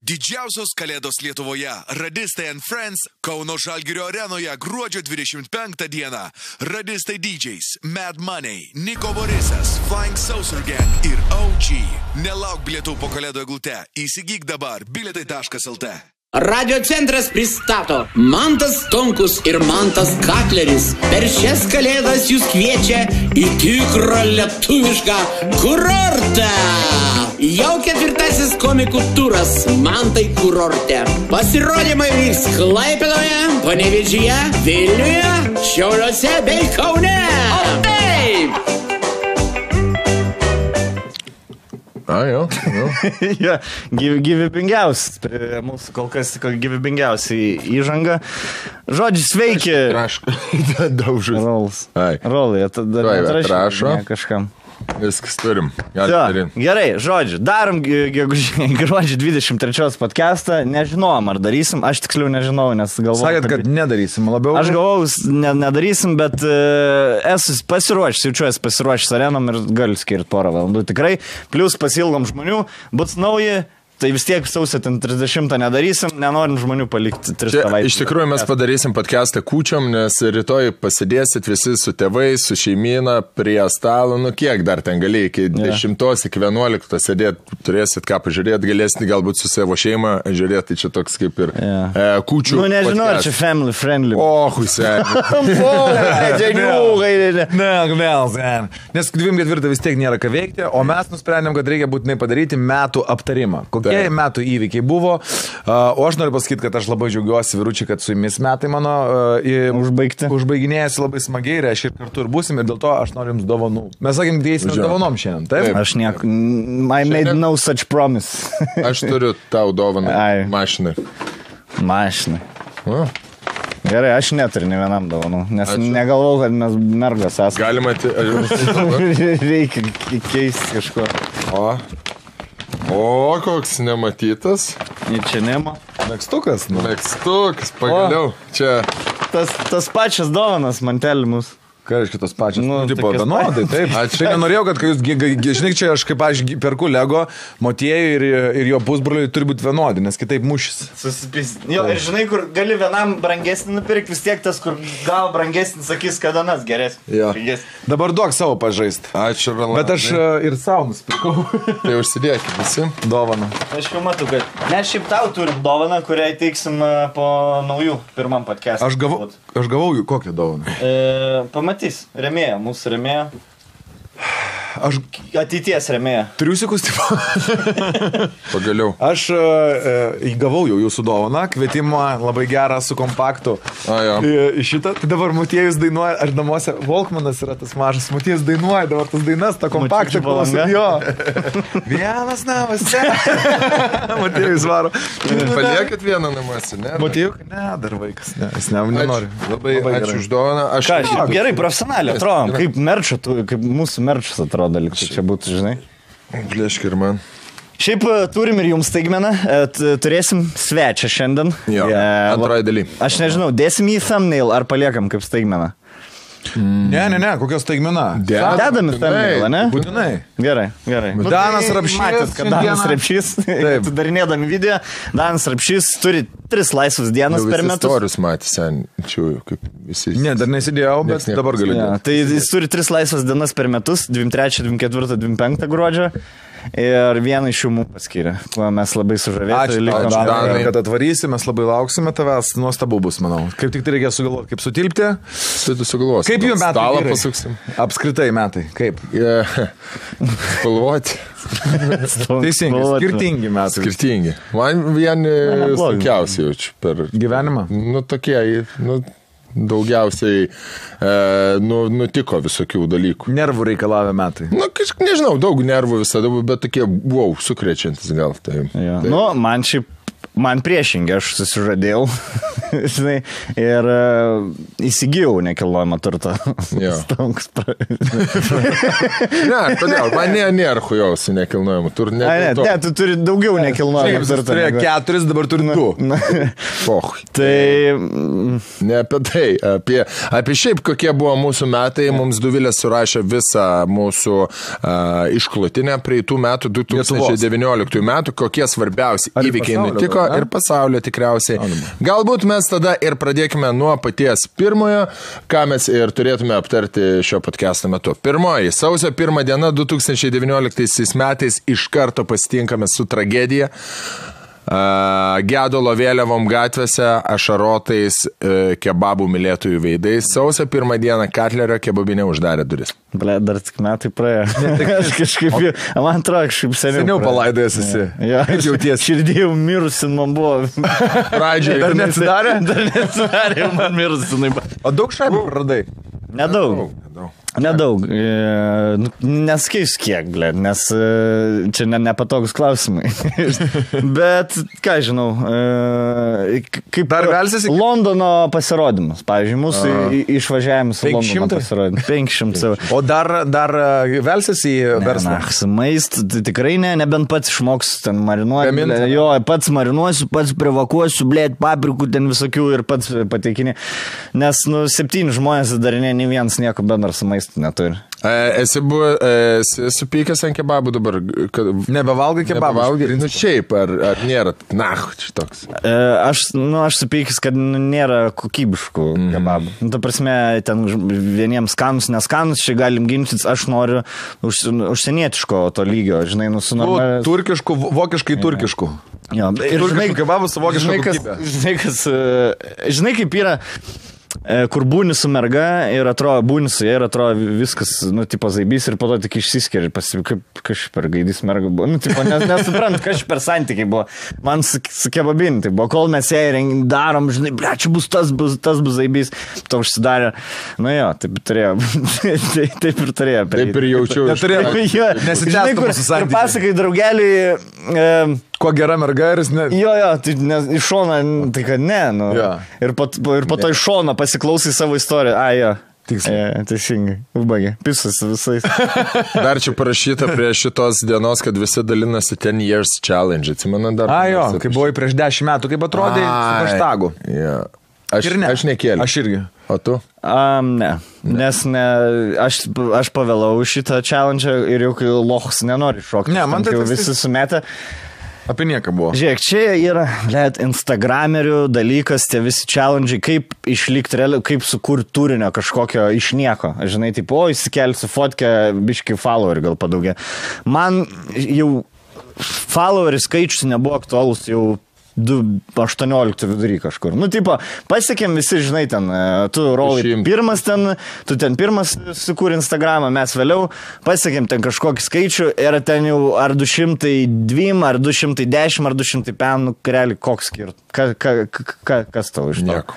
Didžiausios kalėdos Lietuvoje. Radistai & Friends Kauno Žalgirio arenoje gruodžio 25 dieną. Radistai DJs, Mad Money, Niko Borisas, Flying Saucer Gang ir OG. Nelauk bilietų po kalėdų eglute. Įsigyk dabar bilietai.lt. Radio centras pristato Mantas Tonkus ir Mantas Kakleris. Per šias kalėdas jūs kviečia į tikrą lietuvišką kurortą. Jau 4. komikų turas Mantai kurorte. Pasirodymai vyks Klaipėdoje, Panevėžyje, Vilniuje, Šiauliuose bei Kaune. O taip! Jo. Ja, gyvybingiausias, mūsų kol kas gyvybingiausiai įžanga. Žodžiu, sveiki. Traška, daužus. Rolai, tada atrašo. Kažkam. Viskas turim. Gerai, žodžiu, darom gruodžio 23 podcastą, nežinojom ar darysim, aš tiksliau nežinau, nes galvojau. Sakėt, kad nedarysim labiau. Aš galvojau, nedarysim, bet esu pasiruošęs, jaučiuosi pasiruošęs arenom ir galiu skirti porą valandų tikrai, plus pasilgom žmonių, bus nauji. Tai vis tiek sausio 30 nedarysim, nenorim žmonių palikti 3 savaitės. Iš tikrųjų mes padarysim podcastą kūčiom, nes rytoj pasidėsit visi su tėvais, su šeimyna prie stalo, kiek dar ten gali, iki 10, iki 11 sėdėti, turėsit ką pažiūrėti, galėsit galbūt su savo šeima žiūrėti, tai čia toks kaip ir kūčių. Nežinau, ar čia family friendly. Nes 24 vis tiek nėra ką veikti, o mes nusprendėm, kad reikia būtinai padaryti metų aptarimą. Kokie metų įvykiai buvo, o aš noriu pasakyti, kad aš labai džiaugiuosi, vyručiai, kad su jumis metai mano užbaiginėjasi labai smagiai, reiškia ir kartu ir būsim, ir dėl to aš noriu jums dovanų. Mes sakėm, dėsime dovanom šiandien, taip? Aš nieko, I made no such promise. Aš turiu tau dovaną mašinai. Mašinai. Gerai, aš neturiu ne vienam dovanų, nes negalvau, kad mes mergas esame. Galima Reikia keisti kažko. O, koks nematytas. Čia nema. Megstukas, pagaliau. Čia. Tas pačias dovanas mantelį mūsų. Ką reiškia tos pačios? Tipo, vienodai, taip. Aš nenorėjau, kad jūs, žinai, čia aš kaip aš perku Lego, Motiejui ir jo pusbroliui turi būti vienodi, nes kitaip mušis. Jo, ir žinai, kur gali vienam brangesnį nupirkti, vis tiek tas, kur gal brangesnį, sakys, kad anas geresnis. Dabar duok savo pažaist. Ačiū, Rolandai. Bet aš ir savo nusipirkau. Tai užsidėkit visi. Dovaną. Aš jau matau, kad mes šiaip tau turim dovaną, kurią įteiksim po naujų pirmam podcast'ą. Aš gavau jų kokią dovaną? Pamatys, remėja, mūsų remėja. Ateities remėja. Triusikus tipo. Pagaliau. Aš įgavau jau jūsų dovaną, kvietimą labai gerą su kompaktu. Šitą, tai dabar Motiejus dainuoja, aš namuose, Volkmanas yra tas mažas, Motiejus dainuoja dabar tas dainas, tą kompaktą klausom. Jo. Vienas namuose. Motiejus varo. Paliekit vieną namuose, ne? Motiejus, ne, dar vaikas, ne, jis nenori. Labai ačiū už dovaną. Gerai, profesionaliai atrodom, kaip merčio, kaip mūsų merčias atrodo. Dalykai čia būtų, žinai. Plėšk ir man. Šiaip turim ir jums staigmeną, turėsim svečią šiandien. Antroji daly. Aš nežinau, dėsim į thumbnail ar paliekam kaip staigmeną? Ne, kokios staigmena? Dedam į thumbnailą, ne? Būtinai. Gerai. Danas Rapšys. Matėt, kad Danas Rapšys, darinėdami video, Danas Rapšys turi 3 laisvas dienas per metus. Istorius matė senčiųjų, kaip visi. Ne, dar nesidėjau, bet dabar galiu. Tai jis turi 3 laisvas dienas per metus, 23, 24, 25 gruodžio. Ir vieną iš jų mums paskyrė, kuo mes labai sužavėti. Ačiū, Danai, kad atvarysi, mes labai lauksime tavęs, nuostabu bus, manau. Kaip tik tai reikia sugalvoti, kaip sutilpti. Sugalvos. Kaip jų metai? Stalą pasuksim. Apskritai metai, kaip? Spalvoti. Teisingai, skirtingi metai. Skirtingi. Man vieni sunkiausiai jaučiu per gyvenimą. Tokie, daugiausiai nutiko visokių dalykų. Nervų reikalavę metai. Nežinau, daug nervų visada, bet tokie, sukrečiantis gal. Tai. Man priešingai, aš susižadėjau. žinai, ir įsigijau nekilnojamą turtą. Stonkus. Ne, kodėl? Man nėra hujausi nekilnojamą turtą. Ne, tu turi daugiau nekilnojamą turtą. Tu turėjo 4, dabar turi 2. Tai... Ne apie tai, apie šiaip kokie buvo mūsų metai, mums Duvilė surašė visą mūsų išklotinę praeitų metų, 2019 metų, kokie svarbiausi įvykiai nutiko ir pasaulio tikriausiai. Galbūt mes tada ir pradėkime nuo paties pirmojo, ką mes ir turėtume aptarti šio podcast'o metu. Pirmoji, sausio 1 diena 2019 metais iš karto pasitinkame su tragedija. Gedulo vėliavom gatvėse, ašarotais kebabų mylėtojų veidais. Sausio 1 dieną Katlerio kebabinė uždarė duris. Ble, dar tik metai praėjo. Aš kažkaip, man atrodo, kažkaip seniau palaidojęs esi. Ja, aš jauties. Širdėjau mirusi, man buvo. Pradžiai. Dar neatsidarė? Dar neatsidarė, man mirusi. O daug šaibų praradai? Nedaug. Neskeisiu kiek, ble, nes čia nepatogus klausimai. Bet, ką žinau, kaip dar velsiasi? Londono pasirodymus. Pavyzdžiui, mūsų išvažiavimus į Londono pasirodymus. 500. O dar velsiasi į verslą? Maist, tikrai ne, nebent pats išmoks ten marinuoti. Jo, pats marinuosiu, pats privakuosiu, blėt, paprikų ten visokių ir pats pateikinė. Nes, 7 žmonės darinė, nei vienas nieko bendro su maistu neturi. Esi supykęs ant kebabų dabar? Nebevalgai kebabų? Nu šiaip, ar nėra? Na, šitoks. Aš supykęs, kad nėra kokybiškų kebabų. Ta prasme, ten vieniems skanus, neskanus, čia galim ginčytis, aš noriu užsienietiško to lygio, žinai, turkiškų, vokiškai turkiškų. Jo, ir turkiškų kebabų su vokiška kokybė. Žinai, kaip yra... kur būni su merga ir atrodo, būni su jie ir atrodo viskas, tipo zaibys ir po to tik išsiskiria ir kaip kažkaip per gaidys merga buvo. Tipo, nesuprant, kažkaip per santykiai buvo. Man su kebabinį, tai buvo, kol mes ją darom, žinai, ble, čia bus tas bus zaibys, to užsidarė. Jo, taip turėjo. Taip ir turėjo. Taip ir jaučiu. Nesitęstų mūsų santykiai. Ir pasakai draugeliui... Kuo gera merga ir jis ne... Jo, tai iš šono, tai kad ne, Ir po to iš šono pasiklausai savo istoriją. Jo. Teisingai. Užbaigė. Pisas visais. Dar čia parašyta prie šitos dienos, kad visi dalinasi 10 years challenge. Atsimenu dar. Jo, kai buvai prieš 10 metų, kaip atrodė su hashtagu. Aš nekėliau. Aš irgi. O tu? Ne. Nes aš pavėlau šitą challenge ir jau kai lochus nenori šokti. Ne, man tai visi sumetė. Apie nieką buvo. Žiūrėk, čia yra, instagramerių dalykas, tie visi challenge, kaip išlikti realiai, kaip sukurti turinio kažkokio iš nieko. Žinai, tipo, įsikelsiu fotkę, biški followerį gal padaugė. Man jau followerių skaičius nebuvo aktualus jau 18 vidury kažkur. Tipo, pasiekėm visi, žinai, ten, tu rolai pirmas ten, tu ten pirmas sukūrė Instagramą, mes vėliau pasiekėm ten kažkokį skaičių ir ten jau ar 202, ar 210, ar 205, realiai koks skirt. Kas tau iš to? Nieko.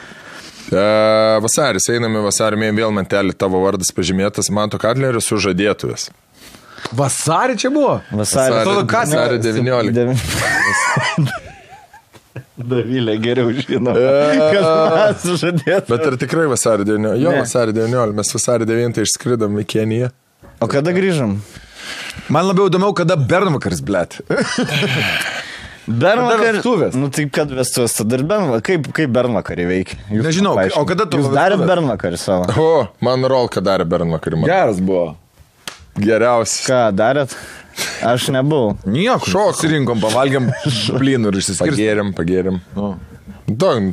Vasaris, einame vasarį, vėl mantelį tavo vardas pažymėtas, Manto Katlerio sužadėtuvės. Vasarį čia buvo? Vasarį 19. Davilė geriau žino, kas mes sužadėtume. Bet ar tikrai vasarį 19? Jo, vasarį 19. Mes vasarį 9 išskridom į Keniją. O kada grįžom? Man labiau įdomiau, kada Bernvakaris, blėt. Bernvakaris? Tai kad vestuvės, tada ir Bernvakaris. Kaip Bernvakarį veikia? Nežinau, o kada tu... Jūs darėt Bernvakarį savo? Man Rolka darė Bernvakarį. Geras buvo. Geriausias. Ką darėt? Aš nebuvau. Nieko. Susirinkom, pavalgiam blynų ir išsiskirstėm. Pagėrėm.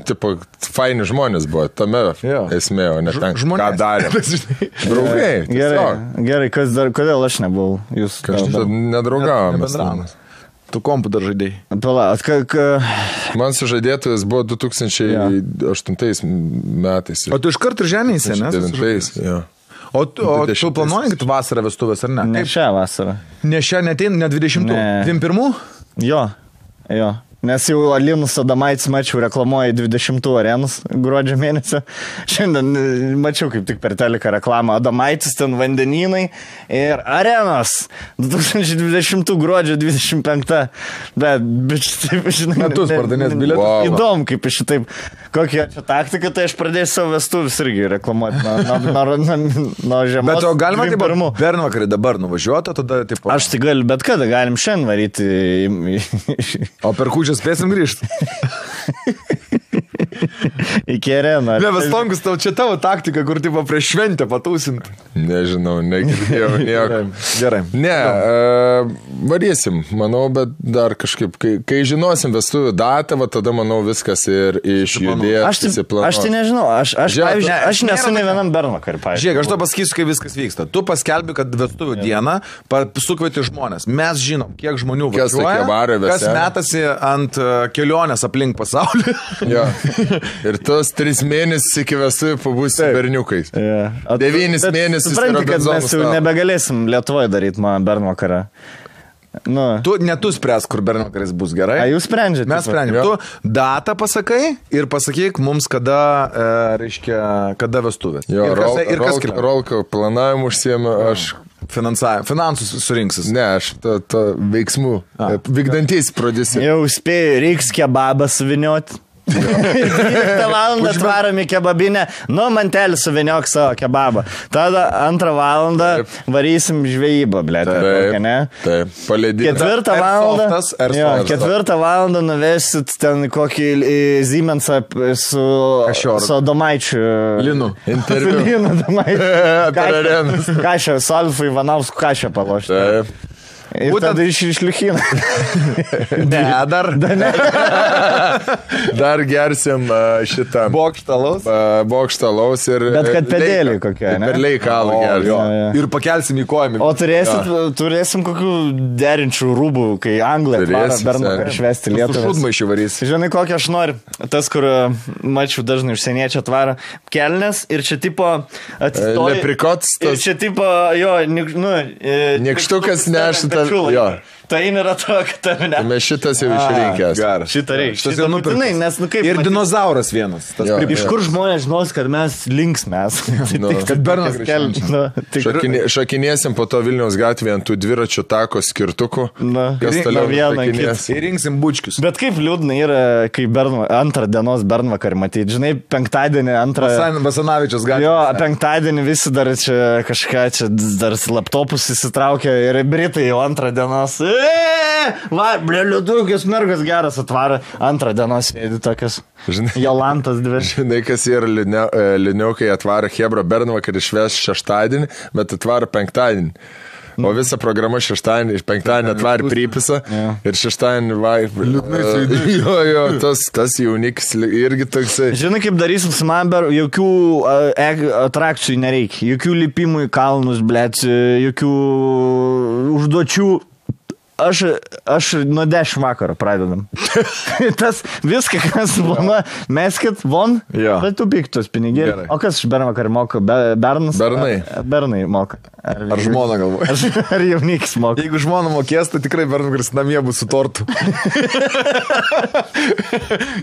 Tipo, faini žmonės buvo, tame esmė, o ne ten, ką darėm. Draugai. Gerai, kodėl aš nebuvau? Jūs nedraugavom. Tu kompu dar žaidėjai. Man sužadėtojas buvo 2008 metais. O tu iš karto ženėsi, ne? 2009, jo. O tu planuoji, kad vasarą vestuvės, ar ne? Ne šią vasarą. Ne šią, ne 20, ne 21? Jo. Nes jau Linus Adomaitis mačiau reklamuoja 20 arenus gruodžio mėnesio. Šiandien mačiau kaip tik per teliką reklamą. Adomaitis ten vandenynai ir arenos. 2020 gruodžio 25. Bet taip, žinai. Metus pardavinės bilietus. Wow. Įdomu, kaip šitaip. Kokia čia taktika, tai aš pradėsiu savo vestuvis irgi reklamuoti nuo žiemos. Bet o galima taip bernvakarį dabar nuvažiuoti, tada taip. Aš tai galiu, bet kada galim šiandien varyti. O per kūčią spėsim grįžti. Iki areną. Ne, bet Tonkus, tau čia tavo taktika, kur tipo prieš šventę patausinti. Nežinau, negirdėjau nieko. Gerai. Ne, varysim, manau, bet dar kažkaip, kai žinosim vestuvių datą, va, tada, manau, viskas ir išjudės. Aš tai nežinau, aš nesu ne vienam bernvakarį, pavyzdžiui. Žiūrėk, aš to pasakysiu, kai viskas vyksta. Tu paskelbi, kad vestuvių dieną sukvieti žmonės. Mes žinom, kiek žmonių važiuoja, kas metasi ant kelionės aplink pasaulį. Jo. Ir tos 3 mėnesius iki vestuvių pabūsi berniukais. 9 mėnesius. Supranti, kad mes jau nebegalėsim Lietuvoje daryti man bernvakarą. Nu. Tu spręs, kur bernvakaris bus, gerai? A, jūs sprendžiate? Mes sprendžiam. Tu datą pasakai ir pasakyk mums, kada, reiškia, kada vestuvės. Jo, Rolka planavimu užsiėmė, aš finansus surinksis. Ne, aš veiksmų. Vykdantys prodiuserį. Jau spėjau, reiks kebabą suvinioti. 12 valandą atvarom į kebabinę, mantelį suviniok savo kebabą. Tada 2 valandą varysim žvejybą, blėt. Taip, palėdyti. 4 valandą nuvesit ten kokį Siemensą su Adomaičiu. Linu. Interviu. Linu Adomaičiu. Kašę, Solfų Ivanausku kašę palošti. Taip. Ir tada išliukina. Ne, dar. Dar gersim šitą. Bokštalaus ir... Bet kad pedėlį kokia, ne? Per leikalą gersim. Ir pakelsim į kojimį. O turėsim kokių derinčių rūbų, kai Anglai atvara bernvakarį švesti Lietuvą. Šudmaišį varys. Žinai, kokią aš noriu. Tas, kur mačiau dažnai užsieniečiai atvara kelnes ir čia tipo atsistoja. Leprikots. Ir čia tipo, jo, Nykštukas nešta. Tai nėra to, kad tave ne. Mes šitas jau išrinkęs. Šitą reikia. Šitą būtinai, nes kaip... Ir dinozauras vienas. Iš kur žmonės žinos, kad mes linksmės. Kad bernvakarį. Šakinėsim po to Vilniaus gatvėje ant tų dviračių tako skirtukų. Kas toliau šakinės. Ir rinksim bučkius. Bet kaip liūdna yra, kai antrą dienos bernvakarį matyti. Žinai, penktadienį antrą... Basanavičius gatvė. Jo, penktadienį visi dar čia kažką, čia dar laptopus įsitraukia ir Britai jau antrą dienos... Va, liūdukis mergas geras atvara. Antrą dienos sėdi tokias. Jolantas dvi. Žinai, kas yra liūdniaukai atvara Hebra bernvakarį švęs šeštadienį, bet atvara penktadienį. O visa programa šeštadienį, penktadienį atvarė Prypisą ir šeštadienį jo, tas jaunikis irgi toksai. Žinai, kaip darysim su Mamber, jokių atrakcijų nereikia, jokių lipimų į kalnus, blėt, jokių užduočių. Aš nuo 10 vakaro pradedam. Tas viską, kas planuoja, meskit von, bet tu piktos pinigėlį. O kas iš bernvakarį moka? Bernas? Bernai moka. Ar žmona galvoja? Ar jaunikis moka? Jeigu žmona mokės, tai tikrai bernvakaris namie bus su tortu.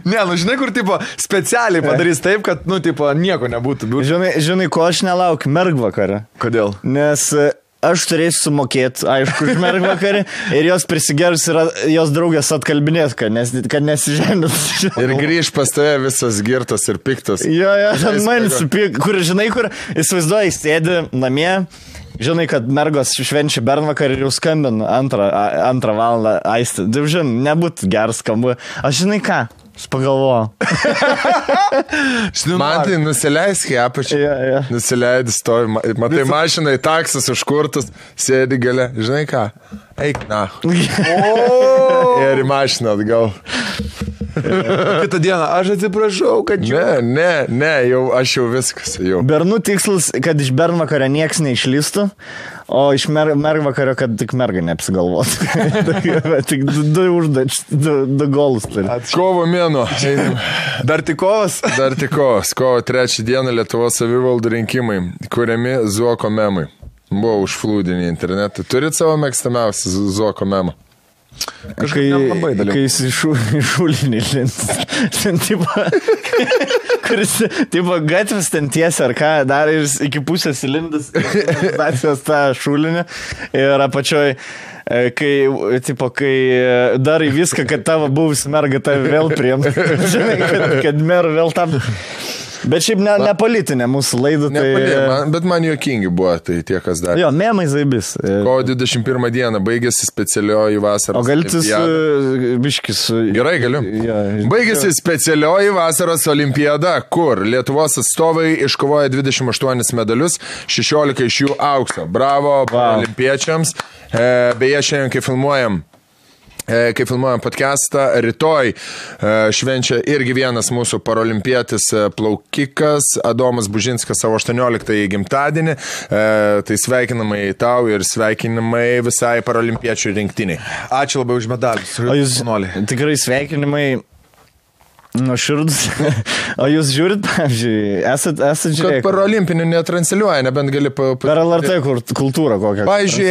Ne, žinai, kur tipo specialiai padarys taip, kad, nieko nebūtų. Žinai, ko aš nelaukiu? Mergvakarį. Kodėl? Nes... Aš turėsiu sumokėti, aišku, už mergvakarį ir jos prisigerus yra jos draugės atkalbinės, kad nesižemės. Ir grįž pas tave visas girtas ir piktas. Jo, ten man supik, kur įsivaizduoji, sėdi namie, žinai, kad mergos švenčia bernvakarį ir jau skambina antrą valandą aisti. Žinai, nebūtų geras skambu. Aš žinai ką? Aš pagalvoju. Man tai nusileisk į apačią. Nusileidai, stovi. Matai mašiną į taksas užkurtus, sėdi gale. Žinai ką? Eik na. Ir į mašiną atgal. Kitą dieną, aš atsiprašau, kad Ne, aš jau viskas. Bernų tikslas, kad iš bernvakario nieks neišlystų, o iš mergvakario, kad tik merga neapsigalvotų. Tik du golus turi. Kovo mėnuo. Dar tik kovas? Dar tik kovas. Kovo 3 dieną Lietuvos savivaldų rinkimai, kuriami Zuoko memai. Buvo užflūdinį internetą. Turit savo mėgstamiausią Zuoko memą? Kai jis išūlinį lint. Ten kuris, gatvės ten tiesia ar ką, dar ir iki pusės įlindas tą šūlinį ir apačioj. Kai darai viską, kad tavo buvusi merga tave vėl priimt. Žinai, kad mer vėl tam... Bet šiaip ne politinė mūsų laida. Bet man juokingi buvo, tai tie, kas dar. Jo, memai zaibis. Kovo 21 dieną baigėsi specialioji vasaros. O galite biškis. Gerai, galiu. Ja. Baigėsi specialioji vasaros olimpiada, kur Lietuvos atstovai iškovoja 28 medalius, 16 iš jų aukso. Bravo olimpiečiams. Beje, šiandien, kai filmuojam podcastą, rytoj švenčia irgi vienas mūsų parolimpietis plaukikas, Adomas Bužinskas, savo 18 gimtadienį. Tai sveikinamai tau ir sveikinamai visai parolimpiečių rinktiniai. Ačiū labai už medalius. O jūs tikrai sveikinimai nuoširdus. O jūs žiūrit, pavyzdžiui, esat žiūrėję? Kad parolimpinių netransliuoja, nebent gali... Per LRT kultūrą kokią. Pavyzdžiui,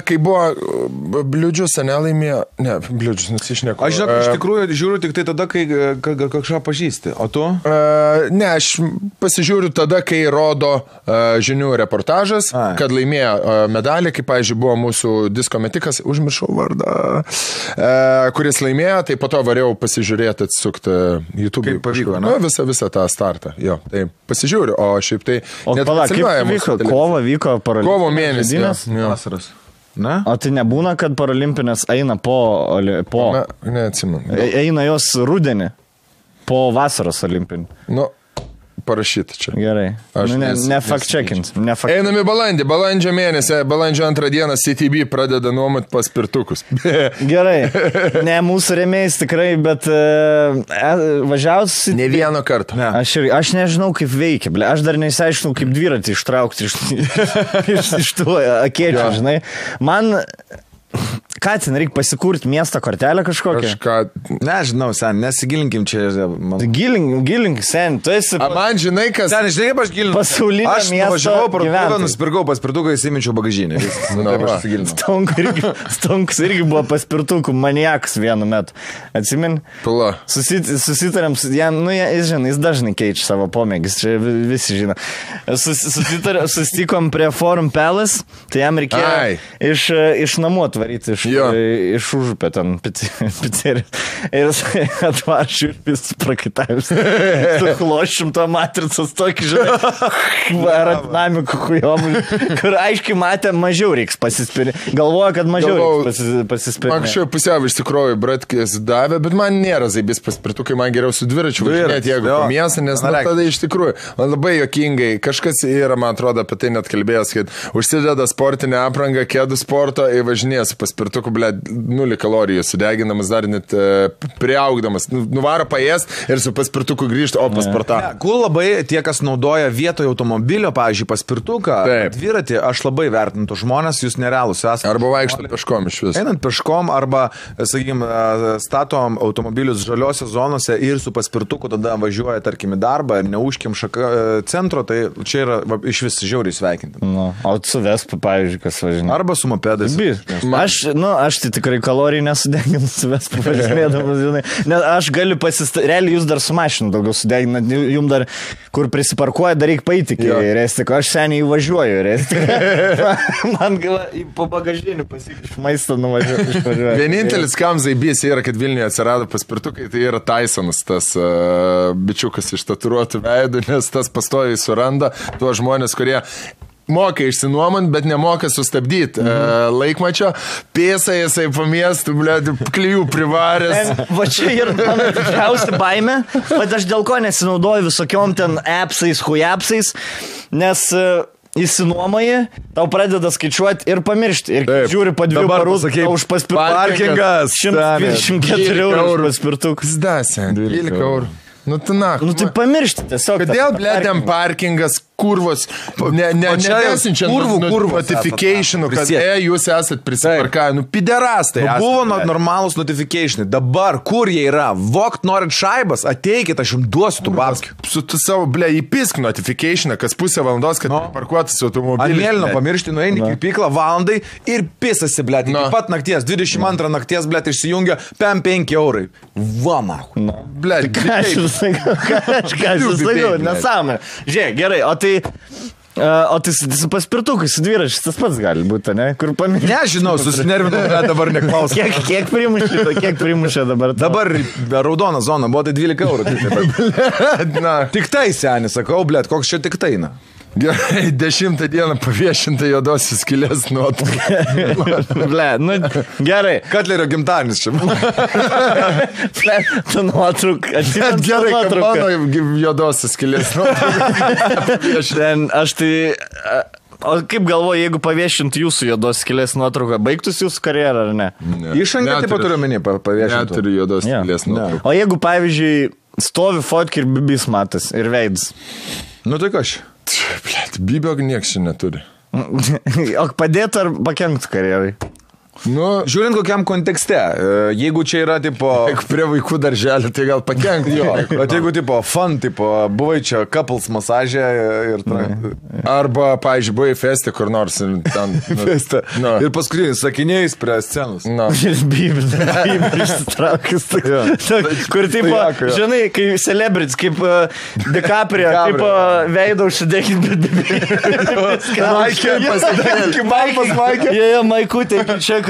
kai buvo Bliūdžius, nelaimėjo... Ne, Bliūdžius, nusišneko. Aš žinau, iš tikrųjų žiūriu tik tai tada, kai kažką pažįsti. O tu? Ne, aš pasižiūriu tada, kai rodo žinių reportažas, kad laimėjo medalį, kaip, pavyzdžiui, buvo mūsų disko metikas, užmiršau vardą, kuris laimėjo, tai po to variau pasižiūrėti atsukti YouTube. Kaip pavyko, ne? Visą tą startą. Jo, tai pasižiūriu, o šiaip tai... O palauk, kaip vyko? Kovo vyko paralimpinės? Kovo mėnesį. Vasaros. Ne? O tai nebūna, kad paralimpinės eina po... Neatsimenu. Eina jos rudenį po vasaros olimpinį. Nu, parašyti čia. Gerai. Ne fact-checkins. Einame balandžio mėnesį, balandžio 2 dieną CTB pradeda nuomot paspirtukus. Gerai. Ne mūsų rėmėjais tikrai, bet važiausi... Ne vieno karto. Ne. Aš nežinau, kaip veikia. Aš dar neįsiaiškinau, kaip dviratį ištraukti iš tų akėčių, žinai. Man... Ką ten reikia pasikurti miesto kortelę kažkokią? Nežinau, sen, nesigilinkim čia. Gilink, sen, tu esi... Man žinai, kas... Sen, žinai, kaip aš gilinu? Pasaulinio miesto gyventojai. Aš nuvažiavau parduotuvę, nusipirkau paspirtuką, įsiminčiau bagažinę. Stonkus irgi buvo paspirtukų maniakas vienu metu. Atsimin? Pula. Susitarėm, jis dažnai keičia savo pomėgis, čia visi žino. Susitikom prie Forum Palace, tai jam reikėjo iš namų atvaryti, iš užupę ten pizzeriją. Ir jis atvaršiu ir vis prakaitavęs. Su chlošim to matricos tokį, žinai, aerodinamikų kujomų, kur aiškiai matė, mažiau reiks pasispirinti. Galvoja, kad mažiau reiks pasispirinti. Anksčiau pusiau iš tikrųjų bratkės davė, bet man nėra zaibės paspirtukai, man geriau su dviračiu važinėti, jeigu po miestą, nes tada iš tikrųjų, man labai juokingai, kažkas yra, man atrodo, apie tai net kalbėjęs, kad užsideda sportinę aprangą, kėdų sporto ir važinėja su paspirtuku, 0 kalorijų sudeginamas, dar net priaugdamas. Nuvaro paėst ir su paspirtuku grįžti, o pasportą. Kur labai tie, kas naudoja vietoje automobilio, pavyzdžiui, paspirtuką, dviratį, aš labai vertintų žmonės, jūs nerealus esate. Arba vaikštant peškom iš vis. Einant peškom arba, sakykime, statom automobilius žaliose zonose ir su paspirtuku tada važiuoja, tarkim, į darbą ir neužkim centro, tai čia yra iš vis žiauriai sveikinti. O su Vespa, pavyzdžiui, kas važinė. Arba su mopedais. Aš tai tikrai kalorijų nesudeginu su Vespa važinėdamas, žinai. Nes aš galiu realiai jūs dar su mašinu daugiau sudeginat, jums dar, kur prisiparkuoja, dar reikia paeiti iki Restiko. Aš seniai važiuoju Restiko. Man po bagažinį iš maisto nuvažiuoju. Vienintelis kam zaibys yra, kad Vilniuje atsirado paspirtukai, tai yra Tysonas, tas bičiukas iš tatuiruotų veidų, nes tas pastoviai suranda tuos žmonės, kurie moka išsinuomant, bet nemoka sustabdyti laikmačio. Pėsa jisai po miestų, klijų privaręs. Va čia yra mano didžiausia baimė, bet aš dėl ko nesinaudoju visokiom ten appsais, hujapsais, nes įsinuomoji, tau pradeda skaičiuoti ir pamiršti. Ir žiūri po 2 parų, už parkingas 124 eurų paspirtukas. Zdasė, 12 eurų. Nu, tu tai pamiršti tiesiog. Kodėl, blėdėm, parkingas kurvos, nesinčia notificationų, kad jūs esat prisiparkavę, piderastai. Buvo normalūs notificationai, dabar kur jie yra, vokt norit šaibas, ateikit, aš jums duosiu tų babskių. Su tu savo, įpisk notificationą, kas pusę valandos, kad parkuotas automobilis. Mėlyno pamiršti, nueini į pyklą valandai ir pisasi, iki pat nakties, 22 nakties, išsijungia 5 eurai. Va, mahu. Ką aš sakiau, nesąmonė. Žiūrėk, gerai, o tai su paspirtukais, su dviračiais, tas pats gali būti, ne? Kur pamiršti? Nežinau, susinervinau, dabar neklausiu. Kiek primušė dabar? Dabar raudona zona, buvo tai 12 eurų. Tik tai, seni, sakau, koks čia tik tai, na. Gerai, 10 dieną paviešinta juodosios skylės nuotrauka. Gerai. Katlerio gimtadienis čia. Tu nuotrauka. Gerai, kad mano juodosios skylės nuotrauka. Aš tai... O kaip galvoju, jeigu paviešintų jūsų juodos skylės nuotrauką, baigtųsi jūsų karjerą ar ne? Išangą taip pat turiu menį paviešintų. Neturiu juodos skylės nuotrauką. O jeigu, pavyzdžiui, stovi fotki ir bibis matas ir veidas? Nu tai ką aš? Bibio nieks čia neturi. O padėtų ar pakenktų karjerai? Žiūrint kokiam kontekste, jeigu čia yra tipo... Jeigu prie vaikų darželį, tai gal pakenkti jo. Bet jeigu tipo fun, tipo buvai čia couples masažė ir... Arba, pavyzdžiui, buvai feste kur nors ir ten... Feste. Ir paskutinis sakiniais prie scenos. Ir bibis išsitraukęs. Kur tipo, žinai, kai celebrities, kaip DiCaprio, tipo veido užsidėkit, bet bibis. Maikė pasidėkit. Maikė. Jie, Maikutė, čia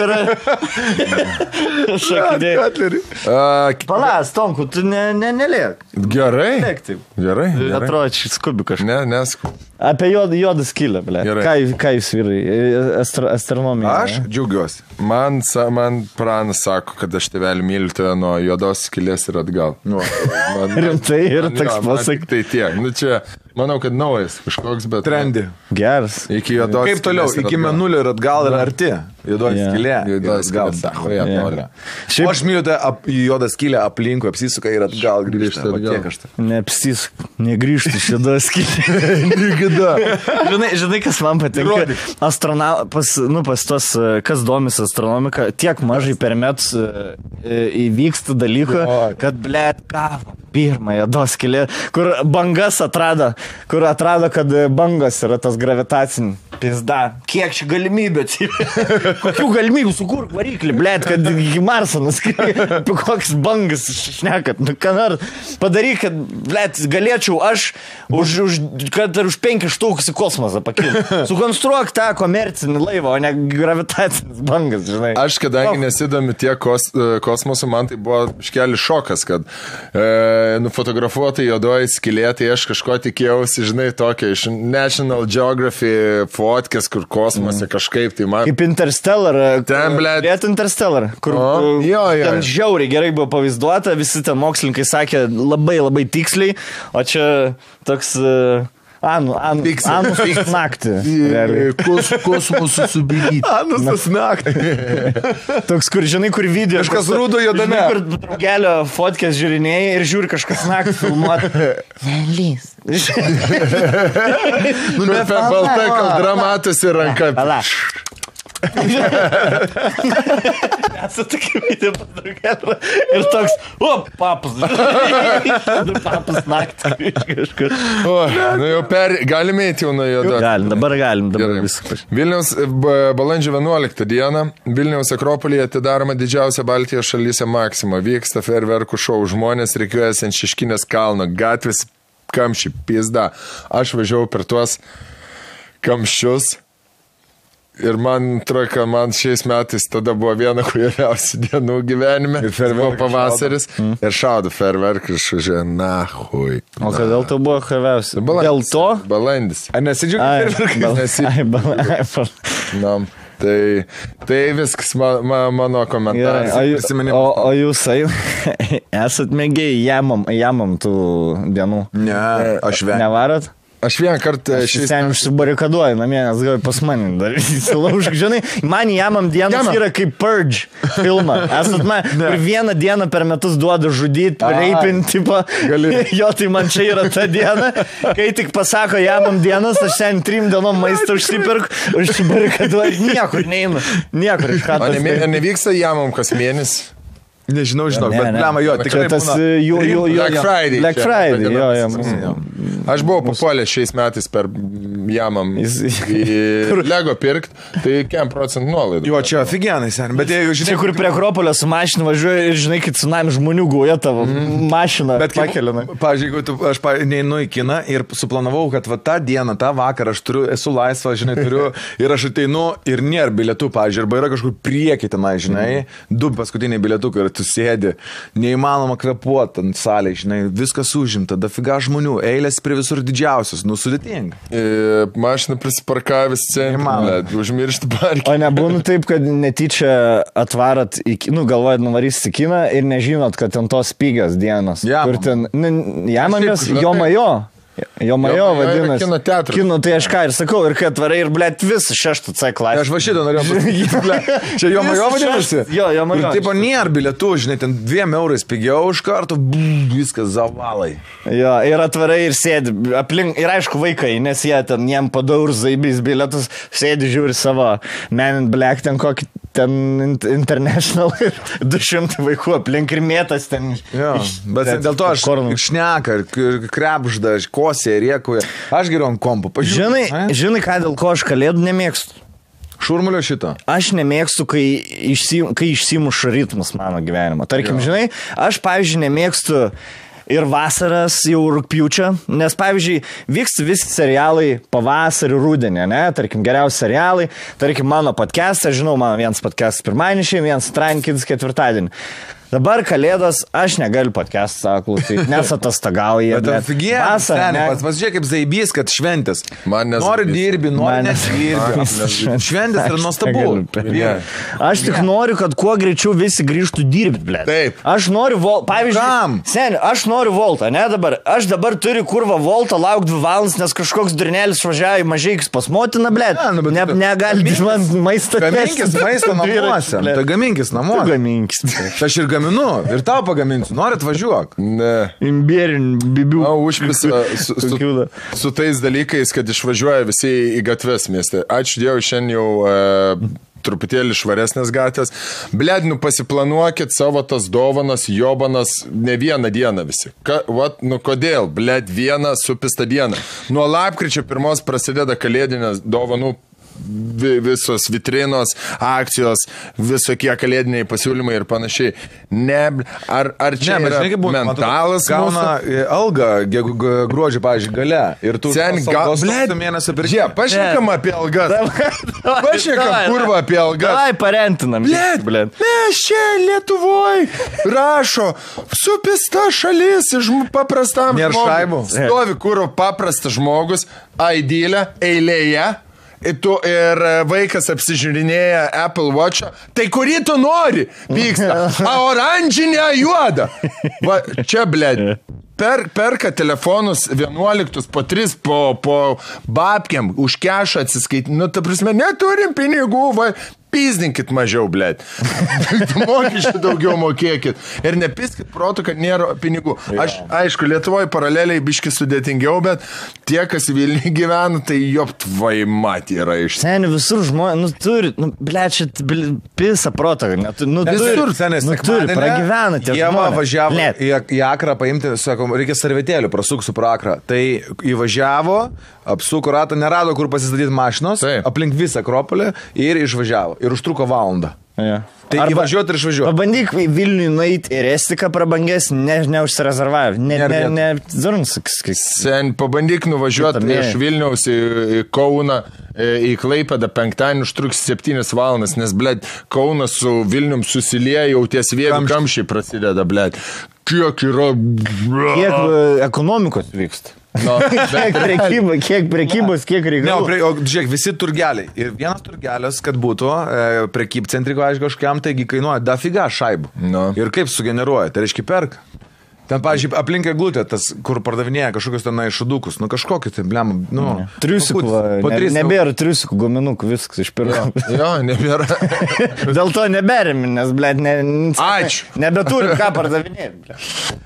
Šakidėjai. Palas, Tomku, tu nelėk. Gerai. Lėk taip. Gerai. Atrodo, čia skubi kažką. Neskubi. Apie juodą skylę, ble. Ką jūs vyrai? Astronomija. Aš džiaugiuosi. Man pranas sako, kad aš tėvelį myliu tave nuo juodos skylės ir atgal. Rimtai ir toks pasak. Tai tiek. Čia, manau, kad naujas kažkoks, bet... Trendi. Geras. Iki juodos skylės. Kaip toliau? Iki mėnulio ir atgal yra arti. Juodos skylė. Juodos skylė. Aš myliu tą juodą skylę aplinkui, apsisuka ir atgal grįžta. Neapsisuka. Negrįžti iš juodos skylė. Žinai, kas man patinka? Pas tos, kas domis astronomika, tiek mažai per metus įvyksta dalyką, kad, blėt, kavo, pirmąją juodos skylė, kur bangas atrado, kad bangos yra tas gravitacinis. Pizda. Kiek čia galimybė? Kokių galimybių sukurk variklį, blėt, kad iki Marso nuskrieti. Apie koks bangas šnekat. Ką nors padaryk, kad, blėt, galėčiau aš kad ir už 5 štukus į kosmosą pakilti. Sukonstruok tą komercinį laivą, o ne gravitacinis bangas, žinai. Aš, kadangi nesidomiu tiek kosmosu, man tai buvo iškelis šokas, kad nufotografuota juodoji skylė, tai aš kažko tikėjausi, žinai, tokia iš National Geographic fotkės, kur kosmose kažkaip tai man... Kaip Interstellar. Ten, blėt. Interstellar, kur ten žiauriai gerai buvo pavaizduota, visi ten mokslininkai sakė labai tiksliai, o čia toks... Anus naktį. Kosmosų subėgyti. Anus naktį. Toks, kur, žinai, kur video. Kažkas rūdo juodame. Kur draugelio fotkės žiūrinėjai ir žiūri kažkas naktį filmuoti. Velys. Balta kaldra matosi ranka. Palaš. Tokia video pas draugelio. Ir toks, papas. Papas naktį. Kažkur. Galime eiti jau nuo juodo. Galim, dabar viskas. Vilniaus balandžio 11 dieną Vilniaus Akropolyje atidaroma didžiausia Baltijos šalyse Maxima. Vyksta fejerverkų šou. Žmonės reikiuojasi ant Šeškinės kalno. Gatvės kamščiai, pizda. Aš važiavau per tuos kamščius. Ir man atrodo, man šiais metais tada buvo viena kvailiausių dienų gyvenime. Ir buvo pavasaris. Ir šaudo fejerverkai ir švažiuoja, nahui. O kodėl tai buvo kvailiausia? Dėl to? Balandis. Ar nesidžiaugi fejerverkai? Tai viskas mano komentaras. O jūs esat mėgiai jamam tų dienų? Ne, aš vengiu. Nevarat? Aš vieną kartą Ten užsibarikaduoju namie, nes gal pas mane dar įsilaužk. Žinai, man Jamam dienas yra kaip Purge filmą. Esat man, ir vieną dieną per metus duoda žudyti, reipinti, tipo. Jo, tai man čia yra ta diena. Kai tik pasako Jamam dienas, aš ten 3 dienom maistą užsibarikaduoju. Niekur neinu. Niekur iš ką. Nevyksta Jamam kas mėnesį? Nežinau, bet blema jo, tikrai tas Black Friday, jo. Aš buvau papuolęs šiais metais per Jamam į Lego pirkt, tai 5% nuolaidų. Jo, čia aфиgenai, sen, bet jeigu žinai... Čia kur prie Akropolio su mašina važiuoja ir žinai, kad tsunami žmonių guoja tavo mašiną pakelina. Pavyzdžiui, jeigu aš neinu į kiną ir suplanavau, kad va tą dieną, tą vakarą aš esu laisvas, žinai, turiu ir aš ateinu ir nėra bilietų, pavyzdžiui, arba yra kažkur prieki tenai, žinai, 2 paskutiniai bilietukai ir tu sėdi, neįmanoma kvėpuoti ant salėje, žinai, viskas užimta, dafiga žmonių, eilės prie visur didžiausios, sudėtinga. Mašina prisiparkavęs centre, užmiršti parkį. O nebūna taip, kad netyčia atvarat, galvojat nuvarys į kiną ir nežinot, kad ten tos pigios dienos. Kur ten, Jamamės, Jomajo. Jomajo vadinasi. Kino teatras. Kino, tai aš ką ir sakau, ir kad atvarai ir, blėt, visą 6 C klasę. Aš va šitą norėjau pasakyti, blėt. Čia Jomajo vadinasi? Jo, Jomajo. Ir taip, nėra bilietų, žinai, ten 2 eurais pigiau už kartų, viskas zavalai. Jo, ir atvarai ir sėdi, aplink, ir aišku vaikai, nes jie ten, jiem padaur zaibys bilietus, sėdi, žiūri savo Men in Black, ten kokį, ten International ir 200 vaikų aplink ir mėtas ten. Jo, bet dėl to aš šneka, krepžda, kosė, rėkuoja. Aš geriau ant kompo. Žinai, ką dėl ko aš kalėdų nemėgstu? Šurmulio šito. Aš nemėgstu, kai išsimuša ritmas mano gyvenimo. Tarkim, žinai, aš, pavyzdžiui, nemėgstu ir vasaras jau rugpjūčio, nes, pavyzdžiui, vyksta visi serialai pavasarį, rudenį, ne? Tarkim, geriausi serialai, tarkim, mano podcastas, žinau, mano vienas podcastas pirmadienį, vienas Trankins ketvirtadienį. Dabar kalėdos, aš negaliu podcastą klausyti, nes atostogauja. Bet aфиgenai, pasižiūrėk kaip zaibys, kad šventės. Nori dirbi, nori nesirbi. Šventės yra nuostabu. Aš tik noriu, kad kuo greičiau visi grįžtų dirbti, blėt. Taip. Aš noriu voltą, pavyzdžiui, seni, aš noriu voltą, ne dabar. Aš dabar turiu kurvą voltą, lauk 2 valandas, nes kažkoks durnėlis važiavo į Mažeikis pas motiną, blėt. Negali man maistą. Gaminkis maistą namuose. Tai gaminkis namuose. Gaminkis. Aš ir gaminu, ir tau pagaminsiu. Norit važiuok? Ne. Imbierin, bibių. Užpisa su tais dalykais, kad išvažiuoja visi į gatves mieste. Ačiū Dievui, šiandien jau truputėlį švaresnės gatvės. Bled, pasiplanuokit savo tas dovanas, jobanas ne vieną dieną visi. Kodėl? Bled, vieną supistą dieną. Nuo lapkričio 1 prasideda kalėdinės dovanų visos vitrinos, akcijos, visokie kalėdiniai pasiūlymai ir panašiai. Ar čia yra mentalas? Gauna algą gruodžio, pavyzdžiui, gale. Ir tu mėnesio per žiemą. Pašnekam apie algas. Pašnekam kurvą apie algas. Davai parentinam. Mes čia Lietuvoj rašo supista šalis paprastam žmogui. Stovi kurvo paprastas žmogus, aidylė, eilėje. Ir vaikas apsižiūrinėja Apple Watch'ą, tai kurį tu nori, pyksta, oranžinę juodą. Va, čia, blėd, perka telefonus 11 po 3 po babkiam, už kešą atsiskaityti, ta prasme, neturim pinigų, va, pizdinkit mažiau, blėd. Mokesčių daugiau mokėkit. Ir nepiskit protų, kad nėra pinigų. Aš, aišku, Lietuvoje paraleliai biški sudėtingiau, bet tie, kas Vilniuje gyvena, tai joptvai mat yra iš. Seni, visur žmonės, turi, blėd, čia pisa protą. Visur, senis, turi, pragyvena tie žmonės. Jie važiavo į Akrą paimti, sako, reikia servetėlių, prasuksiu pro Akrą. Tai įvažiavo, apsuko ratą, nerado, kur pasistatyti mašinos, aplink visą Akropolį ir išvažiavo. Ir užtruko valandą. Ja. Tai įvažiuoti ir išvažiuoti. Pabandyk Vilniui nueiti ir Estiką prabanges, neužsirezervavę. Sen, pabandyk nuvažiuoti iš Vilniaus į Kauną, į Klaipėdą penktadienį užtruks 7 valandas, nes, blėd, Kaunas su Vilnium susilieja, jau ties vėjų kamščiai prasideda, blėd. Kiek yra... Kiek ekonomikos vyksta? Kiek prekybos, kiek reikalų. Žiūrėk, visi turgeliai. Ir vienas turgelis, kad būtų prekybcentriko, aišku, kažkiam, taigi kainuoja dafiga šaibų. Ir kaip sugeneruoja, tai reiškia perka. Ten, pavyzdžiui, aplink eglutę, tas, kur pardavinėja kažkokius ten šudukus, kažkokį tai, blem, Triusikų, nebėra triusikų guminukų, viskas iš pirmo. Jo, nebėra. Dėl to neberim, nes, blėt, Ačiū. Nebeturim ką pardavinėti.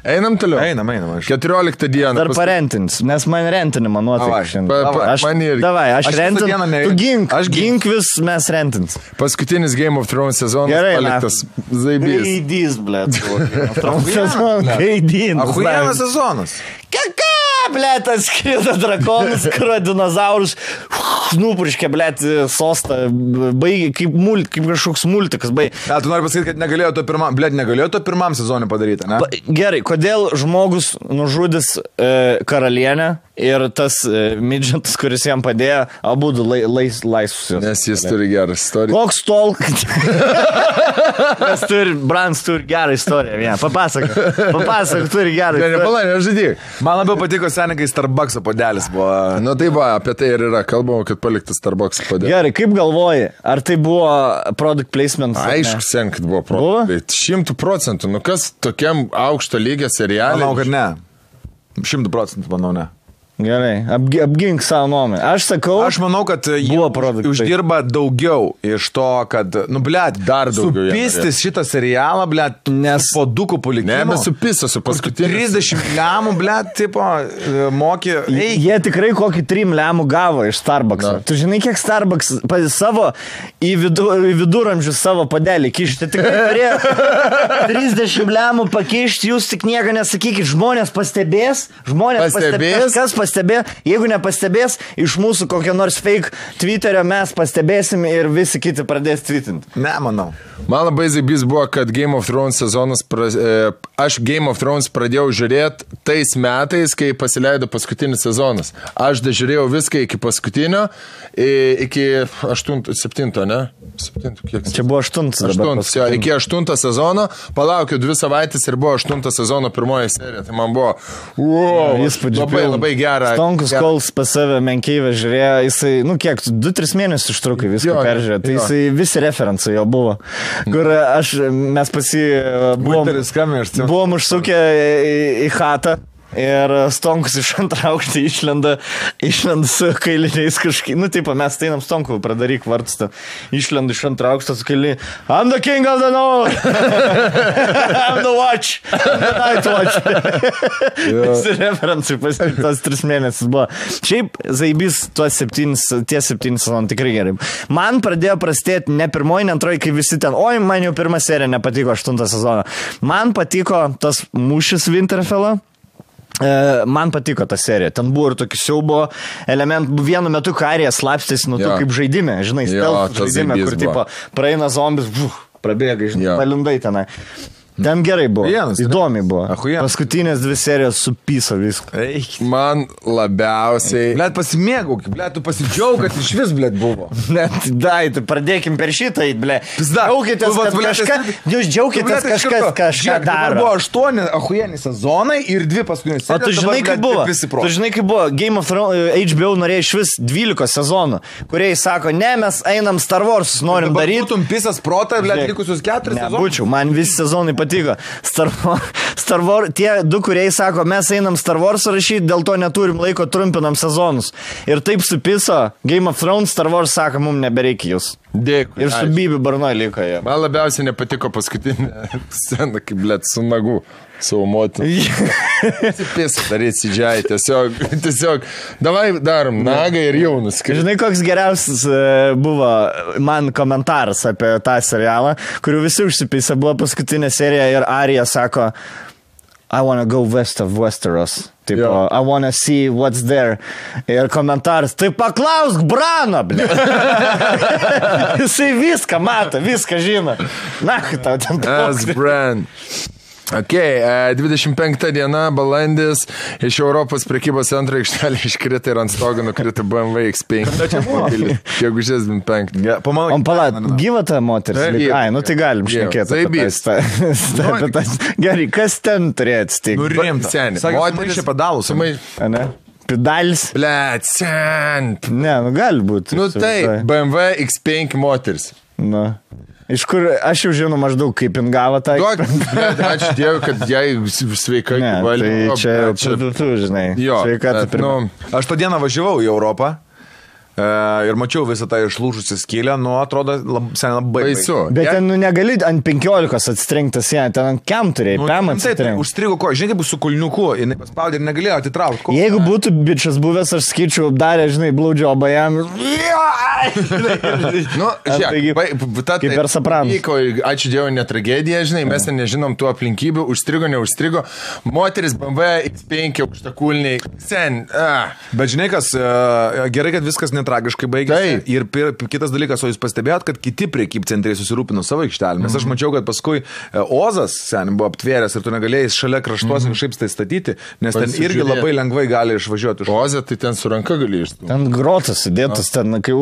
Einam toliau. Einam. 14 dieną. Dar parentins, nes man rentinimą nuotaika šiandien. Davai, aš rentinu, tu gink vis, mes rentins. Paskutinis Game of Thrones sezonas paliktas zaibys. Gaidys, blėt. Gaidys. Ahujienas sezonas. Ką, blėt, atskrido drakonas, kurio dinozaurus nupurškė, blėt, sostą, baigė kaip kažkoks multikas, baigė. Tu nori pasakyti, kad negalėjo to pirmam sezonui padaryti, ne? Gerai, kodėl žmogus nužudys karalienę ir tas midžetas, kuris jam padėjo, abudu laisvus. Nes jis turi gerą istoriją. Koks tol, kad Brans turi gerą istoriją. Papasakok, turi gerą istoriją. Nepalai, nežudyk. Man labiau patiko seniai, kai Starbucks podelis buvo. Nu tai va, apie tai ir yra. Kalbama, kad paliktas Starbucks podelis. Gerai, kaip galvoji, ar tai buvo product placement? Aišku, sen, kad buvo product. 100%. Nu kas tokiam aukšto lygio serialui? Manau, kad ne. 100% manau, ne. Gerai, apgink savo nuomonę. Aš sakau, aš manau, kad jie uždirba daugiau iš to, kad, blėt, dar daugiau. Supistis šitą serialą, blėt, nes po dukų palikimo. Nebesupistas su paskutiniu. 30 lemų, blėt, tipo, mokė. Jie tikrai kokį 3 lemų gavo iš Starbucks. Tu žinai, kiek Starbucks savo į viduramžius savo padelį kišti. Tikrai turėjo 30 lemų pakišti, jūs tik nieko nesakykit. Žmonės pastebės, kas pastebė, jeigu nepastebės, iš mūsų kokią nors fake Twitterio mes pastebėsim ir visi kiti pradės tweetinti. Ne, manau. Man labai zaibys buvo, kad Game of Thrones sezonas, aš Game of Thrones pradėjau žiūrėti tais metais, kai pasileido paskutinis sezonas. Aš žiūrėjau viską iki paskutinio, iki 7, ne? 7, kiek? Čia buvo 8. Iki 8 sezono, palaukiu 2 savaitės ir buvo 8 sezono pirmoji serija. Tai man buvo, labai gerai. Stonkus Kols pas save menkeivę žiūrėjo, jisai, kiek, 2-3 mėnesius užtrukai viską peržiūrėjo, tai jisai visi referencai jo buvo, kur mes buvom užsukę į chatą. Ir Stonkus iš antrą aukštą išlenda su kailiniais kažkaip, mes einam Stonkų, pradaryk vartstą, išlenda iš antrą aukštą su kailiniai, I'm the king of the north, I'm the watch, I'm the night watch. Visi referencai tas 3 mėnesius buvo. Šiaip zaibys tie 7 sezonai tikrai gerai. Man pradėjo prastėti ne pirmoji, ne antroji, kai visi ten, man jau pirma serija nepatiko 8 sezoną. Man patiko tas mūšis Winterfell'o. Man patiko ta serija, ten buvo ir tokių siaubo elementų, vienu metu karija slapstėsi nuo to kaip žaidime, žinai, stealth žaidime, kur tipo praeina zombis, prabėga, žinai, palindai tenai. Ten gerai buvo, įdomiai buvo. Paskutinės 2 serijos supyso viską. Man labiausiai... Blet, pasimėgauk, blet, tu pasidžiaug, kad iš vis, blet, buvo. Dai, tu pradėkim per šitą, blet. Džiaukitės, kad kažką... Jūs džiaukitės, kažką daro. Buvo 8 ahujieni sezonai ir 2 paskutinės serijos. O tu žinai, kaip buvo? Tu žinai, kaip buvo? Game of Thrones, HBO norėjo iš vis 12 sezonų, kurie sako, ne, mes einam Star Wars, norim daryti. Būtum pisas protą, blet, likusius 4 sezonus. Nebūčiau, man visi sezonai patiko. Star Wars, tie 2, kurie sako, mes einam Star Wars rašyti, dėl to neturim laiko, trumpinam sezonus. Ir taip supiso Game of Thrones, Star Wars sako, mums nebereikia jūs. Dėkui. Ir su Bibi Barnoj liko jie. Man labiausiai nepatiko paskutinė scena, kaip, blet, su nagu, savo motiną. Pėsą daryti sidžiai, tiesiog, davai darom nagą ir jau nuskristi. Žinai, koks geriausias buvo man komentaras apie tą serialą, kurių visi užsipisa, buvo paskutinė serija ir Arija sako, I wanna go west of Westeros. Tipo, I wanna see what's there. Ir komentaras, tai paklausk Brano, ble. Jisai viską mato, viską žino. Na, tau ten toks. Bran. Ok, 25 diena, balandis, iš Europos prekybos centro aikštelė iškrita ir ant stogo nukrita BMW X5. Gegužės 25. Gyva ta moteris? Ai, tai galim šnekėti. Gerai, kas ten turėjo atsitikti? Nurimta. Moteris čia padalus. Ne? Pedalis? Blet, sent. Ne, gali būti. Tai BMW X5 moteris. Iš kur aš jau žinau maždaug, kaip jin gavo tą. Ačiū Dievui, kad jai sveikai valė. Tai čia tu žinai. Sveikata pirma. Aš tą dieną važiavau į Europą. Ir mačiau visą tą išlūžusią skylę, atrodo labai baisu. Bet ten negali ant 15 atsitrenktas, ten ant kem turėjai, pėm atsitrenktas. Užstrigo ko, žinai, kaip su kulniuku, jinai paspaudė ir negalėjo atitraukti. Jeigu būtų bičias buvęs, aš skaičiau, darė, žinai, blaudžiobą jam. Kaip per Sopranos. Ačiū Dievui, ne tragedija, žinai, mes nežinom tų aplinkybių, užstrigo, neužstrigo. Moteris BMW X5 aukštakulniai, sen. Bet žinai, kas, gerai, kad viskas tragiškai baigėsi. Ir kitas dalykas, o jūs pastebėjot, kad kiti prekybcentriai susirūpino savo aikštelę. Nes aš mačiau, kad paskui Ozas buvo aptvėręs ir tu negalėjai šalia kraštuos kažkaip tai statyti, nes ten irgi labai lengvai gali išvažiuoti. Ozą tai ten su ranka gali išstumti. Ten grotas sudėtas, ten kai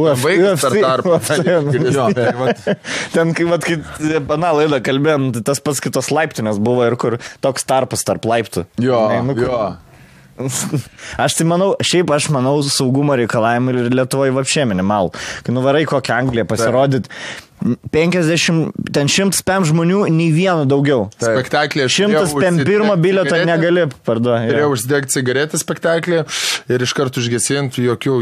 ten kai pana laidą kalbėjom, tas pats kitos laiptinės buvo ir kur toks tarpas tarp laiptų. Jo. Aš tai manau, aš manau saugumo reikalavimai ir Lietuvoje vapšė minimal. Kai nuvarai kokią Angliją pasirodyt, 50, ten 105 žmonių, nei vieno daugiau. Spektaklė. 101 bilieto negali parduoti. Turėjau užsidegti cigaretę spektaklį ir iš karto užgesinti jokio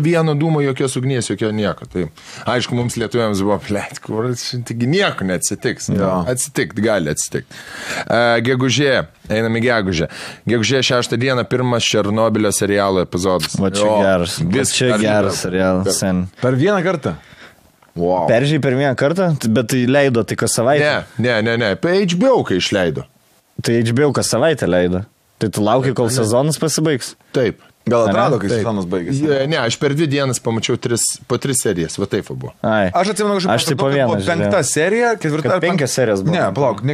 vieno dūmo, jokios ugnies, jokio nieko. Tai, aišku, mums lietuviams buvo taigi nieko neatsitiks. Atsitikti, gali atsitikti. Gegužė, einam į gegužę. Gegužė 6 dieną pirmas Černobylio serialo epizodas. Va čia geras serialas. Per vieną kartą. Wow. Peržiai per vieną kartą, bet tai leido tai kas savaitę. Ne. HBO kai išleido. Tai HBO kas savaitę leido. Tai tu lauki, kol sezonas pasibaigs. Taip. Gal atrado, kai sezonas baigėsi? Ne, aš per 2 dienas pamačiau po 3 serijas, va taip buvo. Aš atsimenu, tai po vieną, 5 serija, 4 ar 5 serijas buvo. Ne, palauk,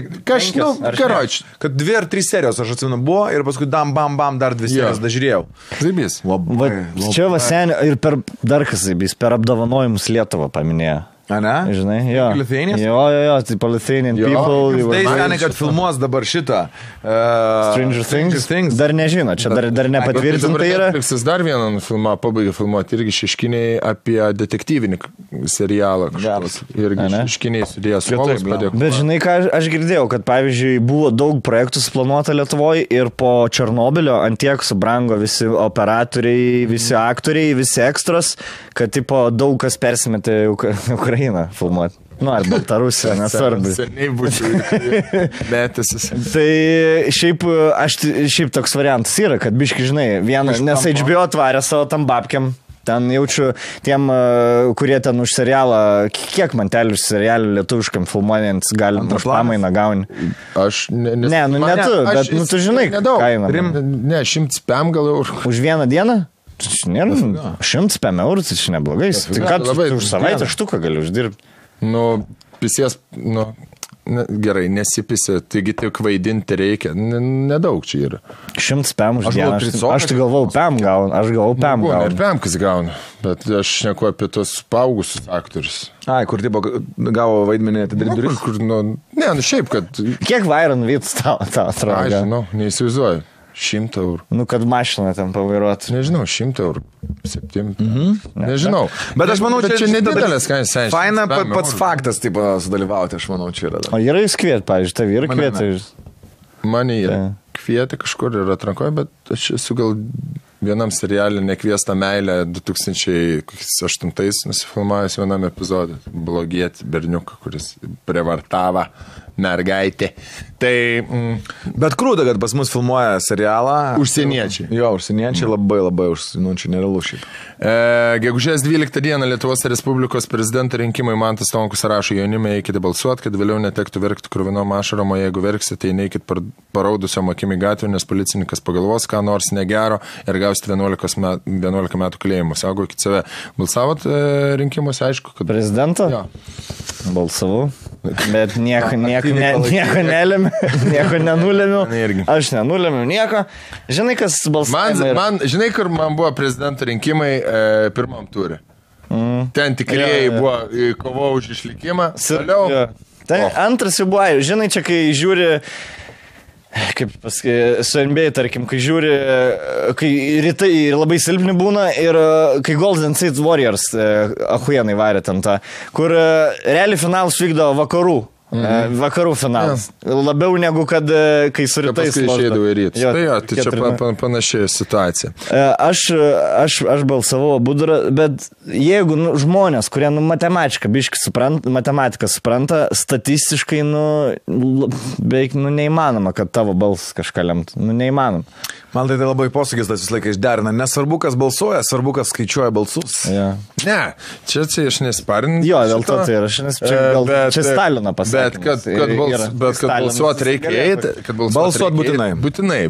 kad 2 ar 3 serijos, aš atsimenu, buvo ir paskui bam, dar 2 serijas dažiūrėjau. Zaibys. Čia va seniai ir per dar kas zaibys, per apdovanojimus Lietuvą paminėjo. A, ne? Žinai, jo. Lithuanians? Jo, tai Lithuanian people. Tai seniai, kad filmuos dabar šitą. Stranger Things. Dar nežino, čia dar nepatvirtinta yra. Netflixas dar vieną filmą pabaigė filmuoti, irgi šeškiniai apie detektyvinį serialą. Irgi šeškiniai sudėjęs suolus padėko. Bet žinai, ką aš girdėjau, kad pavyzdžiui buvo daug projektų suplanuota Lietuvoje ir po Černobylio antiek subrango visi operatoriai, visi aktoriai, visi ekstros, kad tipo daug kas persimetė Ukrainą filmuoti. Ar Baltarusija, nesvarbu. Seniai būtų metęsis. Tai šiaip toks variantas yra, kad biški, žinai, nes HBO atvarė savo tam babkiam. Ten jaučiu tiem, kurie ten už serialą, kiek mantelių už serialų lietuviškam filmuojant galim už pamainą gauni. Aš ne tu, bet tu žinai kainą. Ne, 100 pėm gal eurų. Už vieną dieną? 100 pėm eurų, tai čia neblogai. Tai ką tu už savaitę štuką gali uždirbti? Pisės, gerai, nesipisi, taigi tik vaidinti reikia. Nedaug čia yra. 100 pėm už dieną. Aš tai galvau pėm gaunu. Ir pėm kas gauna. Bet aš šneku apie tos paaugusius aktorius. Kur tipo gavo vaidmenį atidaryti duris? Šiaip, kad... Kiek Vairon Vyts tau atrodo? Aš žinau, neįsivaizduoju. 100 eurų. Kad mašiną ten pavairuoti. Nežinau, 100 eurų. 7. Nežinau. Bet aš manau, čia nedidelės kainos. Faina pats faktas, taip, sudalyvauti, aš manau, čia yra. O yra jūs kviet, pavyzdžiui, tavi yra kvietė. Mane yra kvietė kažkur ir atrankoje, bet aš esu gal vienam serialį Nekviesta meilė 2008 nusifilmavęs vienam epizodui. Blogietį berniuką, kuris prievartavo mergaitė. Tai... Bet krūda, kad pas mus filmuoja serialą. Užsieniečiai. Jo, užsieniečiai labai čia nerealu šiaip. Gegužės 12 dieną Lietuvos Respublikos prezidento rinkimai Mantas Tonkus rašo jaunimai, eikite balsuoti, kad vėliau netektų verkti kruvinom ašarom, o jeigu verksite, tai neikit paraudusiom akim į gatvę, nes policininkas pagalvos, ką nors negero ir gausite 11 metų kalėjimo. Saugokit save. Balsavot rinkimuose, aišku, kad... Prezidento? Jo. Balsavau. Bet nieko nelėmė, nieko nenulėmiau. Aš nenulėmiau nieko. Žinai, kas balsavimai? Žinai, kur man buvo prezidento rinkimai pirmam turė. Ten tikrieji buvo kovo už išlikimą. Antras jau buvo, žinai, čia kai žiūri kaip su NBA, tarkim, kai žiūri, kai rytai labai silpni būna ir kai Golden State Warriors ahujenai varė ten tą, kur realiai finalas vykdo vakarų finalas. Labiau negu kad kai su rytais. Paskui išeidavo į rytus. Tai čia panašiai situacija. Aš balsavau Budrą, bet jeigu žmonės, kurie matematiką supranta, statistiškai beveik neįmanoma, kad tavo balsas kažką lemtų. Neįmanoma. Man tai labai posakis tas vis laiką išderina. Nesvarbu, kas balsuoja, svarbu, kas skaičiuoja balsus. Ja. Ne, čia aš nesparinu. Jo, dėl to tai yra. Čia Stalino pasakė. Bet kad balsuot reikia eiti. Balsuot būtinai. Būtinai.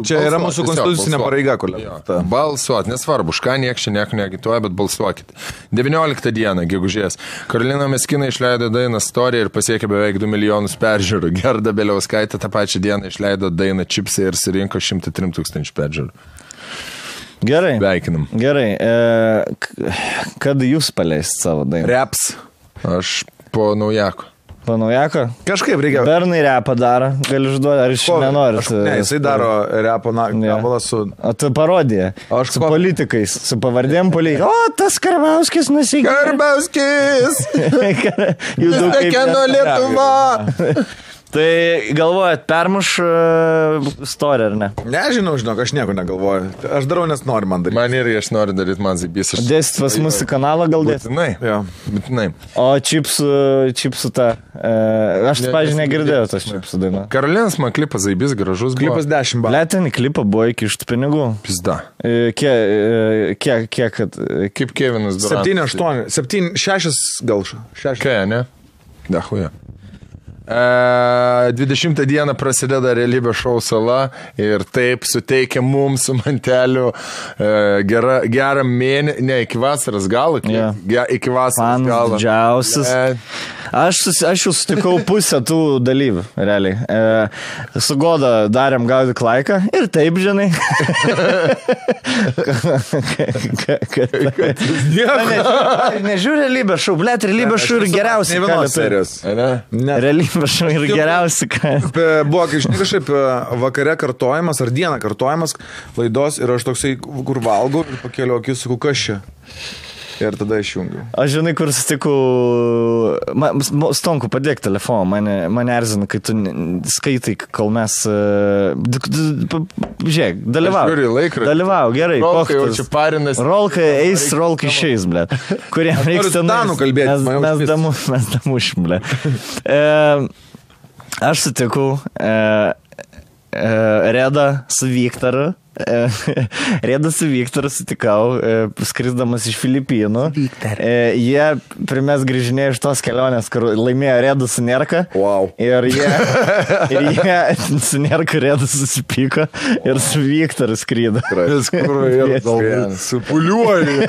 Čia yra mūsų konstitucinė pareiga, kolega. Balsuot, nesvarbu, už ką nieks čia nieko neagituoja, bet balsuokit. 19 dieną, gegužės. Karolina Meskina išleido dainą Story ir pasiekė beveik 2 milijonus peržiūrų. Gerda Beliauskaitė tą pačią dieną išleido dainą Čipsai ir surinko 103 000 peržiūrų. Gerai. Veikinam. Gerai. Kad jūs paleist savo dainą? Reps. Aš po naujako. Po naujako? Kažkaip reikia. Bernai repą daro, gali užduoti, ar iš nenori. Ne, jisai daro repo gabalą su... O tu parodė. Su politikais, su pavardėm politikais. O, tas Karbauskis nusikė. Karbauskis! Kieno Lietuva! Tai galvojat, permuš story, ar ne? Nežinau, žinok, aš nieko negalvoju. Aš darau, nes noriu man daryti. Man irgi aš noriu daryti, man zaibys. Dėsit pas mūsų kanalą gal dėsit? Būtinai. O čipsų tą... Aš, pažiūrėjau, negirdėjau tas čipsų dainą. Karolinas man klipas zaibys, gražus buvo. Klipas 10 balų. Letinį klipą buvo iki iš tų pinigų. Pizda. Kiek, kaip Kevinas Durantas. 7, 8, 7, 6 gal. 6. Ką, ne? Dahuja. 20 dieną prasideda realybės šou Sala ir taip suteikia mums su Manteliu gerą mėnesį, ne, iki vasaros galo, iki vasaros galo. Didžiausias. Aš jau sutikau pusę tų dalyvių, realiai. Su Goda darėm gaudyk laiką ir taip, žinai. Nežiūrė realybės šou, blėt, realybės šou ir geriausiai. Realybės šou ir geriausiai. Buvo kažkaip vakare kartojimas ar dieną kartojimas laidos ir aš toksai, kur valgau ir pakėliau akis, sakau, kas čia? Ir tada išjungiu. Aš žinai, kur sutikau... Stonku, padėk telefoną, mane erzina, kai tu skaitai, kol mes... Žiūrėk, dalyvau, gerai. Rolkai jau čia parinas. Rolkai eis, rolkai išeis, ble. Kuriem reiks ten... Danų kalbėti. Mes damušim, ble. Aš sutikau Redą su Viktoru. Rėdas su Viktoru sutikau, skrisdamas iš Filipinų. Jie primės grįžinėjo iš tos kelionės, kur laimėjo Rėdas su Nerka. Wow. Ir jie su Nerka Rėdas susipyko ir su Viktoru skrydo. Supuliuoju.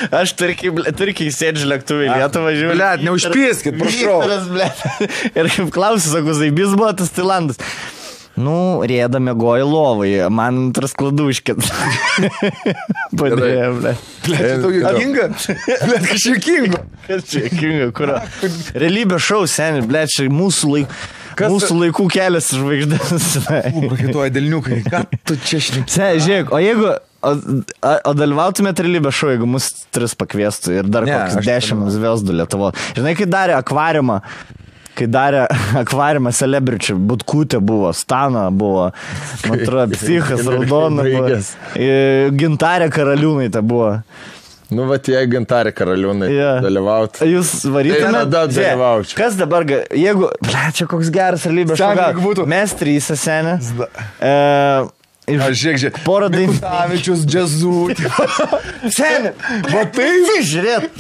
Aš turkiai sėdžiu lėktuvai Lietuvą žiūrėjau. Blet, neužpieskit, prašau. Ir kaip klausiu, sakau, zaibys buvo tas Tailandas. Nu, Rėda mėgojo lovai, man antras kladuškit. Padėjo, ble. Blet, tau juokinga? Blet, kažkaip juokinga. Kažkaip juokinga, kur? Realybės šou, seni, ble, čia mūsų laikų kelias žvaigždės. Prakituoja delniukai, ką tu čia šneki? Žiūrėk, o jeigu... O dalyvautumėt realybės šou, jeigu mus 3 pakviestų ir dar kokius 10 zviesdų Lietuvo. Žinai, kai darė akvariumą Celebrity, Butkutė buvo, Stana buvo, man atrodo, Psichas, Raudona buvo, Gintarė Karaliūnaitė buvo. Nu, va, jei Gintarė Karaliūnaitė dalyvautų. Jūs varytumėt? Kas dabar, jeigu, čia koks geras realybės šou, mes 3 senė. Aš žiūrėk, porą dainų. Kutavičius, džiazų. Seni, va taip, žiūrėt.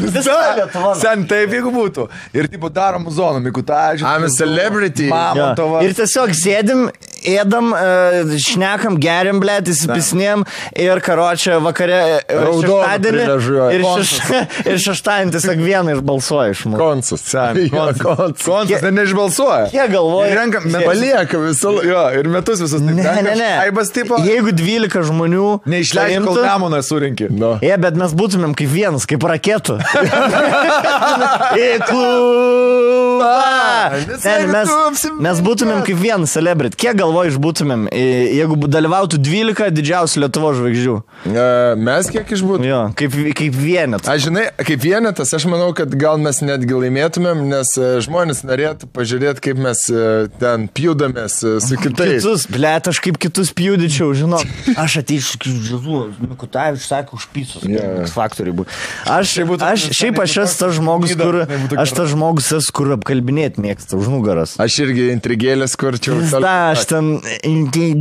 Sen, taip, jeigu būtų. Ir tipo darom zoną, Mikutavičius. I'm a celebrity. Mamontovas. Ir tiesiog sėdim ėdam, šnekam, geriam, blėt, įsipisnėm ir karočią vakare šeštadienį ir šeštadienį tiesiog vieną išbalsuoja iš mūsų. Konsas, tai neišbalsuoja. Jie galvoja. Palieka visą laiką. Jo, ir metus visus. Ne. Aibas tipo. Jeigu 12 žmonių neišleidžia, kol Nemuną surinkė. Bet mes būtumėm kaip vienas, kaip raketų. Į klubą. Mes būtumėm kaip vienas celebrity. Kiek galvoju išbūtumėm, jeigu dalyvautų 12 didžiausių Lietuvos žvaigždžių? Mes kiek išbūtumėm? Jo, kaip vienetas. Aš žinai, kaip vienetas, aš manau, kad gal mes netgi laimėtumėm, nes žmonės norėtų pažiūrėti, kaip mes ten pjūdamės su kitais. Kitus, blėt, aš kaip kitus pjūdyčiau, žinok. Aš ateičiau, kaip Žilu, Mikutavičius sakė, už pysus. Faktoriai būtų. Šiaip aš esu tas žmogus, kur apkalbinėti mėgsta už nugaras. Aš irgi intrigėlės kurčiau. Aš ten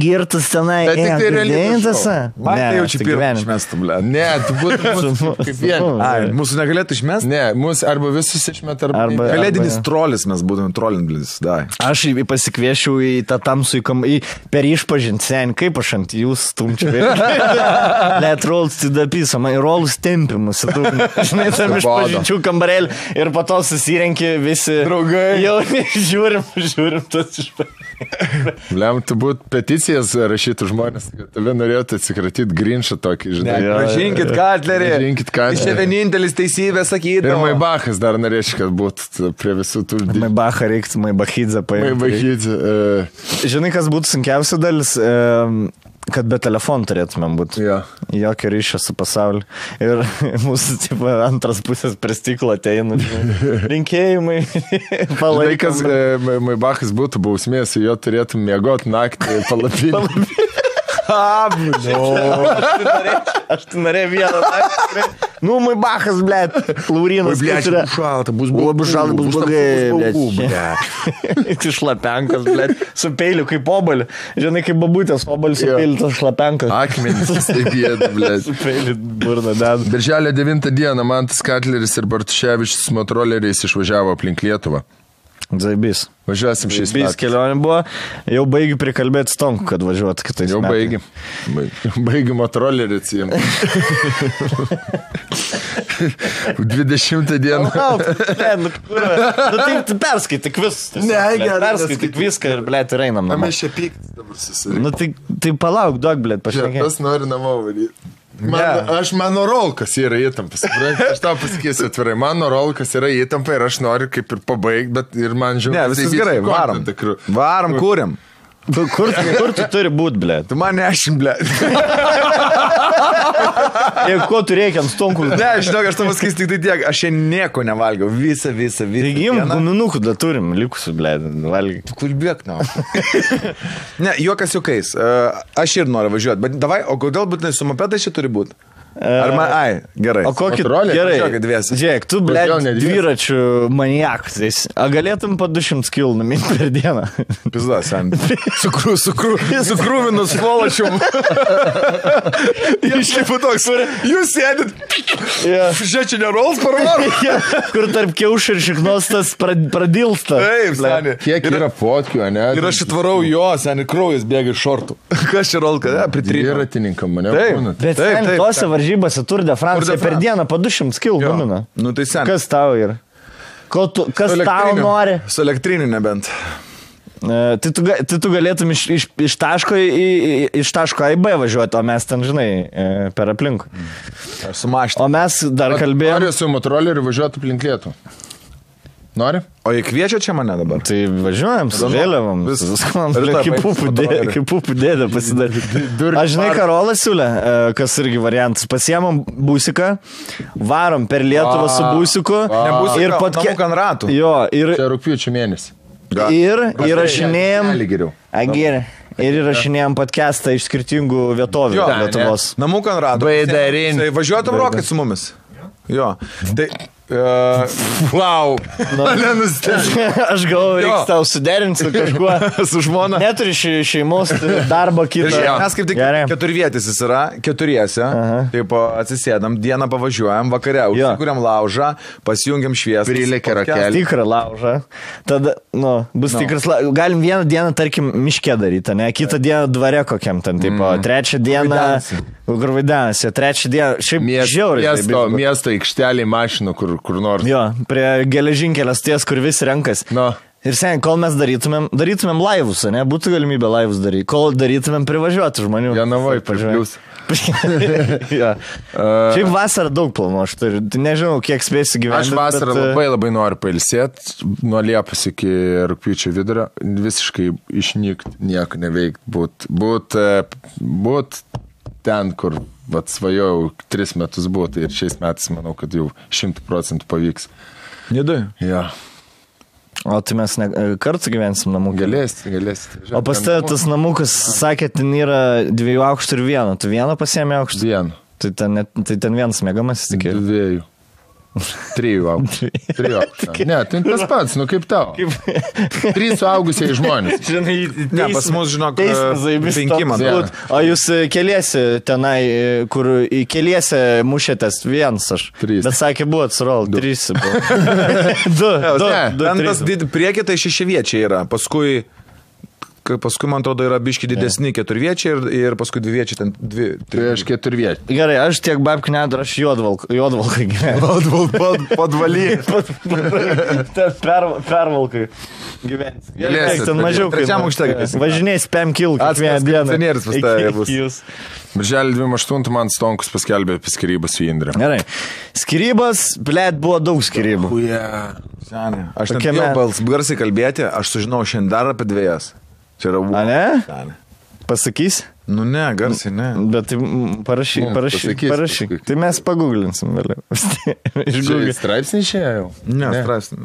girtas tenai. Bet tik tai realybės. Man tai jau čia pirmą išmestų, blė. Ne, tu būtų kaip vienas. Mūsų negalėtų išmesti? Ne, mūsų arba visus išmet, arba kalėdinis trolis mes būtume trolinblis. Aš pasikviešiau į tą tamsų per išpažinti sen, kaip aš ant jūs stumčiau. Let rolls to the piece, man rolls tempimus. Žinai, tam išpažinčių kambarėlį ir po to susirenki visi draugai. Jau žiūrim tas išpažinčių. Lem, tu būt peticijas rašytų žmonės, kad tave norėtų atsikratyti Grinšą tokį, žinai. Pražinkit Katlerį. Iš čia vienintelis teisybė sakyti. Ir Maibachas dar norėčiau, kad būtų prie visų tų... Maibachą reiktų, Maibachidze paimti. Maibachidze. Žinai, kas būtų sunkiausia dalis? Kad be telefonų turėtumėm būti. Jokio ryšio su pasauliu. Ir mūsų tipo, antras pusės prie stiklo ateina. Rinkėjimai. Laikas, Maibachas būtų bausmės, jo turėtum miegoti naktį palapinį. Aš tu norėjau vieną naktį. Nu, Maibachas, blėt. Laurinas. Blėt, šalta, bus blogai, blėt. Tu šlapenkas, blėt. Su peiliu kaip obalį. Žinai, kaip babutės obalį su peiliu, tas šlapenkas. Akmenis, taip jėda, blėt. Su peiliu burna deda. Birželio 9 dieną Mantas Katleris ir Bartuševičius motoroleriais išvažiavo aplink Lietuvą. Zaibys. Važiuosim šiais metais. Kelionė buvo, jau baigi prikalbėti Stonku, kad važiuotų kitais metais. Jau baigi motorollerį atsijimti. 20 dieną. Tai perskaityk viską. Perskaityk viską ir, blėt, ir einam namo. Mes čia pyktis dabar susirinkti. Tai palauk, duok, blėt, pašnekėti. Tas nori namo varyti. Mano rolkas yra įtampas. Aš tau pasakysiu atvirai. Mano rolkas yra įtampa ir aš noriu kaip ir pabaigti, bet ir man žiūrėjau. Ne, viskas gerai, varom. Varom, kūrėm. Kur tu turi būt, blėt? Tu man nešim, blėt. Jeigu ko tu reikia ant Stonkų? Ne, žinok, aš tau pasakysiu tik tai tiek. Aš čia nieko nevalgiau. Visą. Taigi jums guminukų da turim, likusių, blėt, valgy. Tu kulbėk, na. Ne, juokas juokais. Aš ir noriu važiuoti. Bet davai, o kodėl būtinai su mopedai čia turi būti? Gerai. O kokį gerai? Žiūrėk, tu, blėt, dviračių maniakas. A galėtum po 200 kg numinti per dieną? Pizdas, sen. Sukrūvinus svolačium. Išlipu toks. Jūs sėdit. Žiūrėk, čia nerols parvaru. Kur tarp kiaušų ir šiknostas pradilsta. Taip, seni. Kiek yra fotkių, ne? Ir aš atvarau jo, seni, kraujas bėga iš šortų. Kas čia rolka? Dviratininkam mane būna. Bet sen, tose varžybose Tour de France per dieną po 200 kg gamina. Nu tai sen. Kas tau yra? Kas tau nori? Su elektriniu nebent. Tai tu galėtum iš taško A į B važiuoti, o mes ten, žinai, per aplinkų. Sumašti. O mes dar kalbėjome. Noriu su motoroleriu važiuoti aplink Lietuvą. Nori? O jie kviečia čia mane dabar? Tai važiuojam su vėliavom. Kaip pupų dėdė pasidaryti. Aš žinai, Karolas siūlė, kas irgi variantas. Pasiemam būsiką, varom per Lietuvą su būsiku. Ir namuk ant ratų. Jo, ir... Čia rugpjūčio mėnesį. Ir įrašinėjom... Ir įrašinėjom podcastą iš skirtingų vietovių Lietuvos. Namuk ant ratų. Važiuotum rokai su mumis. Jo. Tai... Wow. Aš galvoju, reiks tau suderinti su kažkuo. Su žmona. Neturi šeimos, darbo kitą. Mes kaip tik keturvietis jis yra, keturiese. Taip atsisėdam, dieną pavažiuojam, vakare užsikuriam laužą, pasijungiam šviesą. Prilėkia rakelį. Tikrą laužą. Tada, bus tikras laužas. Galim vieną dieną, tarkim, miške daryti, ne? Kitą dieną dvare kokiam ten, tipo, trečią dieną. Kur vaidenasi, trečią dieną. Šiaip žiauriai. Miesto aikštelį mašinų, kur nors. Jo, prie geležinkelės ties, kur visi renkas. Ir sen, kol mes darytumėm laivus, ne, būtų galimybė laivus daryti. Kol darytumėm privažiuoti žmonių. Janavoj, pažiūrėjus. Šiaip vasarą daug planų, aš turiu. Nežinau, kiek spėsiu gyventi. Aš vasarą labai noriu pailsėti, nuo Liepos iki rugpjūčio vidurio, visiškai išnykti, nieko neveikti, būt ten, kur svajojau 3 metus būti ir šiais metais manau, kad jau 100% pavyks. Nidai? Ja. O tai mes kartu gyvensim namų. Galėsit. O pas tave tas namukas, sakė, ten yra 2 aukštų ir 1. Tu vieną pasiėmė aukštą? 1. Tai ten vienas mėgamasis tik. 2. 3 aukštų. Ne, tai tas pats, kaip tau. 3 suaugusiai žmonės. Ne, pas mus, žinok, 5 man. O jūs keliesi tenai, kur keliesi mušėtės 1 aš. 3. Bet sakė, buvo atsirol, 3 buvo. 2. Ten tas priekį tai 6 viečiai yra. Paskui, man atrodo, yra biški didesni 4 viečiai ir paskui 2 viečiai ten 2. Tai aš 4 viečiai. Gerai, aš tiek babkių nedar, aš juodvalkai gyvenu. Podvaly. Pervalkai gyvens. Ten mažiau. Trečiam aukšte. Važinės 5 kilų kiekvieną dieną. Atskiras pas tave bus. Birželį 28 man Stonkus paskelbė apie skirybas su Indre. Gerai. Skirybas, blėt, buvo daug skirybų. Senė. Aš net jau garsiai kalbėti, aš sužinau šiandien dar apie 2. Čia yra A, ne? Senė. Pasakys? Nu ne, garsiai ne. Bet tai parašyk. Tai mes paguglinsim vėliau. Straipsnį išėjo? Ne, straipsnį.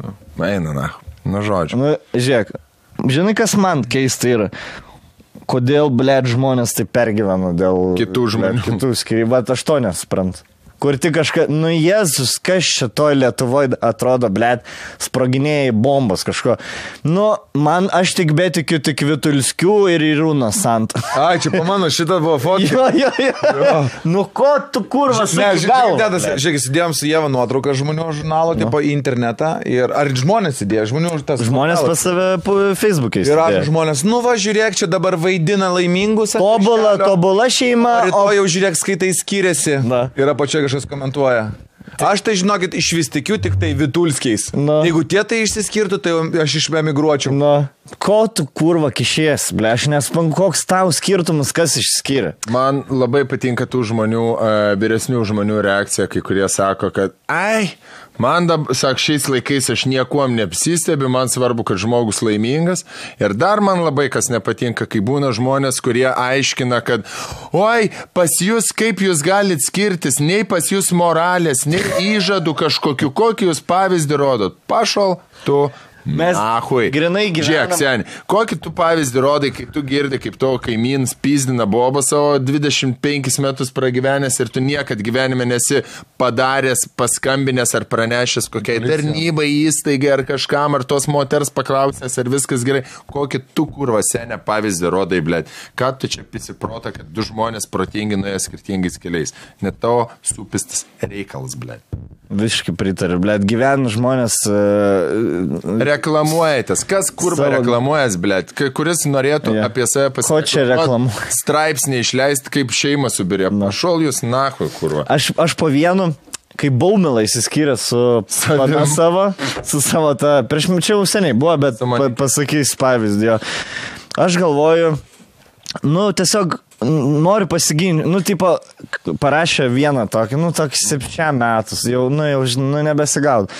Eina, na. Nu, žodžiu. Nu, žiūrėk, žinai, kas man keista yra? Kodėl, blėt, žmonės tai pergyvena dėl kitų žmonių. Kitų skirybų, bet aš to nesuprantu. Kur tik kažką, Jėzus, kas šitoj Lietuvoje atrodo, blėt, sproginėjai bombos kažko. Man aš tik betikiu tik Vitulskių ir Irūną Sant. Ai, čia pamano, šitą buvo fotka. Jo. Ko tu kurvas sakai galva? Žiūrėk, įsidėjom su Jeva nuotrauką žmonių žurnalo, tipo į internetą. Ir ar žmonės įdėjo? Žmonės pas save Facebook'e įsidėjo. Ir ar žmonės, žiūrėk, čia dabar vaidina laimingus. Tobula šeima. O jau žiūrėk, skaitai skiriasi. Ir apačioje kažkas komentuoja. Aš tai, žinokit, iš vis tikiu tik tai Vitulskiais. Jeigu tie tai išsiskirtų, tai aš išemigruočiau. Ko tu kurva kišies, ble, aš nespanku, koks tau skirtumas, kas išskiria. Man labai patinka tų žmonių, vyresnių žmonių reakcija, kai kurie sako, kad man, šiais laikais aš niekuom neapsistebiu, man svarbu, kad žmogus laimingas. Ir dar man labai kas nepatinka, kai būna žmonės, kurie aiškina, kad oi, pas jūs, kaip jūs galit skirtis, nei pas jūs moralės, nei įžadų kažkokiu, kokį jūs pavyzdį rodot. Pašal, tu... Mes grinai gyvenam. Žiūrėk, seni, kokį tu pavyzdį rodai, kaip tu girdi, kaip tavo kaimynas pizdina bobą savo 25 metus pragyvenęs ir tu niekad gyvenime nesi padaręs, paskambinęs ar pranešęs kokiai tarnybai, įstaigai ar kažkam, ar tos moters paklausęs, ar viskas gerai. Kokį tu kurva senę pavyzdį rodai, blėt. Ką tu čia pisiprota, kad 2 žmonės protingi nuėjo skirtingais keliais. Net tavo supistas reikalas, blėt. Visiškai pritariu, blėt, gyvena žmonės... Reklamuojatės. Kas kurva reklamuojas, blėt? Kuris norėtų apie save pasakyti? Ko čia reklamuoja? Straipsnį išleisti, kaip šeimą subirė. Pašol jūs nahui, kurva. Aš po vienu, kai Baumila įsiskyrė su savo tą... Prieš čia seniai buvo, bet pasakys pavyzdį. Aš galvoju, tiesiog... Noriu pasiginti, tipo, parašė vieną tokį, tokį 7 metus, jau nebesigaud.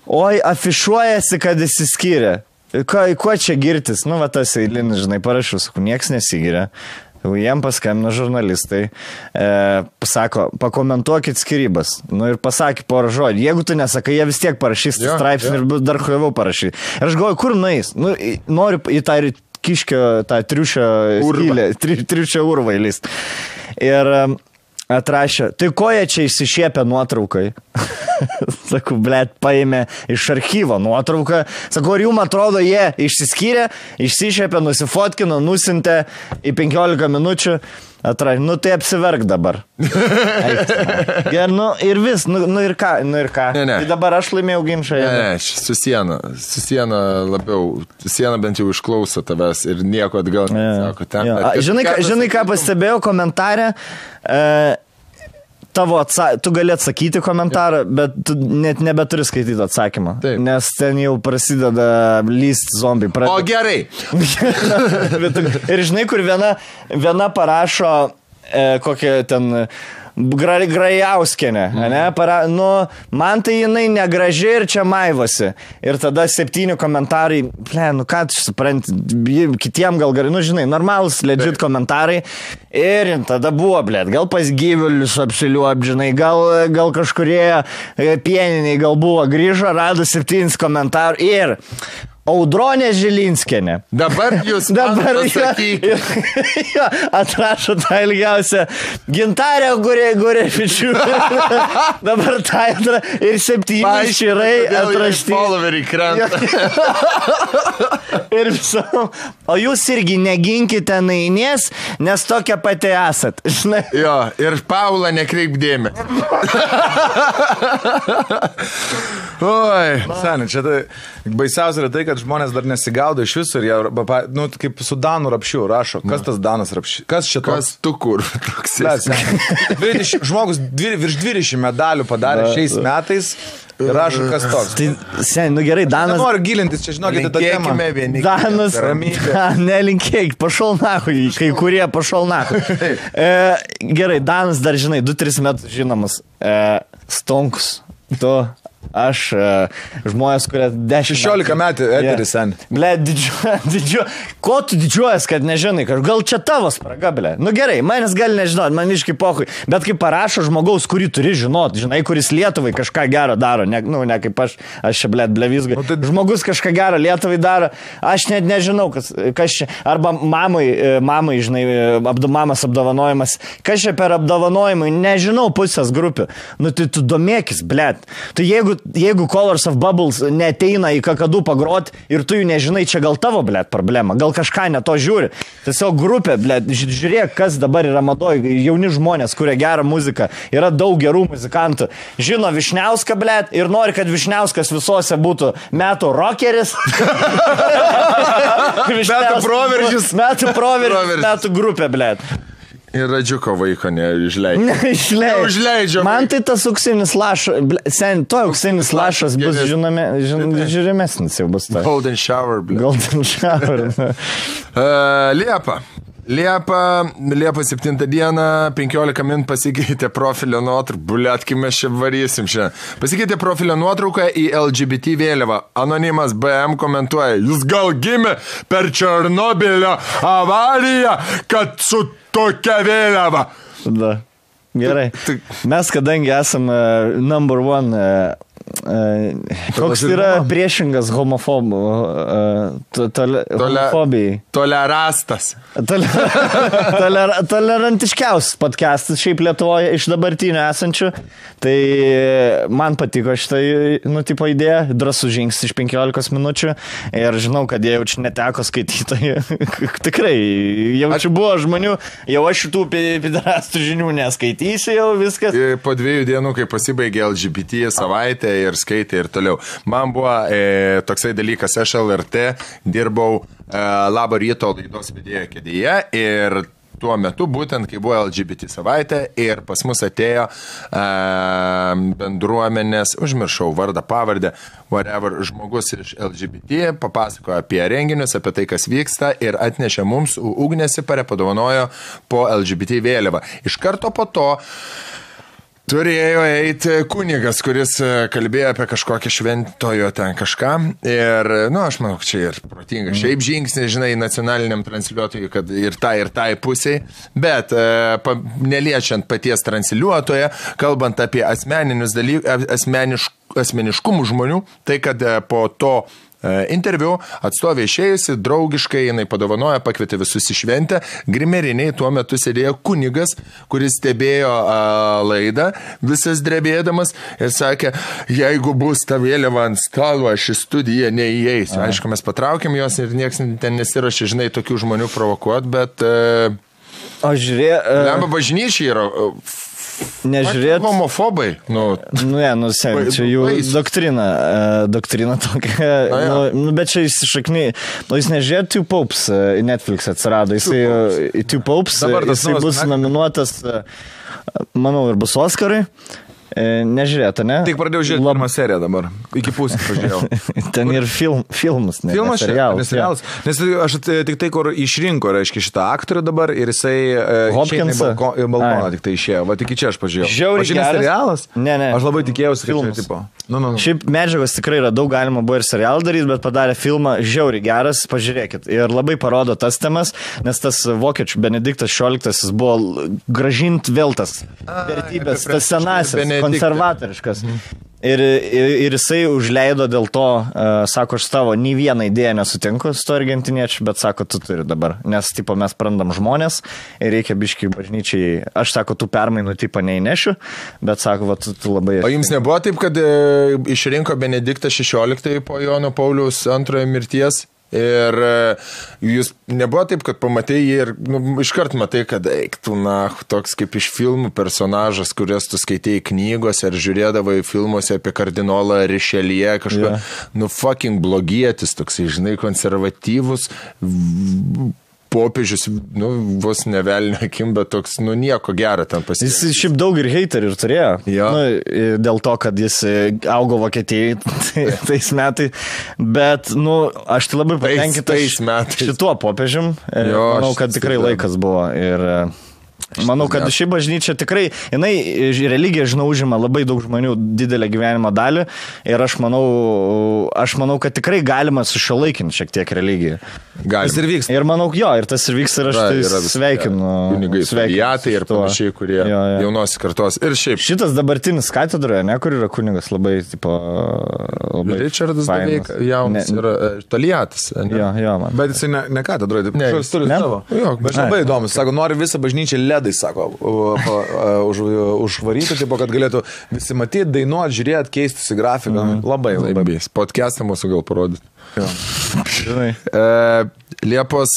Oi, afišuojasi, kad įsiskyrė. Kuo čia girtis? Tas eilinis, žinai, parašiau, sakau, nieks nesigiria. Jiem paskambino žurnalistai, pasako, pakomentuokit skirybas. Ir pasakė porą žodžių. Jeigu tu nesakai, jie vis tiek parašys straipsnį ir dar huiviau parašyti. Ir aš galvoju, kur nueis? Noriu į tą kiškio, tą triušio skylę, triušio urvą įlist. Ir Atrašė, tai ko jie čia išsišiepė nuotraukai? Sakau, blėt, paėmė iš archyvo nuotrauką. Sakau, ar jums atrodo, jie išsiskyrė, išsišiepė, nusifotkino, nusintė į 15 minučių. Atrašė, nu tai apsiverk dabar. Ir, ir vis, ir ką. Ne. Tai dabar aš laimėjau ginčą. Ne, su siena labiau, siena bent jau išklauso tavęs ir nieko atgal nesako. Žinai, ką pastebėjau komentarę? Tu gali atsakyti komentarą, bet tu net nebeturi skaityti atsakymą. Taip. Nes ten jau prasideda lyst zombiai. O gerai. Ir žinai, kur viena parašo kokią ten Grajauskienė, ne? Man tai jinai negraži ir čia maivosi. Ir tada 7 komentarai, ką tu supranti, kitiem gal gerai, žinai, normalus, legit komentarai. Ir tada buvo, gal pas gyvulius apsiliuop, žinai, gal kažkurie pieniniai gal buvo, grįžo, rado 7 komentarų ir Audronė Žilinskienė. Dabar jūs pasakykite. Atrašo tą ilgiausią Gintarę Gurevičių. Dabar tą ir 7 širai atrašti. Followeriai krenta. Ir visom. O jūs irgi neginkite nainės, nes tokia pati esat. Žinai. Jo, ir Paula nekreip dėmesį. Oi. Seniai, čia tai baisiausia yra tai, kad žmonės dar nesigaudo iš viso ir jie, kaip su Danu Rapšiu rašo. Kas tas Danas Rapšiu? Kas čia toks? Kas tu kur? Žmogus virš 20 medalių padarė šiais metais ir rašo, kas toks. Tai, seniai, gerai, Danas... Nenoriu gilintis, čia žinokite tą temą. Danas... Nelinkėk, pašol nachui, kai kurie pašol nachui. Gerai, Danas dar, žinai, 2-3 metus žinomas. Stonkus. Tu... Aš žmonės, kurie 16 metų eteris sen. Ble, ko tu didžiuojas, kad nežinai, gal čia tavo spraga, ble. Nu gerai, manęs gali nežinot, man iškai pochui, bet kai parašo žmogaus, kurį turi žinot, žinai, kuris Lietuvai kažką gero daro, ne kaip aš čia, ble, blevizgai. Žmogus kažką gero Lietuvai daro, aš net nežinau, kas čia, arba mamai, žinai, mamas apdovanojimas, kas čia per apdovanojimai, nežinau pusės grupių. Nu tai tu domėkis, ble. Tu jeigu Colors of Bubbles neteina į kakadų pagrot ir tu jų nežinai, čia gal tavo, blėt, problema, gal kažką ne to žiūri. Tiesiog grupė, blėt, žiūrėk, kas dabar yra madoj, jauni žmonės, kurie gerą muziką, yra daug gerų muzikantų. Žino Višniauską, blėt, ir nori, kad Višniauskas visose būtų metų rockeris. Metų proveržis, metų grupė, blėt. Ir Radžiuko vaiko neišleidžia. Man tai tas auksinis lašas, auksinis lašas bus žiūrimesnis jau bus. Golden shower, blė. Golden shower. Liepa 7 dieną, 15 min pasikeitė profilio nuotrauką. Buliat, kai mes čia varysim šią. Pasikeitė profilio nuotrauką į LGBT vėliavą. Anonimas BM komentuoja, jūs gal gimė per Černobylio avariją, kad su tokia vėliava. Da. Gerai. Mes, kadangi esame number one, koks yra priešingas homofobijai? Tolerastas. Tolerantiškiausias podcastas šiaip Lietuvoje iš dabartinių esančių. Tai man patiko šitą, tipo idėją, drąsų žingsnis iš 15 minučių. Ir žinau, kad jie jaučiu neteko skaitytojų. Tikrai, jaučiu buvo žmonių, jau aš šitų piderastų žinių neskaitysiu jau viskas. Po 2 dienų, kai pasibaigė LGBT savaitę ir skaitė ir toliau. Man buvo toksai dalykas, aš LRT dirbau Labo ryto laidos vedėjo kėdėje ir tuo metu, būtent kai buvo LGBT savaitė ir pas mus atėjo bendruomenės, užmiršau vardą, pavardę, whatever, žmogus iš LGBT, papasakojo apie renginius, apie tai, kas vyksta ir atnešė mums ugnėsi, padovanojo po LGBT vėliavą. Iš karto po to turėjo eiti kunigas, kuris kalbėjo apie kažkokią šventojo ten kažką. Ir, aš manau, čia ir protinga. Šiaip žingsnis, žinai, nacionaliniam transliuotojui, kad ir tai pusiai. Bet neliečiant paties transliuotoje, kalbant apie asmeninius dalykus, asmeniškumų žmonių, tai kad po to interviu, atstovė išėjusi, draugiškai jinai padovanoja, pakvietė visus į šventę. Grimeriniai tuo metu sėdėjo kunigas, kuris stebėjo laidą, visas drebėdamas ir sakė, jeigu bus ta vėliava ant stalo, aš į studiją neįeisiu. Aišku, mes patraukėm jos ir nieks ten nesirašė, žinai, tokių žmonių provokuot, bet... Aš žiūrėjau... Lemba bažnyčiai yra... Nežiūrėt. Homofobai. Čia jų doktrina tokia. Bet čia įsišakniai. Jūs nežiūrėt Two Popes į Netflix atsirado. Jisai Two Popes, jisai bus nominuotas, manau, ir bus Oscarai. Nežiūrėta, ne? Tik pradėjau žiūrėti pirmą seriją dabar. Iki pusės pažiūrėjau. Ten ir filmas, ne? Filmas serialas. Nes aš tik tai, kur išrinko, reiškia, šitą aktorių dabar ir jisai Hopkinsą į balkoną tik tai išėjo. Va, tik čia aš pažiūrėjau. Žiauriai geras serialas? Ne. Aš labai tikėjausi, kad filmas. Čia tipo. Šiaip medžiagos tikrai yra daug, galima buvo ir serialą daryti, bet padarė filmą žiauriai geras, pažiūrėkit. Ir labai parodo tas temas, nes tas vokiečių Benediktas XVI buvo grąžint vėl tas vertybės, tas senasis, konservatoriškas. Ir jisai užleido dėl to, sako, aš tavo nei vieną idėją nesutinku su to argentiniečiu, bet sako, tu turi dabar, nes tipo, mes prarandam žmonės ir reikia biškai bažnyčiai, aš sako, tų permainų tipo neįnešiu, bet sako, va, tu labai... O jums nebuvo taip, kad išrinko Benediktą XVI po Jono Pauliaus antrojo mirties? Ir jūs nebuvo taip, kad pamatai jį ir iškart matai, kad eiktų, toks kaip iš filmų personažas, kurias tu skaitėjai knygose ar žiūrėdavai filmuose apie kardinolą Richelieu, kažką, fucking blogietis, toksai, žinai, konservatyvus, popiežius, vos nevelnio akim, bet toks, nieko gero ten pasiekė. Jis šiaip daug ir heiterių ir turėjo. Ja. Dėl to, kad jis augo Vokietijai tais metais. Bet, aš tai labai patenkintas šituo popiežium. Manau, kad tikrai laikas buvo. Ir manau, kad ši bažnyčia tikrai, jinai religija, žinau, užima labai daug žmonių didelę gyvenimo dalį ir aš manau, kad tikrai galima sušiuolaikinti šiek tiek religiją. Tas ir vyks. Ir manau, ir tas ir vyks ir aš tai sveikinu. Kunigai, vijatai ir panašiai, kurie jaunos kartos. Ir šiaip. Šitas dabartinis katedroje, kur yra kunigas, labai, labai Richardas beveik jaunas yra Toliatas. Jo, man. Bet jisai ne katedroje, taip turi savo. Bet labai įdomus, sako, nori visą bažnyčią ledai, sako, užvaryti, taip, kad galėtų visi matyti, dainuoti, žiūrėti, keistis į grafiką. Labai. Podcastą mūsų gal parodyti. Liepos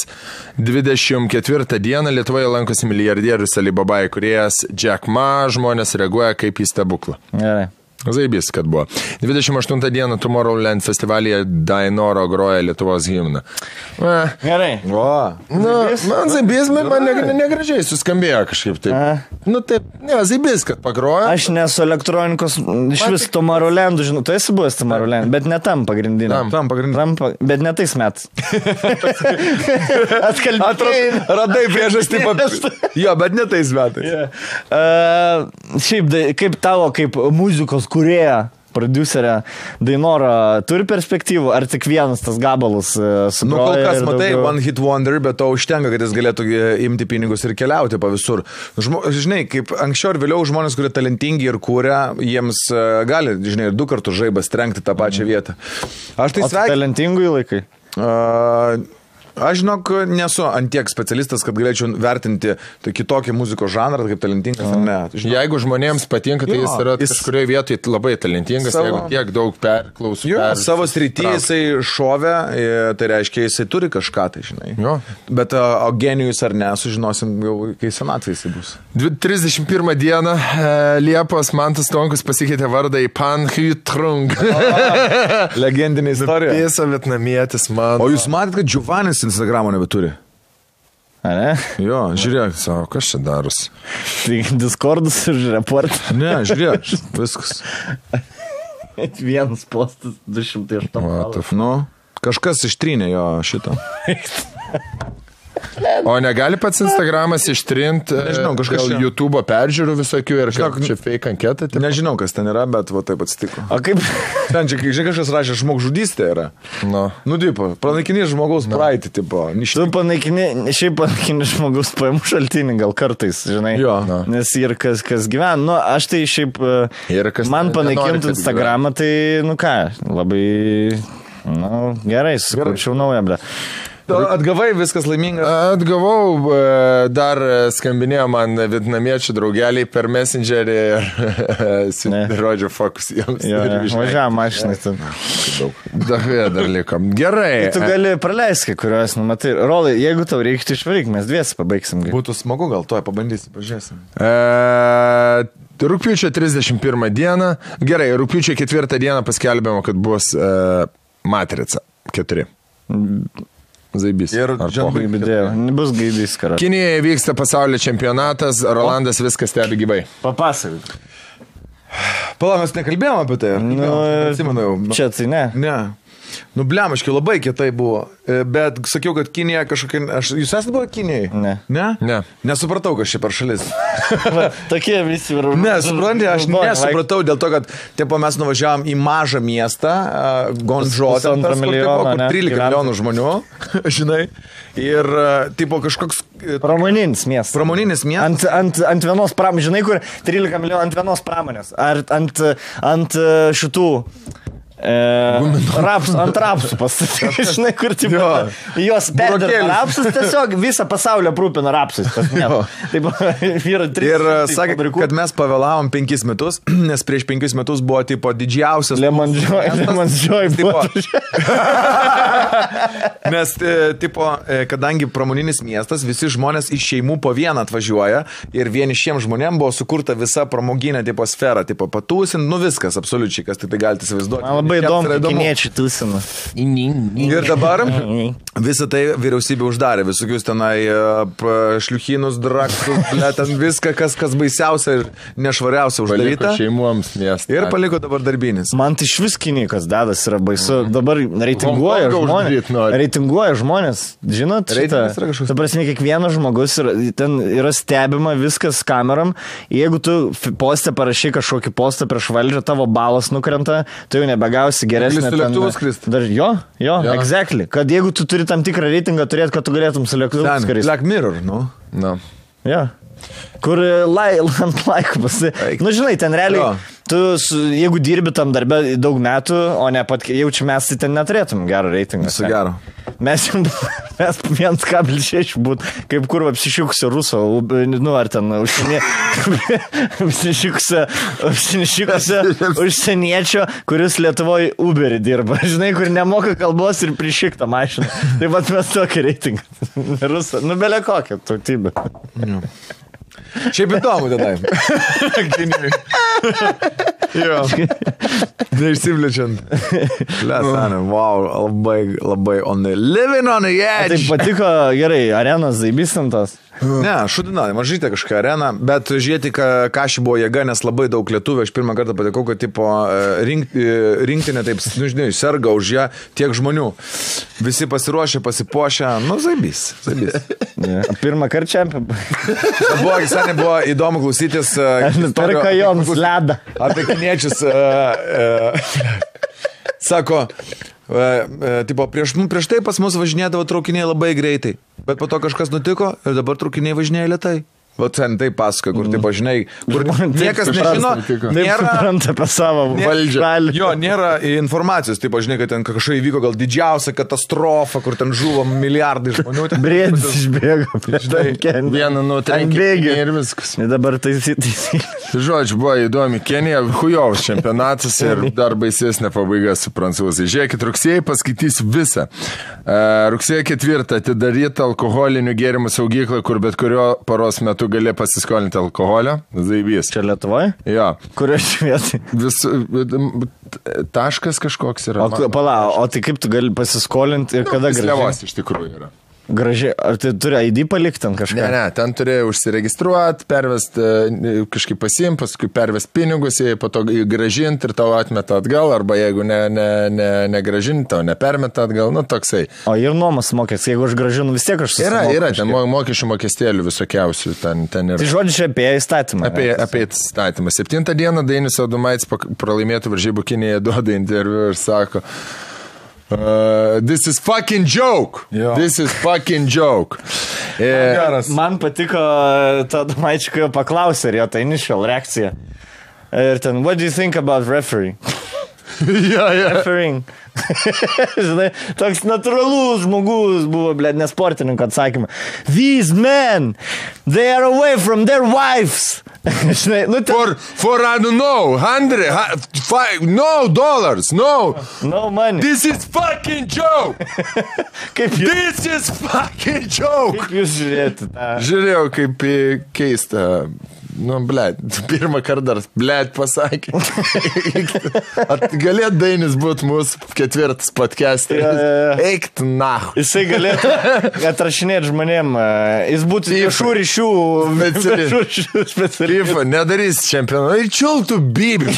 24 dieną Lietuvoje lankosi milijardierius Alibaba įkūrėjas Jack Ma, žmonės reaguoja kaip į stebuklą. Gerai. Zaibys, kad buvo. 28 dieną Tomorrowland festivalyje Dainoro groja Lietuvos himną. Gerai. Man zaibys, man negražiai suskambėjo kažkaip taip. Taip, zaibys, kad pagroja. Aš nesu elektronikos, iš vis Tomorrowlandų, žinau, tu esi buvęs Tomorrowland, bet ne tam pagrindiniam. Tam pagrindiniam. Bet ne tais metais. Radai priežastį. Jo, bet ne tais metais. Šiaip, kaip tavo, kaip muzikos kūrėja, prodiuserė Dainora turi perspektyvų, ar tik vienas tas gabalus sugroja? Kol kas matai, one hit wonder, bet to užtenka, kad jis galėtų imti pinigus ir keliauti po visur. Žinai, kaip anksčiau ir vėliau žmonės, kurie talentingi ir kūrė, jiems gali, žinai, ir 2 kartus žaibas trenkti tą pačią vietą. Aš tai sveikinu. Talentingų laikai? Aš žinok, nesu antiek specialistas, kad galėčiau vertinti kitokį muzikos žanrą, kaip talentingas ar ne. Jeigu žmonėms patinka, tai jis yra kažkurioje vietoje labai talentingas, jeigu tiek daug perklausų. Savo srity jisai šovė, tai reiškia, jisai turi kažką, tai žinai. Bet o genijus ar ne, sužinosim jau, kai senatvė jisai bus. 31 dieną Liepos Mantas Tonkus pasikeitė vardą į Pan Huy Trung. Legendinė istorija. Pėsa vietnamietis man. O jūs matėt, kad Giovannis Instagramo nebeturi? A ne? Jo, žiūrėk. Savo, kas čia daros? Tai Discordus ir report. Ne, žiūrėk, viskas. Vienas postas 208. Kažkas ištrynė jo šitą. O negali pats Instagramas ištrinti YouTube peržiūrų visokių ir čia fake anketą? Nežinau, kas ten yra, bet va taip atsitiko. O kaip? Ten čia kažkas rašė, žmogžudystė yra. Tipo, panaikini žmogaus praeitį, tipo. Tu panaikini žmogaus pajamų šaltinį gal kartais, žinai. Jo. Nes ir kas gyvena. Aš tai šiaip, man panaikinti Instagramą, tai, labai... Nu, gerai, sukurčiau naują, ble. Atgavai, viskas laimingas. Atgavau, dar skambinėjo man vietnamiečių draugeliai per Messengerį ir rodžio fokus jiems. Važiavam mašinai. Dar liko. Gerai. Tu gali praleisti, kuriuos, matai, Rolai, jeigu tau reiktų išvaryk, mes dviesi pabaigsim. Būtų smagu, gal to pabandysi, pažiūrėsim. Rugpjūčio 31 dieną. Gerai, rugpjūčio 4 dieną paskelbėmo, kad bus Matrica 4. Zaibys. Ir bus gaidys, karas. Kinijoje vyksta pasaulio čempionatas, Rolandas viską stebi gyvai. Papasakok. Pala, mes nekalbėjome apie tai. Atsimenu jau. Čia tai ne. Ne. Nu, blemaškai, labai kietai buvo. Bet sakiau, kad Kinija kažkokia... Jūs esate buvo Kinijai? Ne. Ne? Ne. Nesupratau, kas čia per šalis. Tokie visi ir... Ne, supranti, aš nesupratau dėl to, kad tipo, mes nuvažiavam į mažą miestą, Gonžo, ten tas, kur 13 milijonų žmonių, žinai. Ir tipo kažkoks... Pramoninis miestas. Pramoninis miestas. Ant vienos pramonės, žinai, kur 13 milijonų ant vienos pramonės. Ar ant šitų... ant rapsų pastatyti, žinai, kur tipo, jos perdirba rapsus, tiesiog visą pasaulį aprūpina rapsus. Ir sakė, kad mes pavėlavom 5 metus, nes prieš 5 metus buvo tipo didžiausias Lemon Joy buvo. Nes tipo, kadangi pramoninis miestas, visi žmonės iš šeimų po vieną atvažiuoja ir vienišiems žmonėms buvo sukurta visa pramoginė tipo sfera, tipo patūsin, nu viskas, absoliučiai, kas tai galite įsivaizduoti. Labai įdomu, kiniečiai tūsina. Ir dabar visą tai vyriausybė uždarė, visokius tenai šliuchinus, draktus, ten viską, kas baisiausia ir nešvariausia uždaryta. Šeimoms miestą. Ir paliko dabar darbinis. Man tai iš vis Kinikas dadas yra baisu. Dabar reitinguoja žmonės. Žinot, ta prasme, kiekvienas žmogus ten yra stebima viskas kameram. Jeigu tu postę parašai kažkokį postą prieš valdžią, tavo balas nukrenta, tai jau nebegausi geresnė. Jo, exactly. Kad jeigu tu turi tam tikrą reitingą turėti, kad tu galėtum su lėktuvu skristi. Black Mirror, nu. No. Jo. Kur ant laikų pasi... Nu, žinai, ten realiai, tu, jeigu dirbi tam darbę daug metų, o ne pat jaučiu, mes tai ten neturėtum gerą reitingą. Visu gero. Mes 1,6 būt, kaip kur apsišikusio ruso, nu, ar ten apsišikusio užsieniečio, kuris Lietuvoje Uberį dirba. Žinai, kur nemoka kalbos ir prišiktą mašiną. Taip pat mes tokį reitingą. Rusą. Nu, belė kokią tautybę. Šiaip įdomu tada. Jo. Neišsivlečiant. Wow, labai living on the edge. Tai patiko gerai, arenos zaibistintos. Ne, šudina, mažytė kažką arena, bet žiūrėti, ką ši buvo jėga, nes labai daug lietuvių, aš pirmą kartą patikau, kad tipo, rinktinė taip, nu, žinai, serga už ją tiek žmonių. Visi pasiruošę, pasipuošę, nu, zaibys. Pirmą kartą čempionų. Buvo įdomu klausytis Perka joms ledą. Apie kiniečius. Sako, tipo, prieš tai pas mus važinėdavo traukiniai labai greitai, bet po to kažkas nutiko ir dabar traukiniai važinėja lėtai. Va, ten tai pasakoja, kur, tipo, žinai, kur niekas nežino, nėra apie savo valdžią. Jo, nėra informacijos, tipo, žinai, kad ten kažkai įvyko gal didžiausia katastrofa, kur ten žuvo milijardai žmonių. Briedis išbėgo prieš tai. Vieną nutrenkį ir viskas. Dabar tai. Žodžiu, buvo įdomi Kenija, hujaus čempionatas ir dar baisesnė pabaiga su prancūzai. Žiūrėkit, rugsėjai paskaitysiu visą. Rugsėjo 4 atidaryta alkoholinių gėrimų saugykla, kur bet kurio paros metu gali pasiskolinti alkoholio. Zaibys. Čia Lietuvoje? Jo. Kurioje vietoje? Taškas kažkoks yra. Pala, o tai kaip tu gali pasiskolinti ir kada gražiai? Slevos iš tikrųjų yra. Gražiai, ar tai turi ID palikti ten kažką? Ne, ten turėjai užsiregistruoti, pervesti, kažkaip pasimti, paskui pervesti pinigus, po to gražinti ir tau atmeta atgal, arba jeigu negražinti, tau nepermeta atgal, nu toksai. O ir nuomas mokės, jeigu aš gražinu, vis tiek aš susimoku. Yra, ten mokesčių mokestėlių visokiausių, ten yra. Tai žodžiu, čia apie įstatymą. Apie įstatymą. 7 dieną Dainius Adomaitis pralaimėtų varžybų Kinijoje duoda interviu ir sako... this is fucking joke. Jo. This is fucking joke. Man patiko tą Domaičį, kai jo paklausė ir jo ta initial reakcija. Ir ten, what do you think about refereeing? Yeah. Refereeing. Žinai, toks natūralus žmogus buvo, blėt, nesportininko atsakymą. These men, they are away from their wives. Žinai, nu For I don't know, $100, no money. This is fucking joke. This is fucking joke. Kaip jūs žiūrėti tą? Žiūrėjau, kaip keista. Nu, blėt, pirmą kartą dar, blėt, pasakė. Galėt Dainis būti mūsų ketvirtas podcasteris. Eikt nahu. Jisai galėtų atrašinėti žmonėm. Jis būtų viešų ryšių specialistas. Nedarys čempionų. Ir čiultų bibių.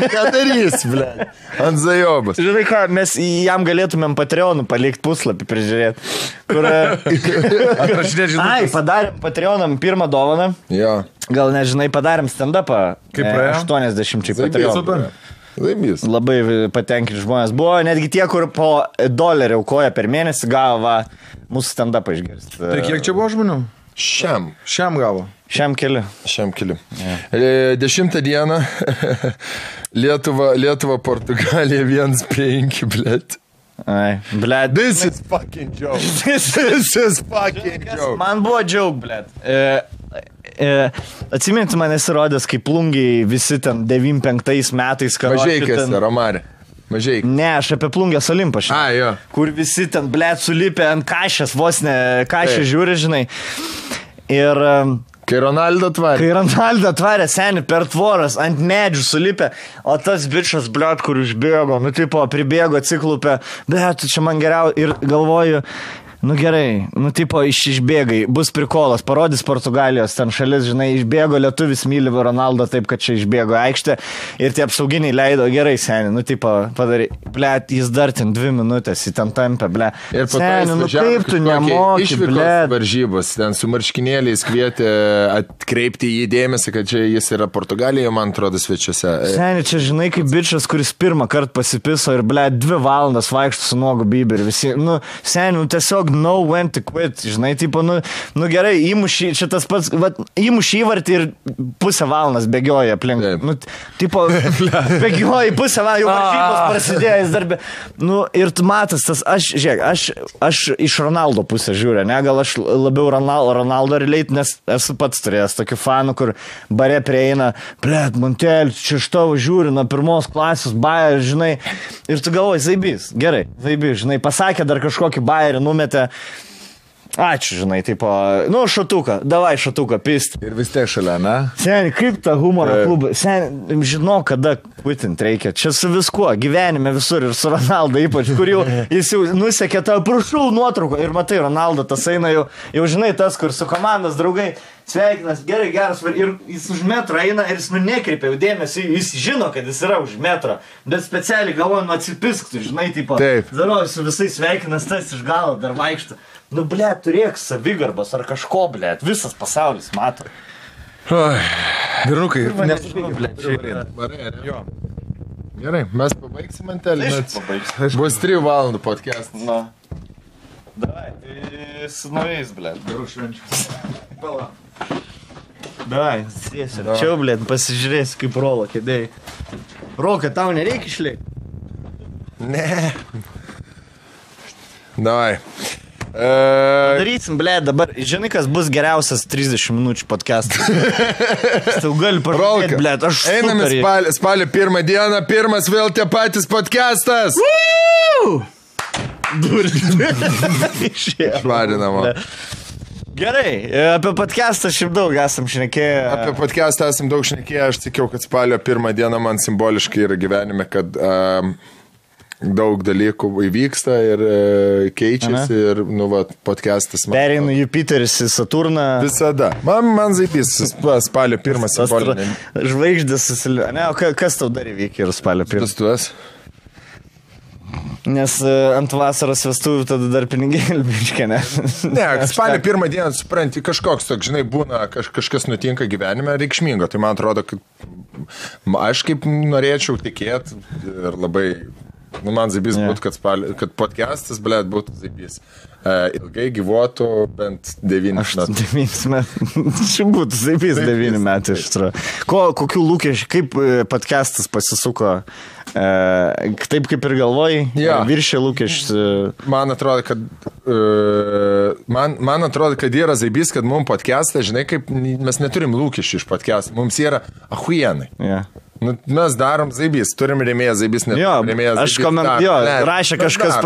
Nedarys, blėt. Ant zajobas. Žinai ką, mes jam galėtumėm Patreonų palikti puslapį prižiūrėti. Kur... Ai, padarėm Patreonam pirmą dovaną. Jo. Gal nežinai, padarėm stand-upą. Kaip praėjo? 80 Patreonų. Laimės. Labai patenkinti žmonės buvo. Netgi tie, kur po $1 aukoja per mėnesį, gavo mūsų stand-upą išgirsti. Tai kiek čia buvo žmonių? Šiam gavo. Šiam keli. 10 dieną Lietuva, Portugalija 1-5, blėt. Ai, blėt. This is fucking joke. This is fucking joke. Man buvo joke, blėt. Atsiminti, man esirodęs, kaip plungiai visi ten 95 metais Mažeikės, Romarė. Mažeik. Ne, aš apie plungės Olimpą. Jo. Kur visi ten, blėt, sulipę ant kašės, vos ne kašę žiūri, žinai. Ir... Kai Ronaldo tvarė, seni, per tvoras, ant medžių sulipę, o tas bičas, blėt, kur išbėgo, nu, tipo, pribėgo, atsiklupė, blėt, čia man geriau, ir galvoju, nu gerai, nu tipo išbėgai, bus prikolas, parodys Portugalijos ten šalis, žinai, išbėgo lietuvis myli Ronaldo taip, kad čia išbėgo aikštę ir tie apsauginiai leido, gerai, seni, nu tipo padarai, blėt, jis dar ten 2 minutės, į ten tampę, blėt. Ir seni, nu kaip tu nemoki, blėt. Varžybos, ten su marškinėliais kvietė atkreipti į dėmesį, kad čia jis yra Portugalijoje, man atrodo, svečiuose. Seni, čia žinai, kaip bičas, kuris pirmą kartą pasipiso ir, blėt, 2 valandas vaikšto su nuogu biberiu, visi, nu, seni, nu tiesiog know when to quit, žinai, tipo, nu gerai, įmušį, čia tas pats, įmušį įvartį ir pusę valandas bėgioja aplink. Nu, tipo, bėgioja pusę valandą, jau varžybos prasidėjo, jis darbė. Nu, ir tu matas, tas, aš iš Ronaldo pusę žiūrė, ne, gal aš labiau Ronaldo relate, nes esu pats turėjęs tokių fanų, kur bare prieina, blėt, Montel, čia iš tavo žiūri, nuo 1 klasės, bajer, žinai, ir tu galvoji, zaibys, gerai, zaibys, žinai, pasakė dar kažkokį bajerį, numetė. Ačiū, žinai, tipo, nu, šatuką, davai šatuką, pist. Ir vis tiek šalia, ne? Seni, kaip ta humoro klubą, seni, žinau, kada kvitint reikia. Čia su viskuo, gyvenime visur ir su Ronaldo ypač, kur jau jis jau nusekė tą, prašau, nuotrauką ir matai, Ronaldo tas eina jau žinai, tas, kur su komandos draugai sveikinas, gerai, geras, ir jis už metro eina ir jis nekreipia jau dėmesį, jis žino, kad jis yra už metro, bet specialiai galvoju, atsipisktų, žinai, tipo, daroju su visais sveikinas, tas iš galo dar vaikšto. Nu, blėt, turėk savigarbos ar kažko, blėt, visas pasaulis mato. Vyrukai, nesužinau, blėt, šiaip. Gerai, mes pabaigsim Mantelį. Bus 3 valandų podcast. Na. Davai, tai su naujais, blėt, gerų švenčių. Pala. Davai, sėsiu. Čia, blėt, pasižiūrėsiu, kaip rolo kėdėjai. Roka, tau nereikia išliekti? Ne. Davai. Darysim, blėt, dabar, žinai, kas bus geriausias 30 minučių podcastas. Tau gali parodyti, blėt, aš einame spalio 1 dieną, pirmas vėl tie patys podcastas. Švarinama. Gerai, apie podcastą šiaip daug esam šnekėję. Apie podcastą esam daug šnekėję, aš sakiau, kad spalio 1 dieną man simboliškai yra gyvenime, kad daug dalykų įvyksta ir keičiasi ir, nu, va, podcastas. Pereina Jupiteris į Saturną. Visada. Man zaipys, spalio 1 simbolinė. Žvaigždės susilio. Ne, o kas tau dar įvykė ir spalio 1? Vestuvės. Nes ant vasaros vestuvių tada dar pinigėlį biškė, ne? Ne, spalio 1 dieną, supranti, kažkoks toks, žinai, būna, kažkas nutinka gyvenime reikšmingo. Tai man atrodo, kad aš kaip norėčiau tikėti ir labai... Nu, man zaibys būtų, kad podcastas, blėt, būtų zaibys. Ilgai gyvuotų bent 9 metų. 9 metų. Čia būtų zaibys 9 metų iš tikrųjų. Kokių lūkesčių, kaip podcastas pasisuko Taip kaip ir galvojai, viršė lūkesčius. Man atrodo, kad yra zaibys, kad mums podcast'ą, žinai, kaip mes neturim lūkesčių iš podcast'ą, mums yra ahuienai. Nu, mes darom zaibys, turim rėmėją zaibys, neturim rėmėją zaibys. Rašė kažkas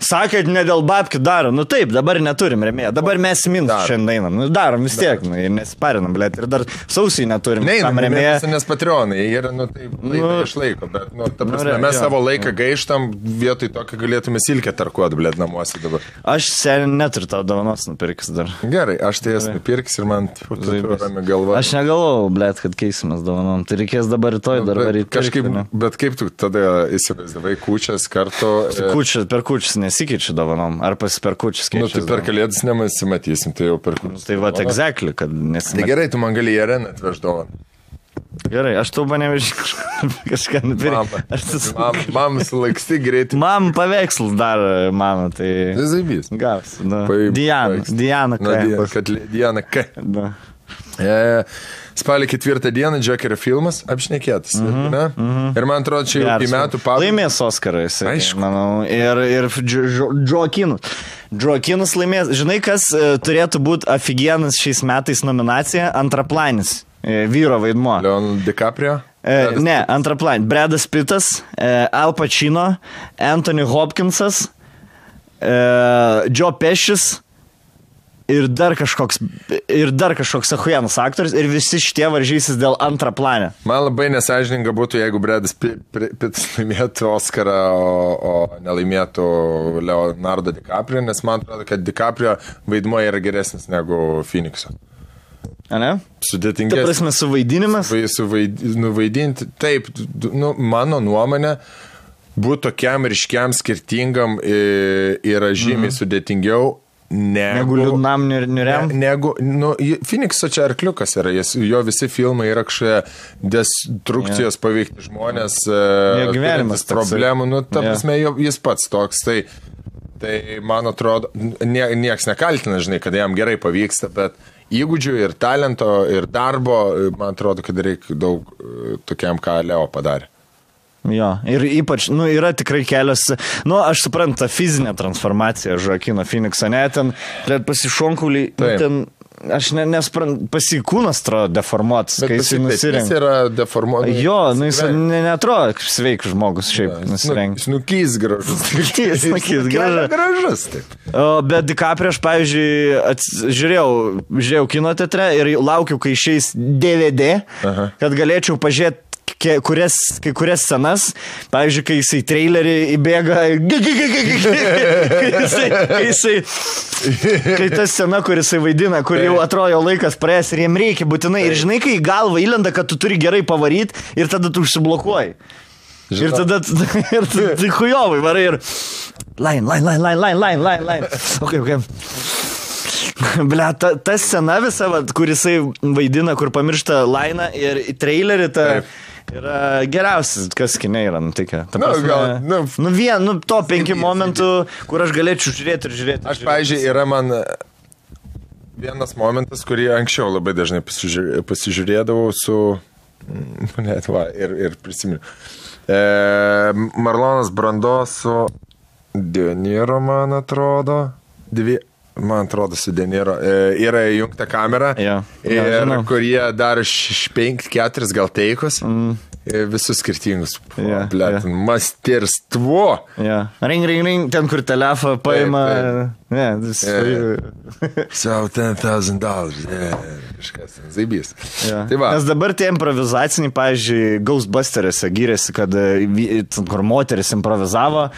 sakė, ne dėl babkių darom. Nu taip, dabar neturim rėmėją. Dabar mes minus šiandien einam. Nu, darom vis tiek, nu, ir nesiparinam, blėt. Ir dar sausiai neturim. Neinam rėmėją. Nes patronai, jie yra, nu, taip, išlaiko. Bet, nu, ta prasme, mes savo laiką gaištam, vietoj to, kad galėtume silkę tarkuot, blėt, namuose dabar. Aš seniai neturiu tavo dovanos nupirkis dar. Gerai, aš tai jas nupirkis ir man rami galva. Aš negalvojau, blėt, kad keisimės dovanom. Tai reikės dabar kažkaip, bet kaip tu tada įsivaizdavai kūčias kartu? Per kūčias nesikeičiu dovanom, ar per kūčias keičiu? Nu, tai per kalėdas nemasimatysim, tai jau per kūčias. Tai va, exactly, kad nesimatysim. Tai gerai, tu man gali į areną atveš dovaną. Gerai, aš tau nevežiu kažką nupirkti. Mam sulaiksti greitai. Mam paveikslus dar, mano, tai... Tai zaibys. Gavs, Diana K. Spalio 4 dieną Džokerio filmas apšnekėtas. Ir man atrodo, čia jau į metų pabaigą. Laimės Oskarais, manau. Ir Džoakinas laimės. Žinai, kas turėtų būti afigienas šiais metais nominacija? Antraplanis. Vyro vaidmuo. Leonardo DiCaprio? Ne, antraplanis. Bradas Pittas, Al Pacino, Anthony Hopkinsas, Joe Pescis. Ir dar kažkoks ahuienas aktorius ir visi šitie varžysis dėl antraplanio. Man labai nesąžininga būtų, jeigu Bradas Pittas laimėtų Oscarą, o nelaimėtų Leonardo DiCaprio, nes man atrodo, kad DiCaprio vaidmuo yra geresnis negu Phoenix'o. A ne? Sudėtingesnis. Ta prasme, suvaidinimas? Nuvaidinti, taip, nu, mano nuomonė, būtų tokiam ryškiam skirtingam yra žymiai sudėtingiau, negu liūdnam niuriam. Phoenix'o čia arkliukas yra, jo visi filmai yra kažkoje destrukcijos paveikti žmonės, gyvenimas problemų, nu, ta prasme, jis pats toks, tai man atrodo, nieks nekaltina, žinai, kad jam gerai pavyksta, bet įgūdžių ir talento ir darbo, man atrodo, kad reikia daug tokiam, ką Leo padarė. Jo, ir ypač, nu, yra tikrai kelios, nu, aš suprantu, ta fizinė transformacija Joaquino Phoenix'o, ne, ten pasišonkuliai, ten, aš nesprantu, pasikūnas atrodo deformuotas, kai jis nusirengia. Jis yra deformuotas. Jo, nu, jis neatrodo kaip sveikas žmogus šiaip nusirengia. Snukys gražus. Snukys gražus, taip. Bet DiCaprio aš, pavyzdžiui, žiūrėjau kino teatre ir laukiau, kai išeis DVD, kad galėčiau pažiūrėti kai kurias scenas, pavyzdžiui, kai jisai trailerį įbėga, kai ta scena, kur jisai vaidina, kur jau atrodo laikas praėjęs ir jiem reikia būtinai, ir žinai, kai į galvą įlenda, kad tu turi gerai pavaryti ir tada tu užsiblokuoji. Ir tada tai hujovai varai ir line. Okay. Blia, ta scena visa, kur jisai vaidina, kur pamiršta lainą ir trailerį, yra geriausias, kas kine yra nutikę. To 5 momentų, kur aš galėčiau žiūrėti. Aš, pavyzdžiui, yra man vienas momentas, kurį anksčiau labai dažnai pasižiūrėdavau su... ir prisimenu. Marlonas Brando su De Niro, man atrodo. Man atrodo, su De Niro. Yra įjungta kamera, kur jie daro 5-4 gal teikus. Visus skirtingus. Masterstvo. Ring, ten kur telefą paima. Sau $10,000. Kažkas, zaibys. Nes dabar tie improvizaciniai, pavyzdžiui, Ghostbusters'e gyrėsi, kad kur moteris improvizavo.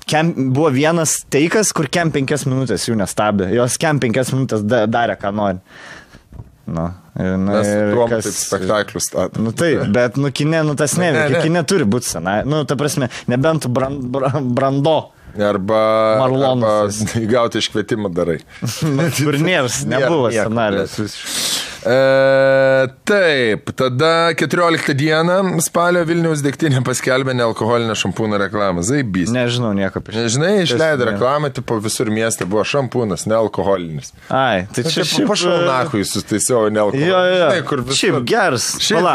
Buvo vienas teikas, kur 5 minutės jų nestabdė. Jos 5 minutės darė, ką nori. Mes tuom taip spektaklius statė. Taip, bet kine, tas neveikia. Kine turi būti senai. Ta prasme, nebent Brando. Arba gauti iškvietimą darai. Kur nėrs, nebuvo scenarijos. Taip, tada 14 dieną spalio Vilniaus degtinė paskelbė nealkoholinę šampūną reklamą. Zaibys. Nežinau nieko apie šitą. Nežinai, išleido reklamą, tipo visur mieste buvo šampūnas, nealkoholinis. Ai, tai čia šiaip... Pašaunakui sustaisiau nealkoholinis. Jo. Šiaip geras.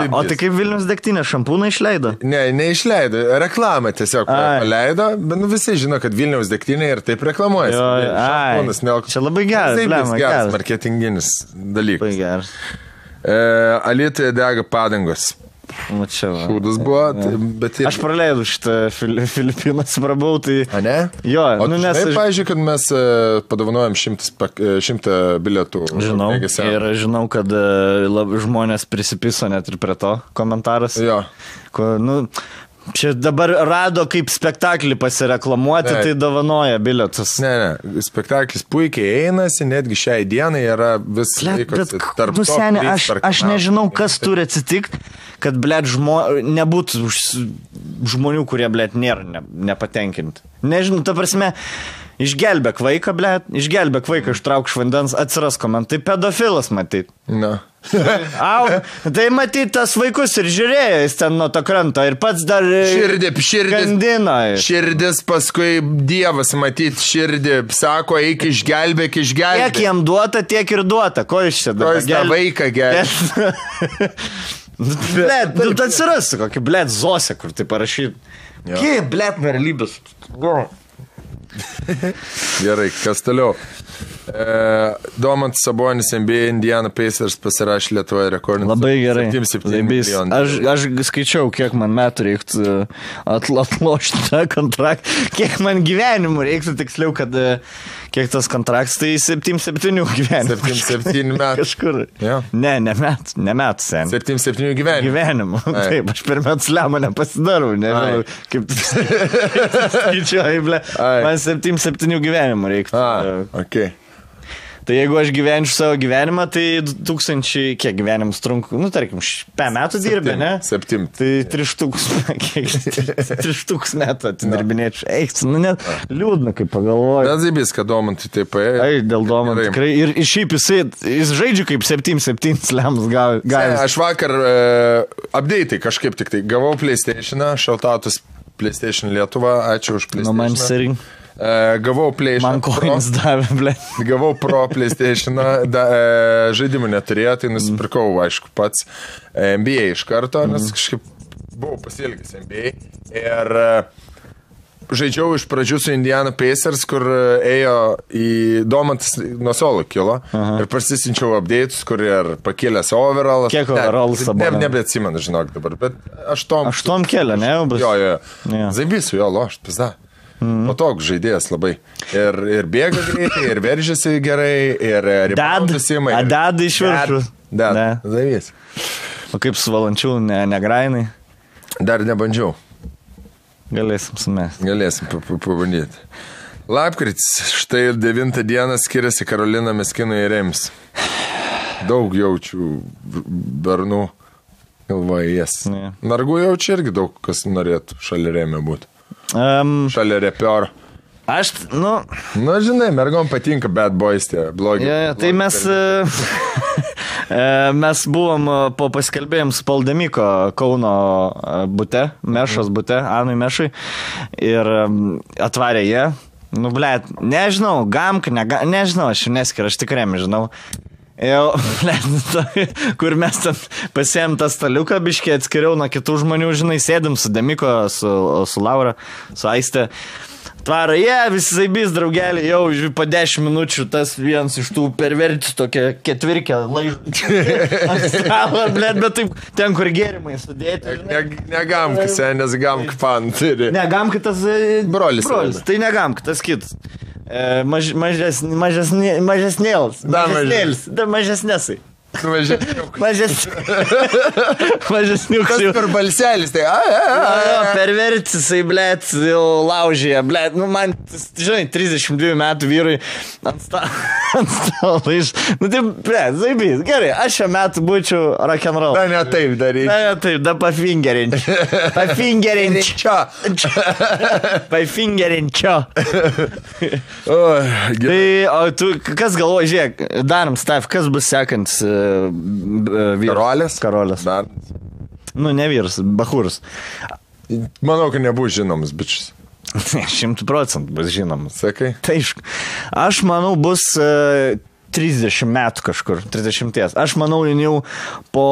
O tai kaip Vilniaus degtinė šampūną išleido? Ne, neišleido. Reklamą tiesiog paleido, bet visi žino, kad Vilniaus degtinė ir taip reklamuoja. Šampūnas nealkoholinis. Čia labai geras. Geras marketinginis dalykas. Labai geras. Alytuje dega padangos. Šūdas buvo, bet... Aš praleidau šitą Filipinas, prabau, tai... A ne? Jo, nes... Pavyzdžiui, kad mes padovanojam 100 bilietų. Žinau, ir žinau, kad žmonės prisipiso net ir prie to komentaras. Jo. Čia dabar rado kaip spektaklį pasireklamuoti, tai dovanoja bilietus. Ne, spektaklis puikiai einasi, netgi šiai dienai yra vis laikosi tarp to. Seni, aš nežinau, kas turi atsitikti, kad, nebūtų žmonių, kurie, nėra nepatenkinti. Nežinau, ta prasme, išgelbėk vaiką, ištrauk iš vandens, atsiras komentai, pedofilas matyt. Na. Tai matyt, tas vaikus ir žiūrėjo, jis ten nuo to kranto ir pats dar gandino. Širdis, paskui Dievas matyt širdį, sako, eik išgelbėk. Kiek jam duota, tiek ir duota. Ko iš čia dabar? Ko jis tą vaiką gelbė? Blet, atsiras kokį, Zosė, kur tai parašyt. Kiek, verlybės. Gerai, kas toliau? Domantas Sabonis NBA Indiana Pacers pasirašė Lietuvoje rekordinį. Labai gerai. 7 milijonų. Aš skaičiau, kiek man metų reiktų atlošti tą kontraktą. Kiek man gyvenimų reiktų, tiksliau, kad kiek tas kontraktas, tai 7 gyvenimų. 7 metų. Kažkur. Ja. Ne metų sen. 7 gyvenimų. Gyvenimų. Taip, aš per metus lemą nepasidarau. Nežinau, kaip tu skaičiuoji, ble. Man 7 gyvenimų reiktų. Okay. Tai jeigu aš gyvenčiau savo gyvenimą, tai 2000, kiek gyvenimus trunku, tarkim, 5 metų dirbė, ne? 7. Tai 3 metų atidirbinėčiau. Eik, net liūdna, kaip pagalvoju. Bet zaibys, kad Domantui taip ėjo. Dėl Domantų tikrai. Ir šiaip jis žaidžia kaip 7 slemus gavęs. Aš vakar update'ai kažkaip tik tai gavau PlayStation'ą, shoutoutus PlayStation Lietuva, ačiū už PlayStation'ą. Gavau PlayStation. Man koins davė, ble. Gavau Pro PlayStation'ą, žaidimų neturėjo, tai nusipirkau, aišku, pats NBA iš karto, nes kažkaip buvau pasiilgęs NBA. Ir žaidžiau iš pradžių su Indiana Pacers, kur ėjo į Domantas nuo solo kilo. Ir pasisinčiau update'us, kur ir pakėlęs overall. Kiek overallas dabar? Nebeatsimenu, žinok dabar, bet 8 kėlė, ne? Jo. Zaibysiu jo, lošt, pizda. Patogus žaidėjas labai. Ir bėga greitai, ir veržiasi gerai, ir reboundus ima. Deda iš viršų. Deda. Zaivys. O kaip su Valančiu, negrainai? Dar nebandžiau. Galėsim sumesti. Galėsim pabandyti. Lapkritis, štai 9 dieną skiriasi Karolina Meskino ir Rems. Daug jaučiu bernų galvoje jas. Nargu jaučiu irgi daug, kas norėtų šalia Remio būti. Šalia repioro. Žinai, mergom patinka bad boys tie blogi. Tai mes buvom po paskelbėjim su Paldemiko Kauno bute, Mešos bute, Anui Mešui, ir atvarė jie. Nežinau, nežinau, aš neskiriu, aš tikrai žinau. Kur mes ten pasiėm tą staliuką biškį, atskiriau nuo kitų žmonių, žinai, sėdim su Demiko, su Laura, su Aiste. Tvaro, visi zaibys, draugelį, jau po 10 minučių tas vienas iš tų perverčių tokia ketvirkė laižų. Bet taip, ten kur gėrimai sudėti. Negamk, nes gamk pan turi. Negamk, tas brolis. Tai negamk, tas kitas. Mažesnėlis. Mažesnėsai. Mažesniukas. Tas per balselis, tai pervertisai, blėt, jau laužyje, blėt, man, žinai, 32 metų vyrui ant stalo iš, tai, blėt, zaibys, gerai, aš šią metų būčiau rock'n'roll. Da, ne taip daryčiau. Da, taip, da pafingerinčiau. Pafingerinčiau. Tai, o tu, kas galvoji, žiūrėk, darom stav, kas bus sekantis Karolės? Karolės. Bernas. Nu, ne vyras, Bahūras. Manau, kad nebus žinomas bičias. 100% bus žinomas. Sakai? Tai aš manau, bus 30 metų kažkur, 30. Aš manau, jau po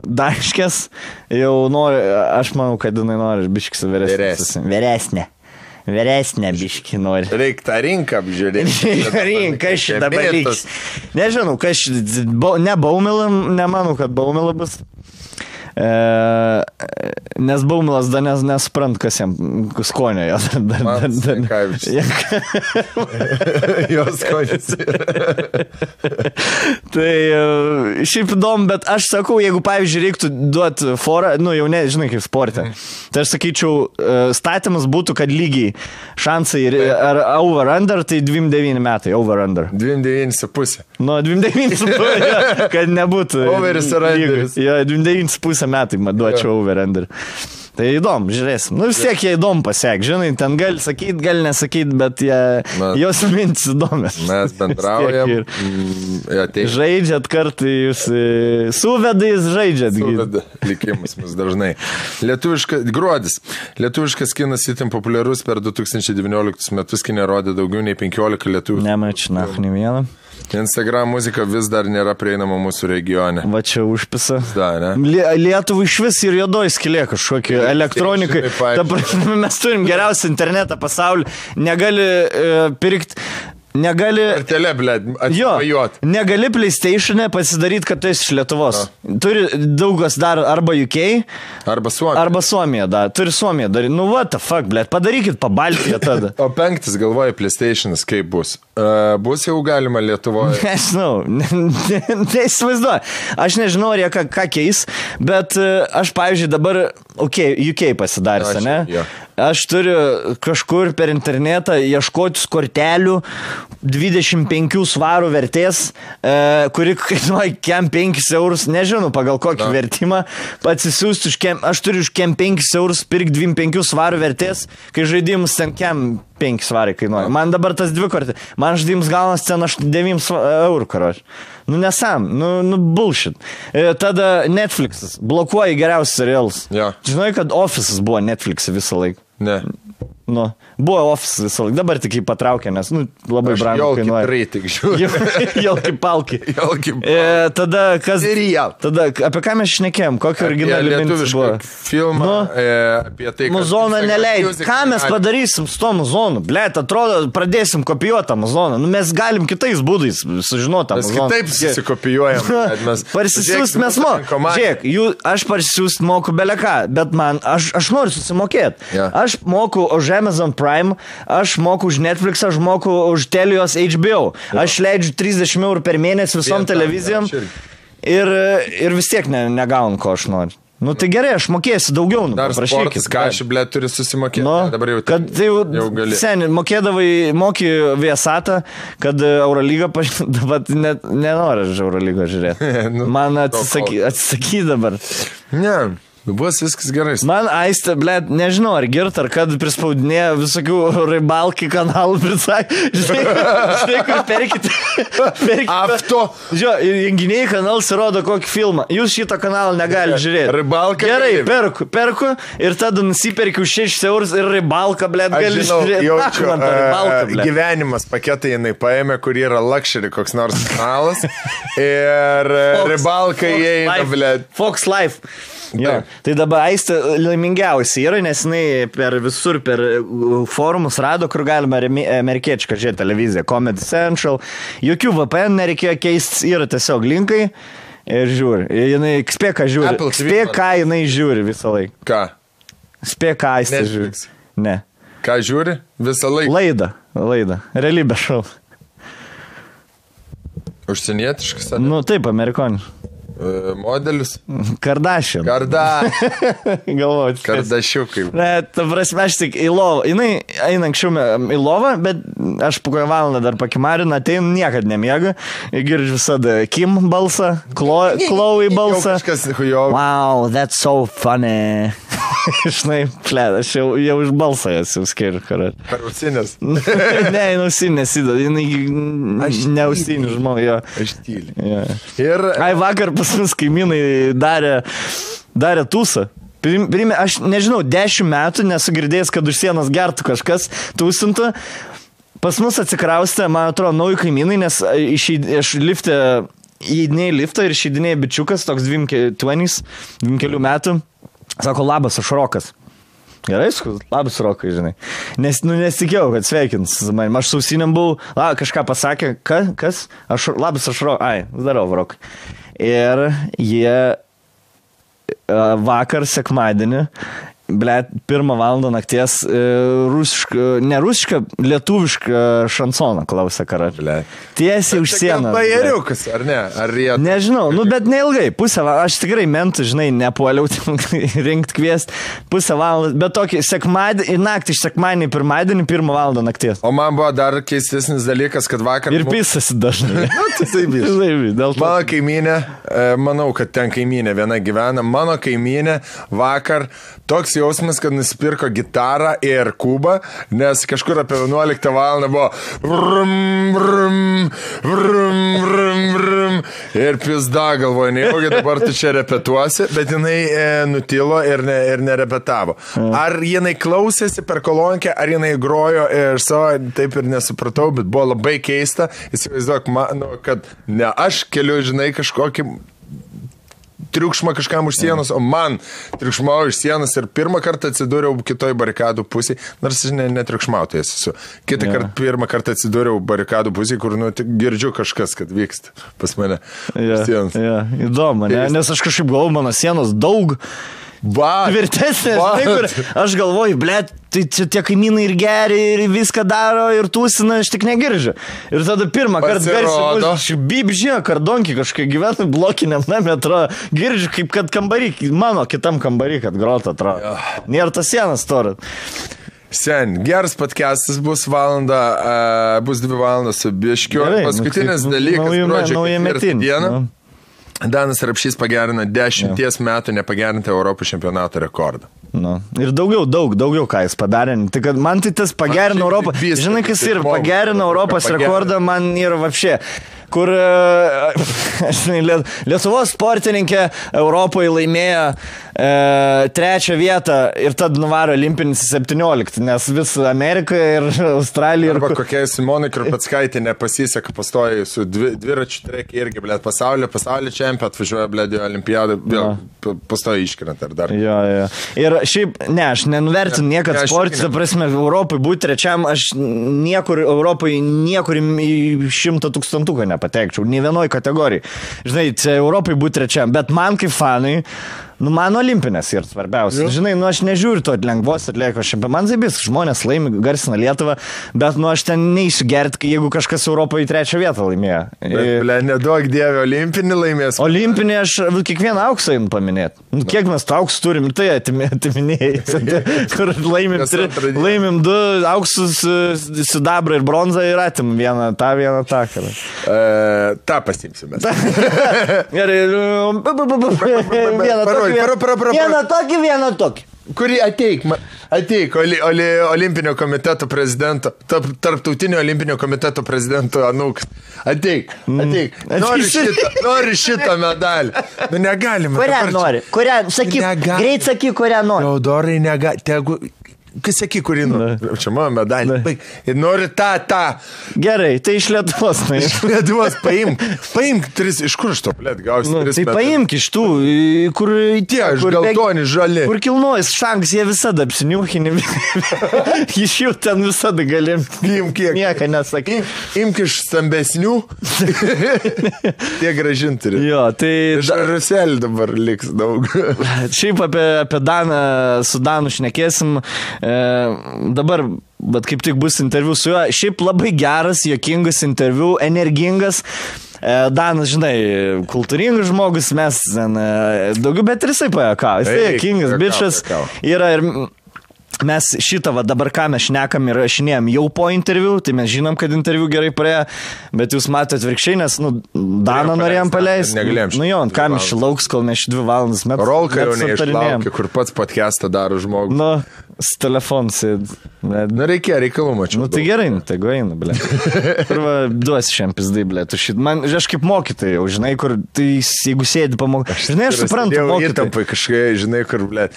Daškės jau nori, aš manau, kad jinai nori biškis Vyresnė biški nori. Reikia tą rinką apžiūrėti. Rinka šitą dalykas. Nežinau, kas ne Baumila, nemanau, kad Baumila bus. Nes Baumilas dar nesprant, kas jam skonio jo. Jos skonės. Tai šiaip įdomu, bet aš sakau, jeigu, pavyzdžiui, reiktų duoti forą, nu jau ne, žinai, kaip sporte, tai aš sakyčiau, statymas būtų, kad lygiai šansai ar over-under, tai 29 metai, over-under. 29,5. Nu, 29,5, kad nebūtų. Overis ir underis. Jo, 29,5 metai duočiau over-under. Tai įdomu, žiūrėsim. Nu, vis tiek jie įdomu pasiek, žinai, ten gali sakyti, gali nesakyti, bet jos mintis įdomios. Mes bendraujam. Žaidžiat kartu, jūs suvedais žaidžiat. Suveda likimus mus dažnai. Gruodis. Lietuviškas kinas itin populiarus per 2019 metus, kinė rodė daugiau nei 15 lietuvių. Nemačiau, ne vieną. Instagram muzika vis dar nėra prieinama mūsų regione. Va čia užpisa. Da, ne? Lietuvų iš vis ir juodoj skylė kažkokie elektronikai. Mes turim geriausią internetą pasaulyje. Negali pirkti. Negali... Artelė, blėd, atsivajot. Negali PlayStation'e pasidaryti, kad tu esi iš Lietuvos. Turi daugas dar arba UK, arba Suomija. Arba Suomija, da. Turi Suomija daryti. Nu, what the fuck, blėd, padarykit pabaltiją tada. O 5, galvoju, PlayStation'as kaip bus? Bus jau galima Lietuvoje? Nežinau, neįsivaizduoju. Aš nežinau, ar jie ką keis, bet aš, pavyzdžiui, dabar, UK pasidarys, ne? Ja. Aš turiu kažkur per internetą ieškotis kortelių 25 svarų vertės, kuri kainuoja kem 5 eurus, nežinau pagal kokį vertimą, atsisiųsti aš turiu už kem 5 eurus pirkti 25 svarų vertės, kai žaidimus ten kem 5 svarai kainuoja. Man dabar tas 2 kortės, man žaidimus gaunas ten 9 eurų, karoč. Nu nesam, nu bullshit. Tada Netflixas blokuoja geriausius serialus. Ja. Žinai, kad Office'as buvo Netflix'e visą laiką. Ne. Nu, buvo Office visą laiką, dabar tik jį patraukė, nes labai brangu kainuoja. Jolki palki. Tada kas... Tada apie ką mes šnekėjom, kokį originalį mintis buvo? Filmą apie tai, kad... Muzoną neleidžiu. Ką mes padarysim su to muzonu? Blet, atrodo, pradėsim kopijuoti muzoną. Nu, mes galim kitais būdais sužinoti muzoną. Mes kitaip susikopijuojam. Parsisiųst mes Žiūrėk, aš parsisiųst moku beleką, bet man, aš noriu susimokėti. Aš moku už Amazon Prime, aš moku už Netflix, aš moku už Telios HBO. Aš leidžiu 30 eurų per mėnesį visom televizijom ir vis tiek negaunu, ko aš noriu. Nu tai gerai, aš mokėsiu daugiau. Dar sportas, ką aš, blėt, turi susimokėti. Dabar jau gali. Seniai, moki Viasatą, kad Eurolyga dabar nenori Eurolygą žiūrėti. Man atsisaky dabar. Ne. Bus viskas gerai. Man Aistė, blėt, nežinau, ar girt, ar kad prispaudinėja visokių ribalki kanalų prisakė. Žinai, kur perkite. Afto. Žiūrėjau, junginiai kanalas rodo kokį filmą. Jūs šitą kanalą negali žiūrėti. Ribalka. Gerai, perku ir tada nusiperkiu 6 eurus ir ribalką, blėt, gali žiūrėti. Jaučiu, gyvenimas paketai jinai paėmė, kur yra luxury koks nors kanalas. Ir ribalka įeina, blėt. Fox Life. Jo. Tai dabar Aistė laimingiausiai yra, nes jinai per forumus rado, kur galima amerikiečiką žiūrėti televiziją, Comedy Central, jokių VPN nereikėjo keistis, yra tiesiog linkai ir žiūri. Jinai spėk, ką žiūri. Spėk, ką jinai žiūri visą laiką. Ką? Spėk, ką Aistė žiūri. Ne. Ką žiūri? Visą laiką? Laidą. Realybės šou. Užsienietiškas? Nu, taip, amerikoniš. Modelius? Kardashian. Galvoju. Kardašiukai. Ne, ta prasme, aš tik į lovą. Jinai eina anksčiau į lovą, bet aš po kokią valandą dar pakimarinu, ateinu, niekad nemiega. Girdžiu visada Kim balsą, Chloe balsą. Wow, that's so funny. Žinai, aš jau iš balsą esu skiriu, karai. Per ausinės. Ne, ausinės įdod, jinai neausinį žmogų, jo. Aš tyliu. Ja. Ir... Vakar pas mus kaimynai darė tūsą. Aš nežinau, 10 metų nesu girdėjęs, kad už sienos gertų kažkas tūsintų. Pas mus atsikraustė, man atrodo, nauji kaimynai, nes aš įeidinėjau liftą ir išeidinėjau bičiukas, toks 20 metų. Sako, labas, aš Rokas. Gerai, labas Rokai, žinai. Nesitikėjau, kad sveikins man. Aš sausiniam buvau, kažką pasakė, kas? Labas, aš Rokai. Darau, Rokai. Ir jie vakar sekmadienį, 1 valandą nakties ne rusišką, lietuvišką šansoną klausė karai. Tiesiai už sieną. Bajeriukas, ar ne? Ar jie... Nežinau, bet neilgai, pusę valandą, aš tikrai mentų, žinai, nepuoliau rinkti kviesti, pusę valandą, bet tokį naktį iš sekmadienį, pirmadienį, 1 valandą nakties. O man buvo dar keistesnis dalykas, kad vakar... Ir pisasi dažnai. Mano kaimynė, manau, kad ten kaimynė viena gyvena, mano kaimynė vakar toks jausmas, kad nusipirko gitarą ir kubą, nes kažkur apie 11 valandą buvo vrum, vrum, vrum, vrum, vrum, ir pizda galvoja, nejaugi dabar tu čia repetuosi, bet jinai nutilo ir nerepetavo. Ar jinai klausėsi per kolonkę, ar jinai grojo ir savo, taip ir nesupratau, bet buvo labai keista, įsivaizduok, kad ne aš keliu, žinai, kažkokį triukšmą kažkam už sienos, o man triukšmau iš sienos ir pirmą kartą atsidūriau kitoj barikadų pusėje, nors netriukšmautojas esu. Pirmą kartą atsidūriau barikadų pusėje, kur girdžiu kažkas, kad vyksta pas mane sienos. Įdomu, ne? Nes aš kažkaip galvoju, mano sienos daug tvirtesnė, žinai, kur aš galvoju, blėt, tai čia tie kaimynai ir geri, ir viską daro, ir tūsina, aš tik negirdžiu. Ir tada pirmą kartą garsiai, bibžė, kardonkį kažkai gyvenu blokiniam name, atrodo, girdžiu, kaip kad kambarį, mano kitam kambarį, kad grota, atrodo. Nėra tas sienas torą. Sen, geras podcastas bus 2 valandos su biškiu. Paskutinis dalykas, gruodžio 4 dieną. Danas Rapšys pagerino 10 metų nepagerinti Europos čempionato rekordą. Ir daugiau ką jis padarė. Tai kad man tai tas pagerino Europą. Žinai, kas ir pagerino Europos rekordą, man yra vapšė. Kur Lietuvos sportininkė Europoje laimėjo 3 vietą ir tad nuvaro olimpinis 17, nes vis Amerikoje ir Australija. Arba kokiai Simonai Krupeckaitė nepasiseka, pastoja su dviračių trekį irgi, blėt, pasaulio čempionat atvažiuoja, blėt, į olimpiadą, vėl pastoja iškrent ar dar. Jo. Ir šiaip, aš nenuvertinu niekad sportį, ta prasme, Europai būti trečiam, aš niekur Europai, niekur į 100 000 nepatekčiau, nei vienoj kategorijai. Žinai, čia Europai būti trečiam, bet man kaip fanai, man olimpinės yra svarbiausia. Žinai, aš nežiūriu to lengvos atliekos šiandien. Man zaibis, žmonės laimi, garsina Lietuvą, bet aš ten neįsiu gerti, jeigu kažkas Europoje 3 vietą laimėjo. Bet neduok dievė, olimpinį laimės. Olimpinį aš kiekvieną auksą einu paminėti. Kiek mes to auksų turim, tai atiminėjai. Kur laimim 2 auksus, sidabrą ir bronzą ir atimim vieną tą. Ta pasimsime. Gerai. Vieną tokį. Kurį ateik olimpinio komiteto prezidento, tarptautinio olimpinio komiteto prezidento anūks. Ateik. Nori šitą medalį. Negalime. Kurią nori? Greit sakyk, kurią nori. Teodorai negali. Kas saky, kurį nori? Čia mano medalį. Ir nori tą. Gerai, tai iš Lietuvos. Iš Lietuvos paimk 3, iš kur aš to, blėt, gausi 3 metus. Tai paimk iš tų, kur tie, iš geltoni, žali. Kur kilnojas šanks, jie visada apsiniuchini. Iš jų ten visada galim. Imk kiek. Nieko nesakai. Imk iš stambesnių. Tie gražinti turi. Jo, tai... Iš Ruselį dabar liks daug. Šiaip apie Daną, su Danu šnekėsim. Dabar, bet kaip tik bus interviu su juo, šiaip labai geras, juokingas interviu, energingas. Danas, žinai, kultūringas žmogus, mes daugiau, bet ir jisai pajakavo. Jisai juokingas bičas yra ir mes šitą dabar ką mes šnekam ir rašinėjom jau po interviu, tai mes žinom, kad interviu gerai praėjo, bet jūs matote atvirkščiai, nes, Daną norėjom paleisti. Negalėjom. Jo, ką mes lauks, kol mes 2 valandas metus. Rolka jau neišlaukė, kur pats podcastą daro žmogus. Su telefonu sėd. Reikėjo reikalų, mačiau. Tai gerai, tai eina, ble. Kur duosi šiam pizdai, ble. Man, aš kaip mokytojai, jau žinai, kur, tai jeigu sėdi pamokai. Žinai, aš suprantu mokytojai. Įtampai kažkai, žinai, kur, ble.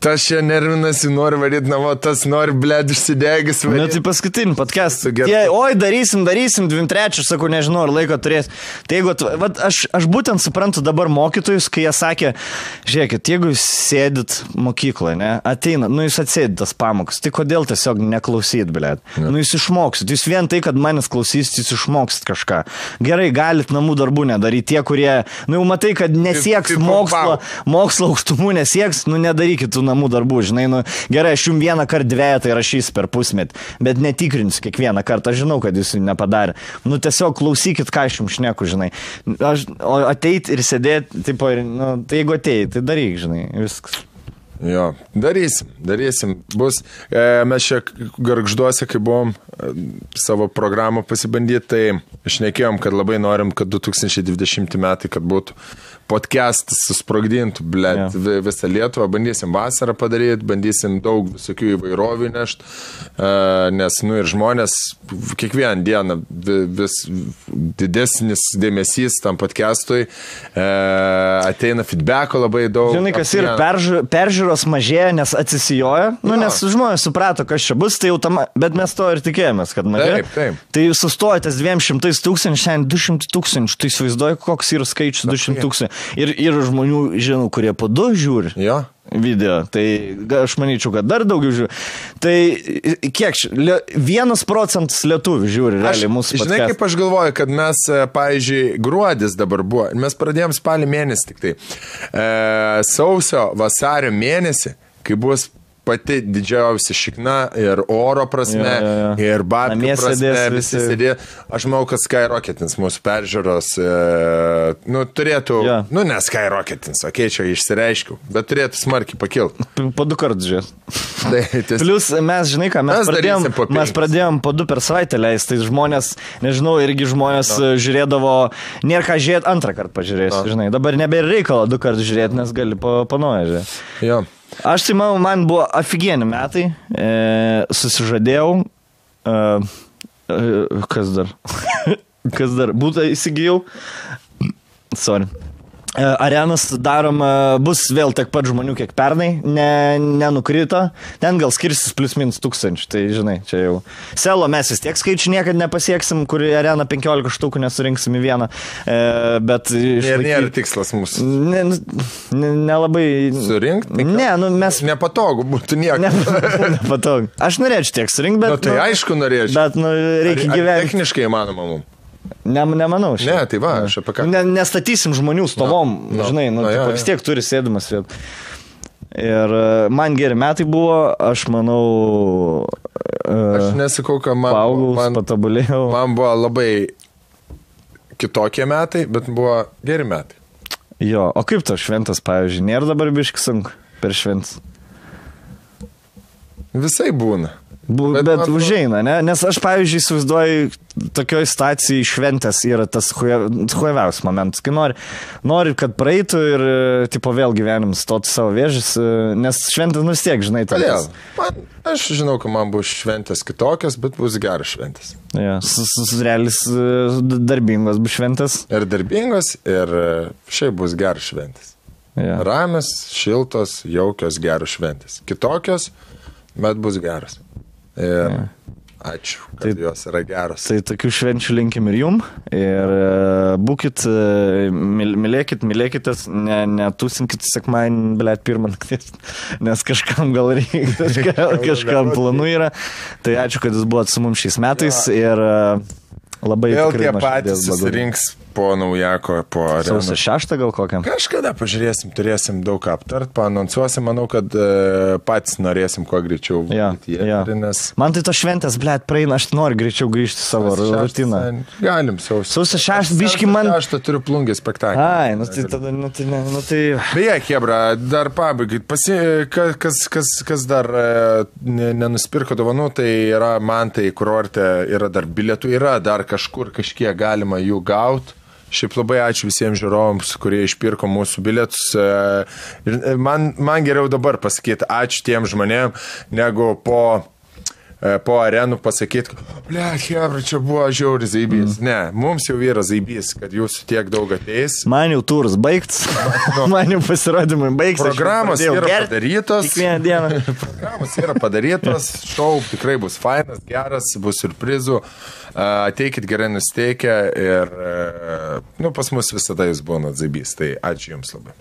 Tas čia nervinasi, nori varyti namo, tas nori, blėd, išsidegis. Tai paskutinį podcastą. Oi, darysim, 2-3, sakau, nežinau, ar laiko turės. Tai jeigu, aš būtent suprantu dabar mokytojus, kai jie sakė, žiūrėkit, jeigu jūs sėdit mokykloje, ne, ateina, jūs atsėdit tas pamokas, tai kodėl tiesiog neklausyt, blėd? Jūs išmoksit, jūs vien tai, kad manęs klausysit, jūs išmoksit kažką. Gerai, galit namų darbų nedaryti, tie, kurie, jau matai, kad nesieks mokslo aukštumų, nesieks, nedarykit tų namų darbų, žinai, gerai, aš jums 1 kart 2 tai rašys per pusmetį, bet netikrinsiu kiekvieną kartą, aš žinau, kad jūs jų nepadarė. Tiesiog klausykit, ką aš jums šneku, žinai. O ateit ir sėdėti, tai jeigu ateit, tai daryk, žinai, viskas. Jo, darysim. Bus, mes čia Gargžduose, kai buvom savo programą pasibandyti, tai šnekėjom, kad labai norim, kad 2020 metai, kad būtų podcastas susprogdintų, blėt, visą Lietuvą, bandysim vasarą padaryti, bandysim daug visokių įvairovių nešti, nes, ir žmonės kiekvieną dieną vis didesnis dėmesys tam podcastui, ateina feedbacko labai daug. Žinai, kas ir peržiūros mažėja, nes atsisijoja, nes žmonės suprato, kas čia bus, tai jau tam, bet mes to ir tikėjomės, kad mažėja. Taip. Tai sustojotės 200 000, šiandien 200 000, tai įsivaizduoju, koks yra skaičius 200 000. Ir žmonių, žinau, kurie po 2 žiūri video, tai aš manyčiau, kad dar daugiau žiūri. Tai kiek, 1% lietuvių žiūri realiai mūsų podcastą. Žinai, kaip aš galvoju, kad mes, pavyzdžiui, gruodis dabar buvo, mes pradėjom spalį mėnesį tik tai, sausio, vasario mėnesį, kai bus pati didžiausia šikna ir oro prasme, ir babkių prasme, visi sėdė. Aš manau, kad skyrocketins mūsų peržiūros, turėtų, ne skyrocketins, čia išsireiškiau, bet turėtų smarkiai pakilti. Po 2 kartus žiūrėt. Plius mes, žinai ką, mes pradėjom po 2 per savaitę leisti, tai žmonės, nežinau, irgi žmonės žiūrėdavo, nėra ką žiūrėti, 2 kartą pažiūrėsi, žinai. Dabar nebėra reikalo 2 kartus žiūrėti, nes gali panoja žiūrėti. Jo. Aš tai manau, man buvo ofigieni metai, susižadėjau, kas dar, būtą įsigijau, Arenas darom, bus vėl tiek pat žmonių, kiek pernai, nenukrito, ten gal skirsis plius minus 1000, tai žinai, čia jau. Selo mes vis tiek skaičių niekad nepasieksim, kur areną 15 štukų nesurinksim į vieną, bet... Nėra tikslas mūsų. Nelabai... Surinkti? Ne, mes... Nepatogu būtų nieko. Nepatogu. Aš norėčiau tiek surinkti, bet... Tai aišku norėčiau. Bet reikia gyventi. Techniškai įmanoma mums. Nemanau. Ne, tai va, aš apie ką. Nestatysim žmonių stovom, žinai, vis tiek turi sėdimas vietą. Ir man geri metai buvo, aš manau... Aš nesakau, kad man patobulėjau. Man buvo labai kitokie metai, bet buvo geri metai. Jo, o kaip to šventas, pavyzdžiui, nėra dabar biški sunku per šventas? Visai būna. Bet užeina, ne? Nes aš, pavyzdžiui, įsivaizduoju, tokioj stacijai šventės yra tas hujaviausias momentas, kai nori, kad praeitų ir, vėl gyvenim stoti savo vėžis, nes šventės vis tiek, žinai, tai. Aš žinau, kad man bus šventės kitokios, bet bus geras šventės. Ja, realis darbingos bus šventės. Ir darbingos, ir šiaip bus geras šventės. Ja. Ramios, šiltos, jaukios, geros šventės. Kitokios, bet bus geras. Ir ačiū, kad jos yra geros. Tai tokių švenčių linkim ir jum. Ir būkit, mylėkitės, netūsinkit sekmadienį, blėt, 1 nakties, nes kažkam gal reikia, kažkam planų yra. Tai ačiū, kad jūs buvot su mums šiais metais ir labai vėl tie patys susirinks po naujako, po arenos. Sausio 6 gal kokiam? Kažkada pažiūrėsim, turėsim daug ką aptart, paanonsuosim, manau, kad patys norėsim kuo greičiau. Nes... Man tai to šventės, blėt, praeina, aš noriu greičiau grįžti savo rutiną. Galim, sausio 6 biški man... Aš turiu plungį spektaklį. Ai, tai tada, tai... Beje, Hebra, dar pabaigai, kas dar nenuspirko dovanų, tai yra man tai kurorte, yra dar bilietų, yra dar kažkur kažkiek galima jų gauti. Šiaip labai ačiū visiems žiūrovams, kurie išpirko mūsų bilietus. Man geriau dabar pasakyti ačiū tiem žmonėm, negu po arenų pasakyti, blėt, Hebra, čia buvo žiauri zaibys. Ne, mums jau yra zaibys, kad jūsų tiek daug ateis. Man jau turas baigts, man jau pasirodymai baigts. Programos yra padarytos. Kiekvieną dieną. Programos yra padarytos, šou tikrai bus fainas, geras, bus surprizų. Ateikit gerai nusteikę ir pas mus visada jūs būnat zaibys, tai ačiū jums labai.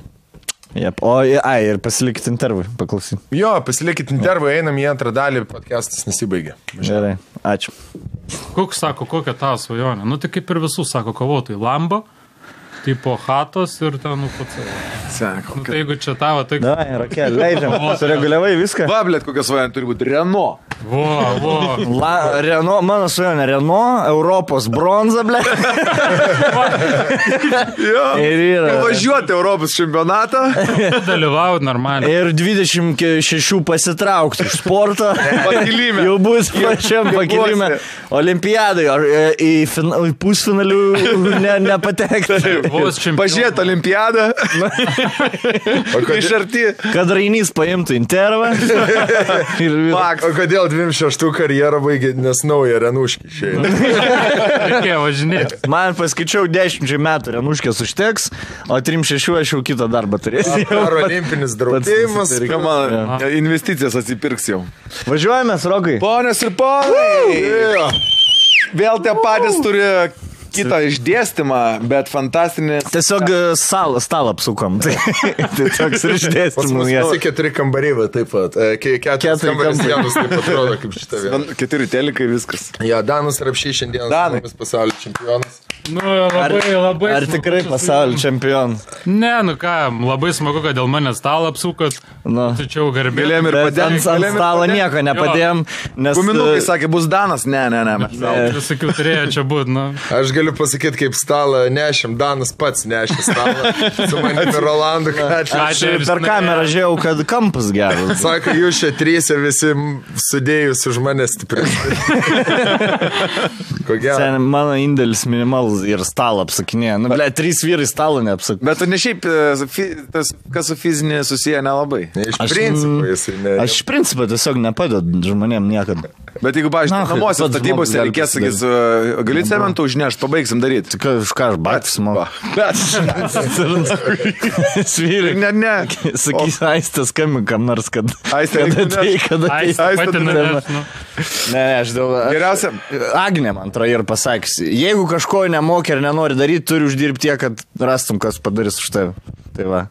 Jep. Ir pasilikit intervui, paklausyt. Jo, pasilikit intervui, einam į antrą dalį, podcastas nesibaigė. Gerai, ačiū. Koks sako, kokia tavo svajonė? Nu, tai kaip ir visų sako kovotojai. Lambo, tipo hatos ir ten, pats. Sako. Tai jeigu čia tavo, tai... Da, Rakel, leidžiam. Sureguliavai viską. Va, blėt, kokia svajonė turi būti Renault. Renault, mano svajonė, Renault, Europos bronza, blėt. Ir yra. Važiuoti Europos čempionatą. Dalyvauti normaliai. Ir 26 pasitraukti iš sporto. Pakilime. Jau bus pačiam pakilime. Olimpiadai, ar į pusfinalių nepatekti. Pažiūrėti olimpiadą. Iš arti. Kad Rainys paimtų intervą. O kodėl 26 karjerą baigė, nes naują Renuškį išėjo? Reikėjo važinėti. Man paskaičiau 10 metų Renuškės užteks, o 3-6 aš jau kitą darbą turėsiu. Ar olimpinis draudėjimas? Investicijas atsipirks jau. Važiuojame, Rokai. Ponės ir ponai. Vėl tie patys turi kitą išdėstymą, bet fantastinis... Tiesiog stalą apsukom. Tai toks ir išdėstymas. Pas 4 kambariai, va, taip pat. 4 kambarys vienas, taip atrodo, kaip šitą vieną. 4 telikai, viskas. Ja, Danas Rapšys šiandien pasaulio čempionas. Nu, labai ar tikrai pasaulio čempionas? Ne, nu ką, labai smagu, kad dėl manęs stalą apsukat. Tačiau garbė. Galėjom ir padėm. Ant stalo nieko nepadėjom. Guminukai sakė, bus Danas. Ne. Visokių turėjo čia būti, nu. Aš galiu pasakyti, kaip stalą nešim, Danas pats nešė stalą. Su manimi Rolandu Kačiu. Aš per kamerą žiūrėjau, kad kampas geras. Sako, jūs čia 3 visi sudėjus už mane stipriai. Ko gero? Mano indėlis minimalus ir stalą apsakinėja. Nu, 3 vyrai stalą neapsakinėja. Bet tu ne šiaip, kas su fizinė susiję nelabai. Iš principo jisai ne. Aš iš principo tiesiog nepadedu žmonėm niekada. Bet jeigu, pavyzdžiui, namuose statybose reikės, sakys, gali cementų užnešti, pabaigsim daryti. Tik už ką aš batis moku. Svyrį. Ne. Sakys, Aistė skambinam nors, kad... Aistė pati norės, nu. Ne, aš dėl... Geriausia. Agnė man atrodo ir pasakys, jeigu kažko nemoki ir nenori daryti, turi uždirbti tiek, kad rastum, kas padarys už tave. Tai va.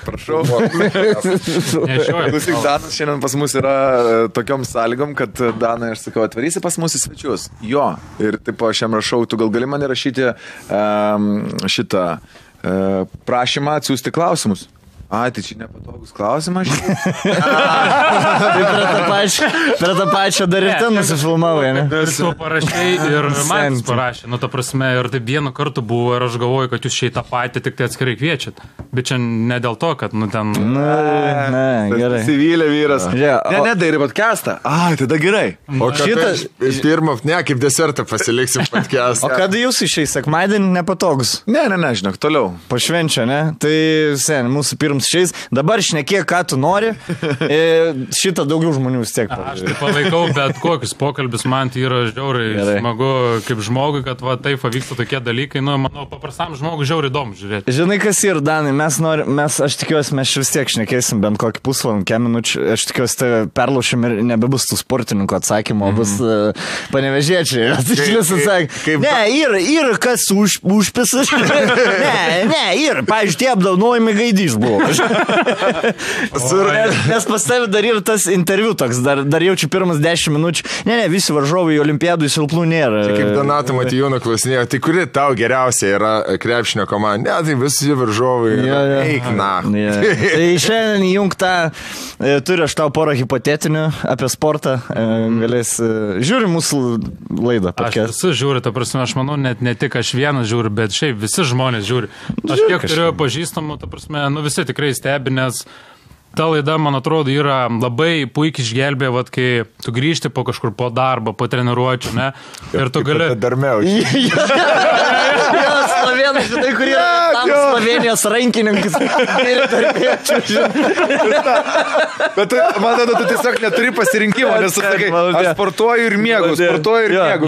Prašau. Klausyk, Danas šiandien pas mus yra tokiom sąlygom, kad Danai, aš sakau, atvarysi pas mus į svečius. Jo. Ir taip aš jam rašau, tu gal gali man įrašyti šitą prašymą atsiųsti klausimus. Tai čia nepatogus klausimas. Tai prie tą pačią dar ir ten nusifilmavai, ne? Ir tu parašiai ir man parašė. Nu, ta prasme, ir taip vieną kartą buvo ir aš galvoju, kad jūs šiai tą patį tik tai atskirai kviečiat. Bet čia ne dėl to, kad, nu, ten... Ne, gerai. Sivylė vyras. Ne, darai podcastą. Tada gerai. O šitas... Pirmą, ne, kaip desertą pasiliksim podcastą. O kada jūs išėjai sekmadienį nepatogus? Ne, žinok, toliau. Pašvenčia, ne? Tai, mūsų pirmas šiais. Dabar šnekėk, ką tu nori. Šitą daugiau žmonių vis tiek. Aš tai palaikau, bet kokius pokalbis man tai yra žiauriai smagu kaip žmogui, kad va taip vyksta tokie dalykai. Nu, manau, paprastam žmogui žiauriai įdomu žiūrėti. Žinai, kas yra, Danai, aš tikiuosi, mes vis tiek šnekėsim bent kokį pusvalandį, minučių. Aš tikiuosi, tai perlaušim ir nebebus tų sportininkų atsakymų, bus panevežėčiai. Ne, ir kas užpisas. Ne, ir, pavyzdžiui, tie apdaunojimai Gaidys buvo. Nes pas tavi dar ir tas interviu toks, dar jaučiu pirmas 10 minučių. Ne, visi varžovai Olimpiadų silpnų nėra. Tai kaip Donato Matijūno klausinėjo, tai kuri tau geriausia yra krepšinio komanda? Ne, tai visi varžovai. Eik, na. Tai šiandien įjungtą, turiu aš tau porą hipotetinių apie sportą. Galės, žiūri mūsų laidą. Aš visi žiūri, ta prasme, aš manau, net ne tik aš vienas žiūri, bet šiaip visi žmonės žiūri. Aš kiek turiu pažįstamų, ta prasme, visi tikrai stebi, nes ta laida, man atrodo, yra labai puikiai išgelbė, vat, kai tu grįžti po kažkur po darbą, po treniruočių, ne? Ir tu gali... Darmiausiai. Slovenai, žinai, kurie tam Slovenijos rankininkas. Bet man atrodo, tu tiesiog neturi pasirinkimo, nes tu sakai, aš sportuoju ir miegu.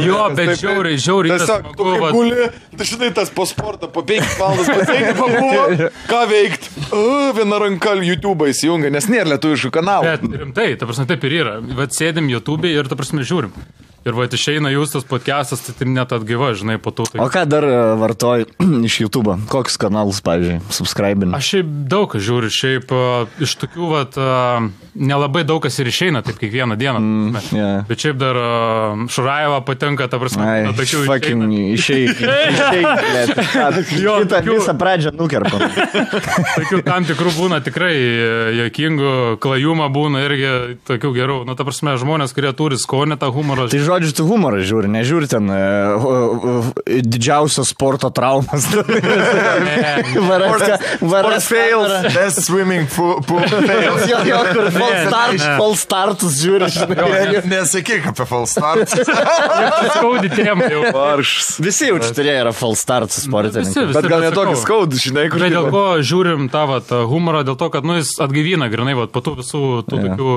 Jo, bet žiauriai. Tiesiog, tu kaip guli, tu žinai, tas po sportą, po 5 valandas pasiekia, pabuvo, ką veikt. Viena ranka YouTube'ą įsijungia, nes nėra lietuviškų kanalų. Bet rimtai, ta prasme, taip ir yra. Vat sėdim YouTube'e ir ta prasme žiūrim. Ir va, išeina jūs tas podcastas, tai net atgyva, žinai, po to. Tai... O ką dar vartoji iš YouTube'o? Kokius kanalus, pavyzdžiui, subscribini? Aš šiaip daug kas žiūriu, šiaip iš tokių, vat, nelabai daug kas ir išeina, taip kiekvieną dieną. Bet šiaip dar Šurajeva patenka, ta prasme, išeik. Kitą visą pradžią nukerpam. Tokių tam tikrų būna tikrai juokingų, klajumą būna irgi tokių gerų. Nu, ta prasme, žmonės, kurie turi skonį tą humorą. Tai žodžiu, tu humorą žiūri, nežiūri ten didžiausios sporto traumas. Sport fails, best swimming pool fails. Jo, kur fall startus žiūri. Nesakyk apie fall startus. Skaudi tiem jau. Visi jau čia turėjo yra fall startus sportininkai. Bet gal netokį skaudų, žinai, kur. Bet dėl ko žiūrim tą humorą, dėl to, kad jis atgaivina grinai, po tų visų tų tokių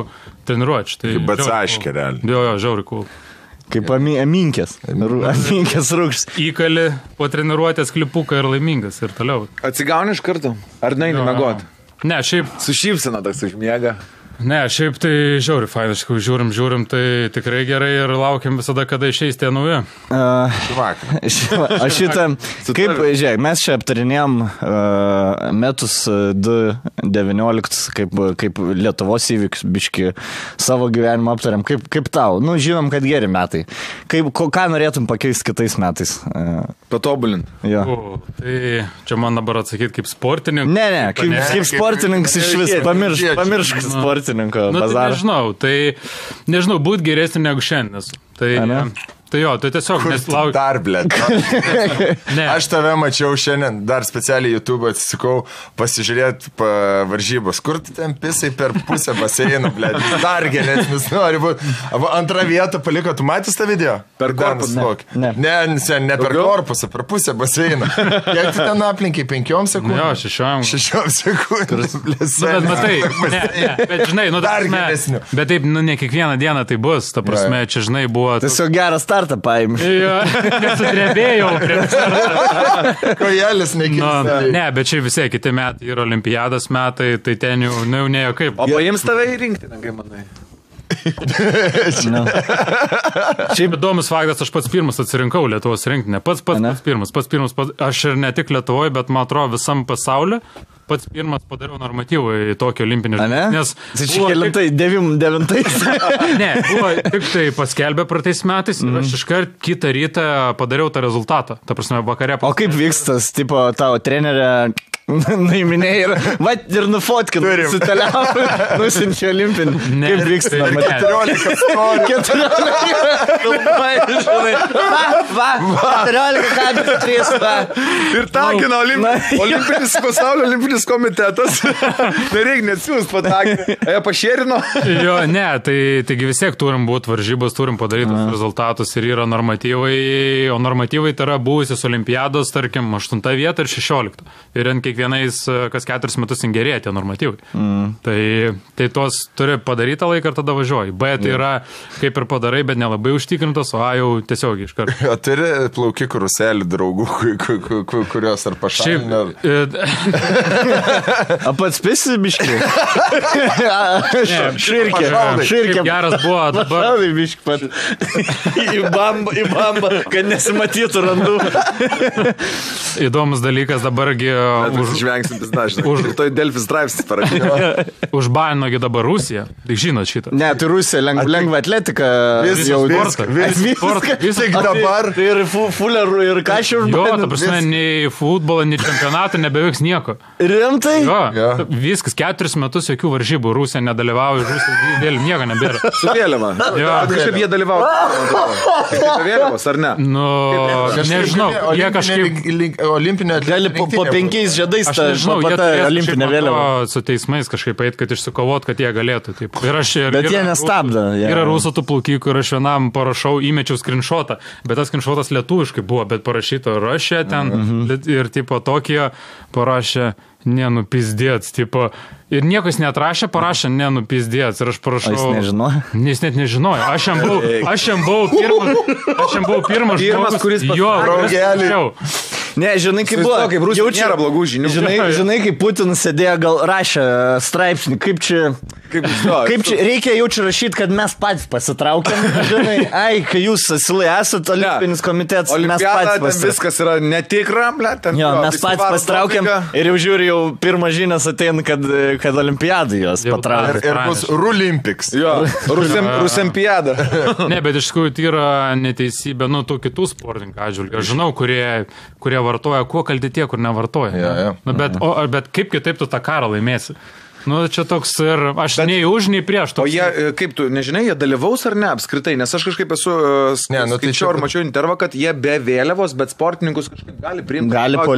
treniruočių. Kaip atsaškė, realiai. Jo, žiauri cool. Kaip aminkės rūkštis. Įkali po treniruotės klipuką ir laimingas ir toliau. Atsigauni iš karto? Ar neini miegot? Ne, šiaip... Su šypsena toks užmiega. Ne, šiaip tai žiauri fainai, žiūrim, tai tikrai gerai ir laukiam visada, kada išeis tie nauji. Aš šitą, kaip, žiūrėk, mes čia aptarinėjom metus 2019, kaip Lietuvos įvykius, biški savo gyvenimą aptariam, kaip tau, žinom, kad geri metai. Ką norėtum pakeisti kitais metais? Patobulint. Tai čia man dabar atsakyti kaip sportininkas. Ne, kaip sportininkas iš vis, pamiršk sportininkas. Tai nežinau, būt geresnį negu šiandien. Tai jo, tai tiesiog neslaukiu. Dar, blėt. Aš tave mačiau šiandien, dar specialiai YouTube atsisikau pasižiūrėti varžybos. Kur tu ten pisai per pusę baseiną, blėt? Dar geresnis nori būti. Antrą vietą paliko, tu matys tą video? Per korpusą. Ne per korpusą, per pusę baseiną. Kiek tu ten aplinkai? 5 sekundžių? Jo, 6 sekundžių. Bet matai, bet žinai, dar geresnių. Bet taip, ne kiekvieną dieną tai bus, ta prasme, čia žinai buvo... Tiesiog geras startą paėmė. Jo, nesudrebėjau prie startą. Kojelis nekirsta. Ne, bet čia visi kiti metai yra olimpiados metai, tai ten jau neėjo kaip. O paims tave į rinktinę, kaip manai? Šiaip įdomus faktas, aš pats pirmas atsirinkau Lietuvos rinktinę. Pats pirmas. Aš ir ne tik Lietuvoje, bet man atrodo visam pasauliu. Pats pirmas padariau normatyvų į tokį olimpinį žaidimą. Tai čia kelintai, 9. Ne, buvo tik tai paskelbė praeitais metais ir aš iškart kitą rytą padariau tą rezultatą. Ta prasme, vakare. O kaip vykstas, tipo, tavo trenerė nuiminėjai ir nufotkin, suteliavo, nusinčia olimpinį. Kaip vyksta? 14 storių. 14,3. Ir takina olimpinis pasaulio olimpinis komitetas. Nereik neatsiūs patakinti. Jie pašėrino? Jo, ne, taigi vis tiek turim būti varžybos, turim padaryti rezultatus ir yra normatyvai, o normatyvai tai yra buvusios olimpiados, tarkim, 8 vieta ir 16. Ir ant kiekvienais, kas 4 metus gerėja tie normatyvai. Tai tos turi padarytą laiką ir tada važiuoji. B tai yra kaip ir padarai, bet nelabai užtikrintos, o A jau tiesiog iš karto. O turi plaukikų ruselį draugų, kurios ar pašalinė? A pats pisi biškį? Širkė. Geras buvo dabar. Pašalai biškį pat. Į bambą, kad nesimatytų randų. Įdomus dalykas dabargi... Žvengsintis dažnai. Toj Delfi straipsnis parašė. Užbaninogi dabar Rusija. Tai žinot šitą. Ne, tai Rusija lengva atletika. Viskas dabar. Tai ir fulerų ir kašių užbanino. Jo, ta prasme, nei futbolo, nei čempionatą nebevyks nieko. Rimtai? Jo, viskas, 4 metus jokių varžybų. Rusija nedalyvauja, Rusija vėl nieko nebėra. Su vėliava. Kažkaip jie dalyvauja. Kaip vėliavos, ar ne? Nu, nežinau. Jie kažkaip... Olimpinio gali po 5 žiedais tą olimpinę vėliavą. Su teismais kažkaip eit, kad išsikovot, kad jie galėtų. Taip. Bet jie nestabdo. Yra rusų tų plaukikų ir aš vienam parašau, įmečiau skrinšotą, bet tas skrinšotas lietuviškai buvo, bet parašyto Russia ten ir tipo tokie parašė nenupizdėts, tipo. Ir niekas neatrašė, parašė nenupizdėts. Ir aš parašau... Jis nežinojo? Jis net nežinojo. Aš jam buvau pirmas žmogus, kuris pasakė. Ne, žinai, kaip buvo. Kaip Rusija nėra blogų žinių. Žinai, kaip Putinas sėdėjo, gal rašė straipsnį, kaip čia reikia jau čia rašyti, kad mes patys pasitraukiam. Žinai, kai jūs asilai esat olimpinis komitetas, mes patys pasitraukiam. Viskas yra netikra, mes patys pasitraukiam ir jau žiūri, jau pirmas žinias ateina, kad olimpiadai jos patraukia. Ir bus Rulimpiks. Jo, Rusempiada. Ne, bet iš tikrųjų tai yra neteisybė, tų kitų sportininkų atžvilgių. Aš žinau, kurie vartoja, kuo kalti tie, kur nevartoja. Bet kaip kitaip tu tą karą laimėsi? Čia toks ir aš nei už, nei prieš. O jie, kaip tu, nežinai, jie dalyvaus ar ne apskritai? Nes aš kažkaip esu skaičiau ir mačiau intervą, kad jie be vėliavos, bet sportininkus kažkaip gali priimti. Gali po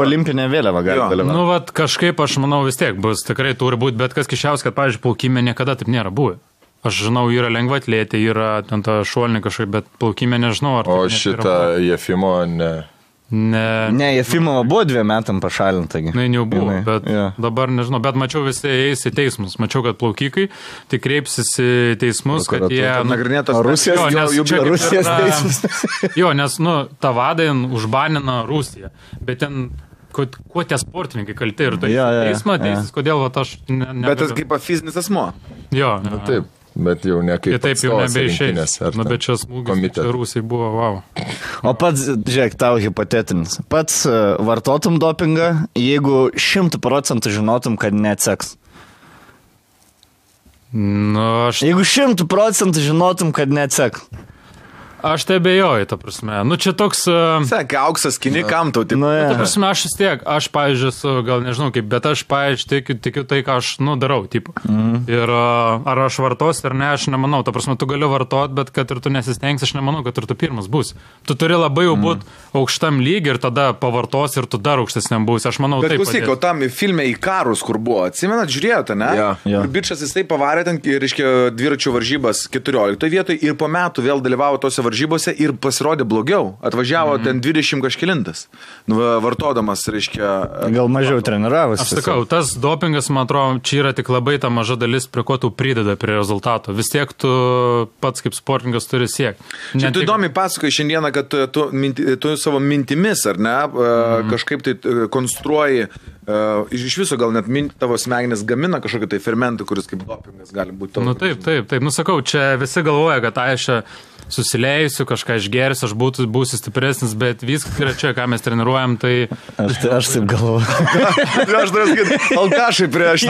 olimpinę vėliavą gali dalyvauti. Kažkaip aš manau vis tiek bus, tikrai turi būti, bet kas kišiaus, kad, pavyzdžiui, plaukime niekada taip nėra buvę. Aš žinau, yra lengvaatletė, yra ten ta šuolinė kažkaip, bet plaukime nežinau. O šitą Jefimo ne... Ne, Jefimova buvo 2 metam pašalinta. Na, jau buvo, bet dabar nežinau, bet mačiau visi eis į teismus. Mačiau, kad plaukikai tai kreipsis į teismus, kad jie... Nagrinėtos Rusijos teismus. Jo, nes, Tavadin užbanino Rusiją, bet ten... Kuo tie sportininkai kalti ir tai teismo teisės, kodėl aš... Bet tas kaip fizinis asmuo. Jo, taip. Bet jau ne kaip taip jau nebeišeis. Bet čia smūgis Rusijai buvo, wow. O pats, žiūrėk, tau hipotetinis. Pats vartotum dopingą, jeigu 100% žinotum, kad neatseks. Jeigu 100% žinotum, kad neatseks. Aš tai abejoju, ta prasme. Čia toks... Sakė, auksas kini kam tau, taip. Ta prasme, aš vis tiek, pavyzdžiui, gal nežinau kaip, bet aš, pavyzdžiui, tikiu tai, ką aš, darau, tipo. Ir ar aš vartos ar ne, aš nemanau. Ta prasme, tu gali vartot, bet kad ir tu nesistengsi, aš nemanau, kad ir tu pirmas būsi. Tu turi labai jau būti aukštam lygiai ir tada pavartos ir tu dar aukštesniam būsi. Aš manau, bet taip. Bet klausyk, o tam filme į karus, kur buvo, atsimenat, žiūrėjote, ne? Ir bičas jisai pavarė ten, reiškia, dviračių varžybas 14 vietoj ir po metų vėl dalyvavo tose varžybose ir pasirodė blogiau. Atvažiavo ten 20 kažkilintas, vartodamas, reiškia... Gal mažiau treniravosi. Aš sakau, tas dopingas, man atrodo, čia yra tik labai ta maža dalis, prie ko tu prideda prie rezultato. Vis tiek tu pats kaip sportininkas turi siekti. Čia tu įdomiai pasakoji šiandieną, kad tu savo mintimis, ar ne, kažkaip tai konstruoji, iš viso gal net tavo smegenis gamina kažkokį tai fermentą, kuris kaip dopingas gali būti. Taip. Sakau, čia visi galvoja, kad aš susileisiu, kažką išgersiu, aš būsiu stipresnis, bet viskas yra čia, ką mes treniruojam, tai... Aš taip galvoju. Aš turiu sakyti, alkašai prieš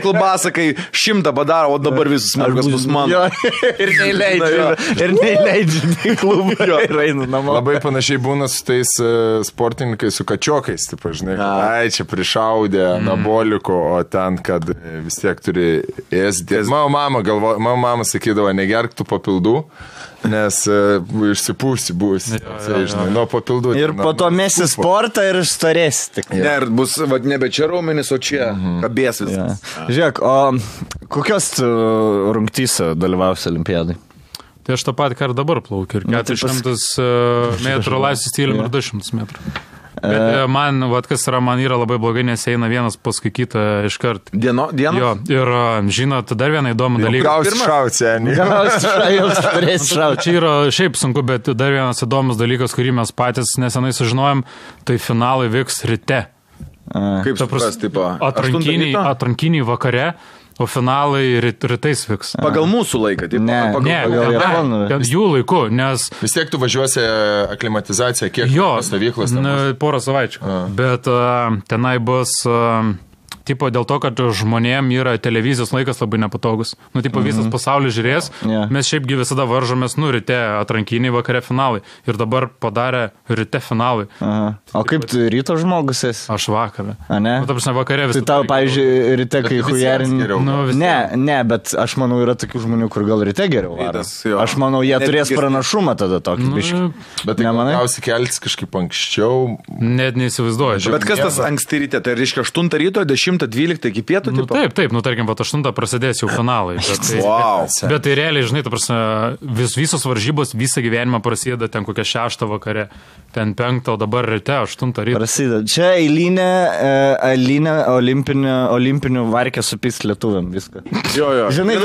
klubasą, kai 100 padaro, o dabar visus smarkas bus mano. Ir neįleidžiu į klubą ir einu namo. Labai panašiai būna su tais sportininkais, su kačiokais, taip, žinai, čia prišaudė anaboliko, o ten, kad vis tiek turi ėsti. Mano mama sakydavo, negerk tų papildų, nes išsipūsi būsi, žinai, nuo papildų. Ir po to mesi sportą ir storėsi. Ne, ir bus nebe čia raumenis, o čia kabės viskas. Žiūrėk, o kokios rungtyse dalyvausi olimpiadai? Tai aš tą patį, ką ir dabar plaukiu. Ir 400 metrų laisvės stilium ir 200 metrų. Bet man, kas yra, man yra labai blogai, nes eina vienas paskui kitą iškart. Dienos? Jo, ir žinot, dar vieną įdomų dalyką. Gausi šauti, Čia yra šiaip sunku, bet dar vienas įdomus dalykas, kurį mes patys nesenai sužinojom, tai finalai vyks ryte. Kaip supras, tipo? Atrankiniai vakare, o finalai rytais vyks. Pagal mūsų laiką, taip? Ne, jų laiku, nes... Vis tiek tu važiuosi aklimatizaciją, kiek stovyklos? Porą savaičių. Bet tenai bus... Tipo dėl to, kad žmonėm yra televizijos laikas labai nepatogus. Visas pasaulis žiūrės, mes šiaipgi visada varžomės, ryte atrankiniai, vakare finalai. Ir dabar padarė ryte finalai. O kaip tu ryto žmogus esi? Aš vakarą. A, ne? Vakare visą. Tai tau, pavyzdžiui, ryte, kai hujarini... Ne, bet aš manau, yra tokių žmonių, kur gal ryte geriau varo. Aš manau, jie turės pranašumą tada tokį biškį. Bet tai galiausiai keltis kažkaip anksčiau. Net neįsivaizduoju. Bet kas tas anksti ryte? Tai reiškia 8 ryto, 10-12 iki pietų? Taip, tarkim, 8 prasidės jau finalai. Bet tai realiai, žinai, visos varžybos visą gyvenimą prasideda ten kokią 6 vakare, ten 5, o dabar ryte 8 ryto. Prasideda. Čia eilinė olimpinių varkė supys lietuviam viską. Jo. Žinai,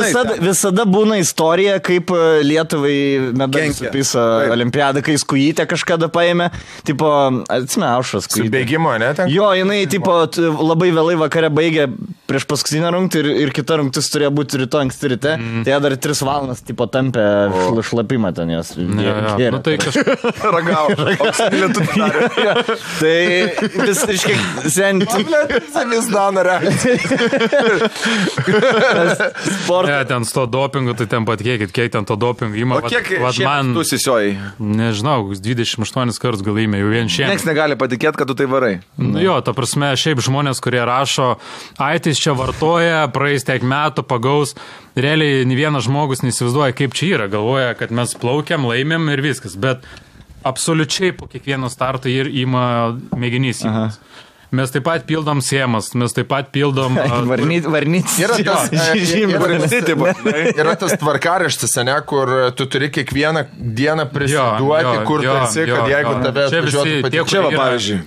visada būna istorija, kaip Lietuvai medalį supisa olimpiadą, kai skujytę kažkada paėmė. Tipo, atsime, Aušras skujytę. Su bėgimo, ne? Jo, jinai, tipo, labai vėlai vakare baigė prieš paskutinę rungtį ir kita rungtis turėjo būti ryto anksti ryte. Tai jie dar 3 valandas, tipo, tampė šlapimą ten jos. Tai kažkaip ragavo. Tai vis, reiškia, Vis dana Ne, ten su to dopingu, tai ten patikėkit, kiek ten to dopingu įma. O kiek šiandien tu sisiojai? Nežinau, 28 kartus gal įmė, jau vien šiandien. Niekas negali patikėti, kad tu tai varai. Jo, ta prasme, šiaip žmonės, kurie rašo, aitis čia vartoja, praeis tiek metų, pagaus. Realiai, ne vienas žmogus neįsivaizduoja, kaip čia yra. Galvoja, kad mes plaukiam, laimėm ir viskas. Bet absoliučiai po kiekvieno starto ir ima mėginys. Mes taip pat pildom siemas, mes taip pat pildom... Varnytis. Yra tas tvarkaraštis, ne, kur tu turi kiekvieną dieną prisiduoti, kur tu esi, kad jeigu tave atvažiuotų patikčiavo, pavyzdžiui.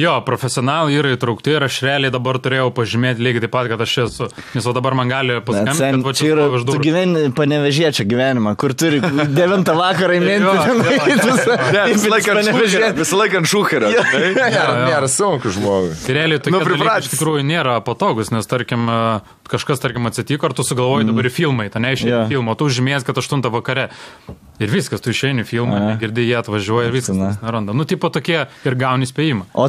Jo, profesionalai yra įtraukti ir aš realiai dabar turėjau pažymėti lygiai taip pat, kad aš esu. Nes dabar man gali paskambinti, kad čia yra, tu gyveni Panevežiečio gyvenimą, kur turi 9 vakarą įminti. Visą laiką ant šūkerio. Nėra sunku žmogus. Tai realiai tokie dalykai iš tikrųjų nėra patogus, nes tarkim kažkas atsitiko, ar tu sugalvoji dabar į filmai, tai neišėjai filmą, o tu žymės, kad 8 vakare. Ir viskas, tu išeini filmą, girdi, jie atvažiuoja ir viskas neranda. Tipo tokie ir gauni spėjimą. O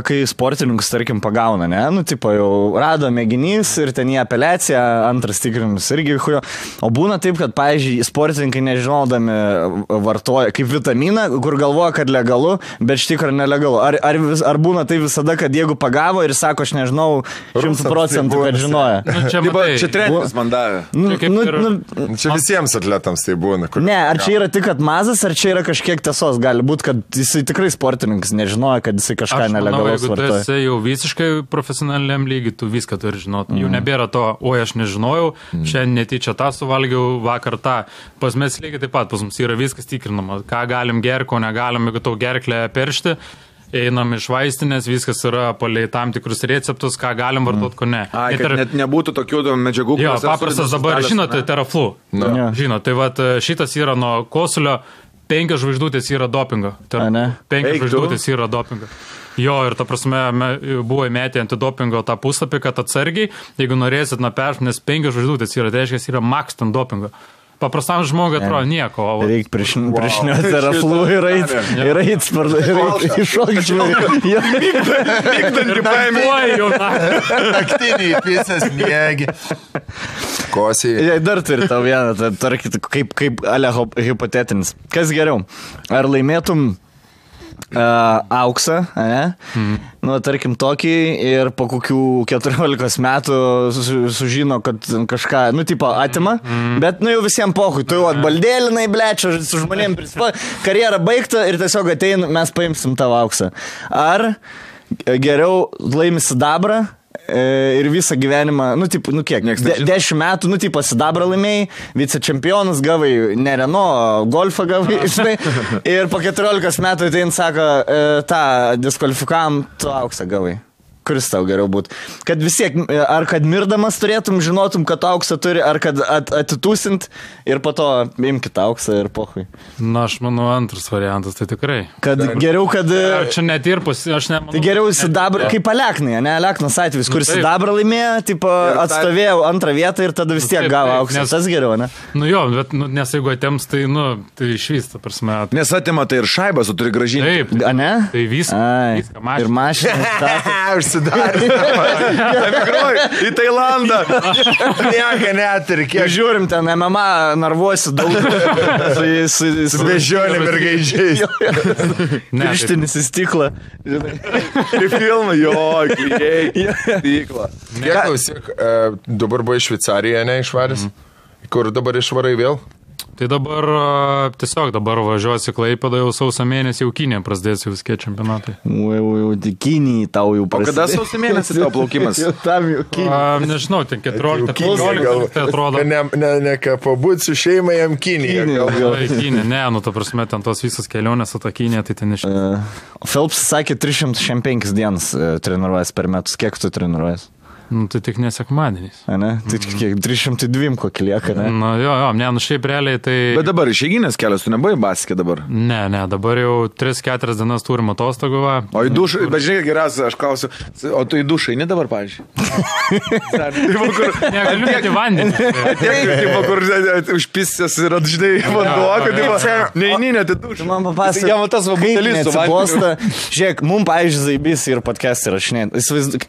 kai sportininkus, tarkim, pagauna, ne? Tipo jau rado mėginys ir ten į apeliaciją, antras tikrinimas irgi hujo. O būna taip, kad, pavyzdžiui, sportininkai nežinodami vartoja kaip vitaminą, kur galvoja, kad legalu, bet iš tikrųjų nelegalu. Ar būna tai visada, kad jeigu pagavo ir sako, aš nežinau 100%, kad žinoja. Čia treneris man davė. Čia visiems atletams tai būna. Ne, ar čia yra tik mazas, ar čia yra kažkiek tiesos? Gali būti, kad jisai tikrai sportininkas nežinoja, kad jisai kažką nelegalaus vartoja. Jeigu tu esi jau visiškai profesionaliam lygiai, tu viską turi žinoti. Jau nebėra to, oi, aš nežinojau, šiandien netyčia tą suvalgiau, vakar tą. Pas mes lygiai taip pat, pas mums yra viskas tikrinama. Ką galim gerti, ko negalim, jeigu tau gerklę peršti. Einam iš vaistinės, viskas yra palei tam tikrus receptus, ką galim vartoti, ko ne. Kad net nebūtų tokių medžiagų. Jo, paprastas dabar, žinote, Teraflu. Žinote, tai vat šitas yra nuo kosulio, 5 žvaigždutės yra dopingo. 5 žvaigždutės yra dopingo. Jo, ir ta prasme, buvo įmetę antidopingo tą puslapį, kad atsargiai, jeigu norėsit nuperšti, nes 5 žvaigždutės yra, tai reiškia, yra max ten dopingo. Paprastam žmogui atrodo nieko. Reikia priešniuoti Teraflu ir eit iššokti. Vykdantį paėmė. Naktiniai pisės miegi. Kosiai. Dar turi tau vieną, kaip ale hipotetinis. Kas geriau? Ar laimėtum auksą, ne? Tarkim tokį ir po kokių 14 metų sužino, kad kažką, tipo atima, bet, jau visiems pohui, tu jau atbaldėlinai, blečia, su žmonėm karjera baigta ir tiesiog atein, mes paimsim tavo auksą. Ar geriau laimi sidabrą ir visą gyvenimą, kiek, 10 metų, sidabrą laimėjai, vicečempionus gavai, ne Renault, golfą gavai, žinai, ir po 14 metų tai sako, tą diskvalifikavom, tu auksą gavai. Kuris tau geriau būtų? Kad vis tiek, ar kad mirdamas turėtum, žinotum, kad auksą turi, ar kad atitūsint ir po to imkit auksą ir pohui. Na, aš manau, antras variantas, tai tikrai. Kad geriau, kad... Čia netirpus, aš nemanau. Tai geriau sidabrą, kaip Aleknai, ne? Aleknas atvejis, kuris sidabrą laimėjo, tipo, atstovėjo antrą vietą ir tada vis tiek gavo auksą. Tas geriau, ne? Nu jo, bet nes jeigu atėms, tai, tai išvysta, prasme. Nes atima tai ir šaibas, tu turi gražinti. Taip. A, ne? Tai viską ir mašiną. Į Tailandą. Nieka neturi. Kiek žiūrim ten MMA narvuosi daug. Su bežionėm ir gaidžiais. Pirštinis į stiklą. Ir filmą, jo, klyjei. Stiklą. Klausyk, dabar buvo į Šveicariją, ne išvaręs? Kur dabar išvarai vėl? Tai dabar tiesiog važiuosi Klaipėdą jau sausio mėnesį, jau Kinė prasidės jau viske čempionatai. Kinijai tau jau prasidės. O kada sausio mėnesį tau plaukimas? Nežinau, ten 14 tai atrodo. Ne pabūti su šeima jam Kinija. Kinė, ne, ta prasme, ten tos visas kelionės su ta Kinė, tai ten iš... Phelps sakė 305 dienas treniruojas per metus. Kiek tu treniruojas? Nu, tai tik nesekmadieniais. Ne? Tai kiek 302 kokį lieka, ne? Nu, šiaip realiai tai... Bet dabar išeiginės kelias, tu nebuvai baskė dabar? Ne, dabar jau 3-4 dienas turim atostogų. O į dušą, bet žinai, geriausia, aš klausiu, o tu į dušą, ne dabar, pavyzdžiui? Negaliu net į vandenį. Tipo, kur užpisęs ir atžinai vanduo, kad neini net į dušą. Man papasakė, jam tas va butelis su vandenį. Žiūrėk, mum, pavyzdžiui, zaibys ir podcast įrašinėt.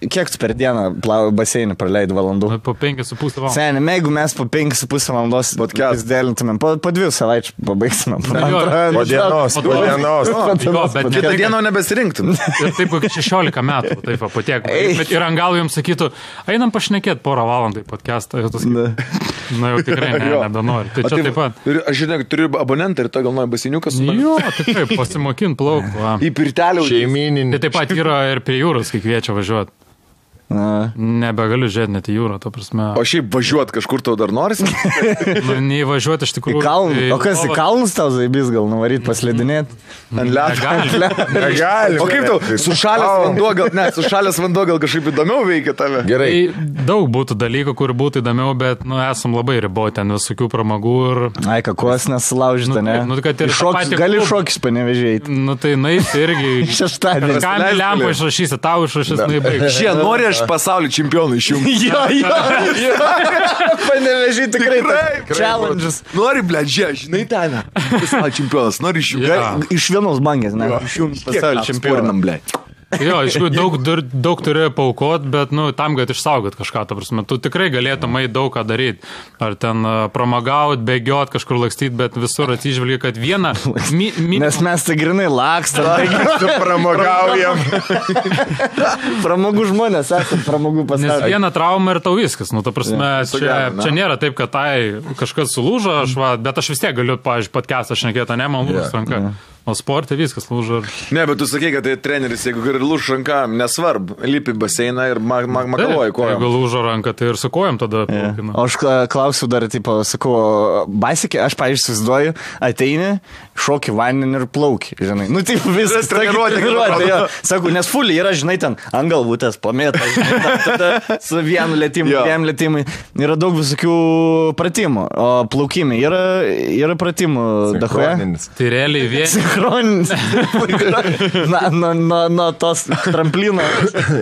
Kiek tu per dieną baseinį praleidai valandų? Po 5,5 valandos. Seniai, jeigu mes po 5,5 valandos dėlintumėm, po 2 savaičių pabaigsime. Po dienos. Bet kitą dieną nebesirinktum. Ir taip, kokį 16 metų, taip, po tiek. Bet ir ant galo jums sakytų, einam pašnekėti porą valandų į podcastą. Na jau tikrai nebenori. Tai čia taip pat. Aš žinau, turiu abonentą ir to gal nori baseiniukas. Jo, tikrai, pasimokint plaukų. Į pirtelį šeimininį. Tai taip pat yra ir prie jūros, kai kviečia važiuoti. Nebegaliu žiūrėti net į jūrą, to prasme. O šiaip važiuoti kažkur tau dar norisi? Nei važiuoti iš tikrųjų. Į kalnus. O kas į kalnus tau zaibys gal nuvaryti paslėdinėti? Ant ledo. Negali. O kaip tau, sušalęs vanduo gal kažkaip įdomiau veikia tave? Gerai. Daug būtų dalykų, kur būtų įdomiau, bet, esam labai riboti ten visokių pramogų ir... Ai, kakos nesulaužyta, ne? Gali šokis panevežėjai. Tai nais irgi... Šeštadienį. Kam lempą išrašysi, tau išrašys, naibaig. Šie nori aš pasaulio čempionų išjungti. Jo. Panevežiai tikrai challenges. Nori, žinai ten. Pasaulio čempionas, nori išjungti. Iš vienos bangės, ne? Išjungti pasaulio čempioną. Jo, iš tikrųjų daug turi paukot, bet, tam, kad išsaugot kažką, ta prasme, tu tikrai galėtum daug ką daryti. Ar ten pramagaut, bėgiot, kažkur lakstyti, bet visur atsižvelgi, kad vieną... Nes mes tai grinai lakstam, pramagaujam. Pramogų žmonės, esam pramogų pasaulio. Nes vieną traumą ir tau viskas, ta prasme, čia nėra taip, kad kažkas sulūžo, bet aš vis tiek galiu, pavyzdžiui, podcastą šnekėti, ne, man lūžus ranka. O sportai viskas lūžo. Ne, bet tu sakai, kad tai treneris, jeigu ir lūžo ranka, nesvarbu, lipi baseiną ir makaluoji kojom. Jeigu lūžo ranka, tai ir su kojom tada plaukina. O aš klausiu dar, sakau, baisikė, aš, pavyzdžiui, susiduoju, ateini, šoki vandenį ir plauki, žinai. Taip, viskas treniruotė. Sakau, nes fulį yra, žinai, ten ant galvutės, pamėta, žinai, tada su vienu lėtimu, dviem lėtimui. Yra daug visokių pratimų, o plaukimai yra pratimų dahoje. Tai realiai vien... Chroninis. Nuo tos tramplino.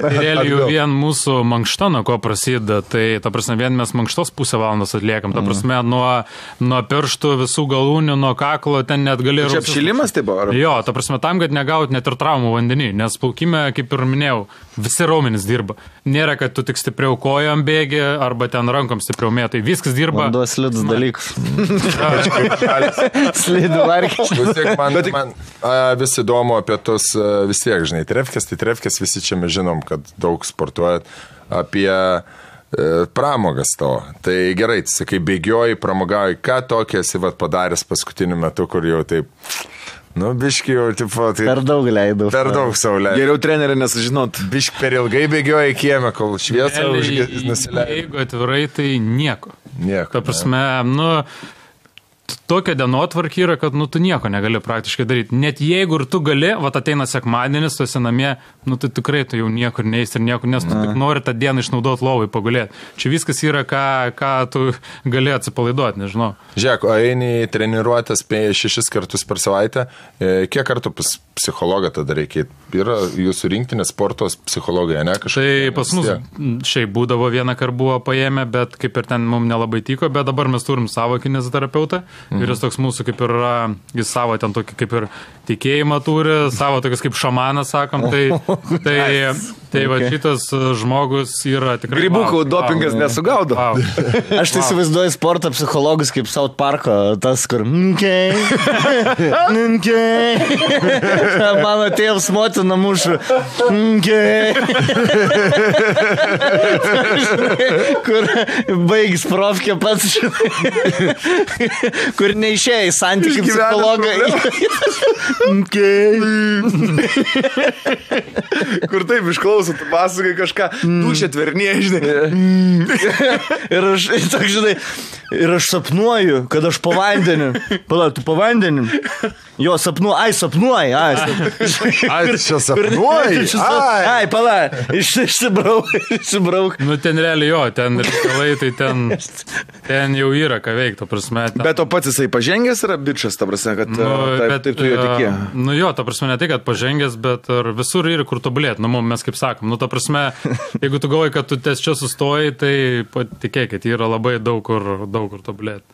Realiai jau vien mūsų mankšta, nuo ko prasideda, tai, ta prasme, vien mes mankštos pusę valandos atliekam. Ta prasme, nuo pirštų, visų galūnių, nuo kaklo, ten net gali... Čia apšilimas tai buvo? Jo, ta prasme, tam, kad negaut net ir traumų vandenį, nes plaukime, kaip ir minėjau, visi raumenys dirba. Nėra, kad tu tik stipriau kojom bėgi, arba ten rankom stipriau mėtai. Viskas dirba. Vanduo slidus dalykus. Slidų varkiai. Man vis įdomu apie tos vis tiek, žinai, trefkės, visi čia mes žinom, kad daug sportuojat, apie pramogas to. Tai gerai, sakai, bėgioji, pramogauji, ką tokia esi padaręs paskutiniu metu, kur jau taip Nu, biški jau, tipo, tai... Per daug leidau. Per daug savo leidau. Geriau trenerį nesužinot. Biški per ilgai bėgioja į kiemę, kol šviesą nusileido. Jeigu atvirai, tai nieko. Nieko. Ta prasme, tokia dienotvarkė yra, kad, tu nieko negali praktiškai daryti. Net jeigu ir tu gali, ateina sekmadienis, tu esi namie, tai tikrai tu jau niekur neįs ir niekur, nes tu tik nori tą dieną išnaudoti lovai, pagulėti. Čia viskas yra, ką tu gali atsipalaiduoti, nežinau. Žiūrėk, o eini treniruotės 6 kartus per savaitę, kiek kartų pas psichologą tada reikia? Yra jūsų rinktinės sportos psichologai, ne? Tai pas mus šiaip būdavo vieną kartą buvo paėmę, bet kaip ir ten mums nelabai tiko, bet dabar mes turim savo kineziterapeutą. Ir jis toks mūsų kaip ir, jis savo ten tokį kaip ir tikėjimą turi, savo tokias kaip šamanas, sakom, tai va šitas žmogus yra tikrai... Grybukų dopingas nesugaudo. Aš tai įsivaizduoju sporto psichologus kaip South Parko, tas, kur... Mano tėvs motina mušu. Kur baigis profkė pats, kur neišėjo į santykių psichologą. Kur taip išklauso, tu pasakai kažką, dušė tvernėje, žinai. Ir aš sapnuoju, kad aš po vandeniu. Pala, tu po vandeniu? Jo, sapnuoju. Ai, čia sapnuoji? Ai, pala, išsibrauk. Ten realiai jo, ten reikalai, tai ten jau yra ką veikti, prasme. Bet o pats jisai pažengęs yra bičas, ta prasme, kad taip tu jo tikė. Jo, ta prasme, ne tai, kad pažengęs, bet visur yra kur tobulėti. Mes kaip sakom, ta prasme, jeigu tu galvoji, kad tu ties čia sustoji, tai patikėkit, yra labai daug kur tobulėti.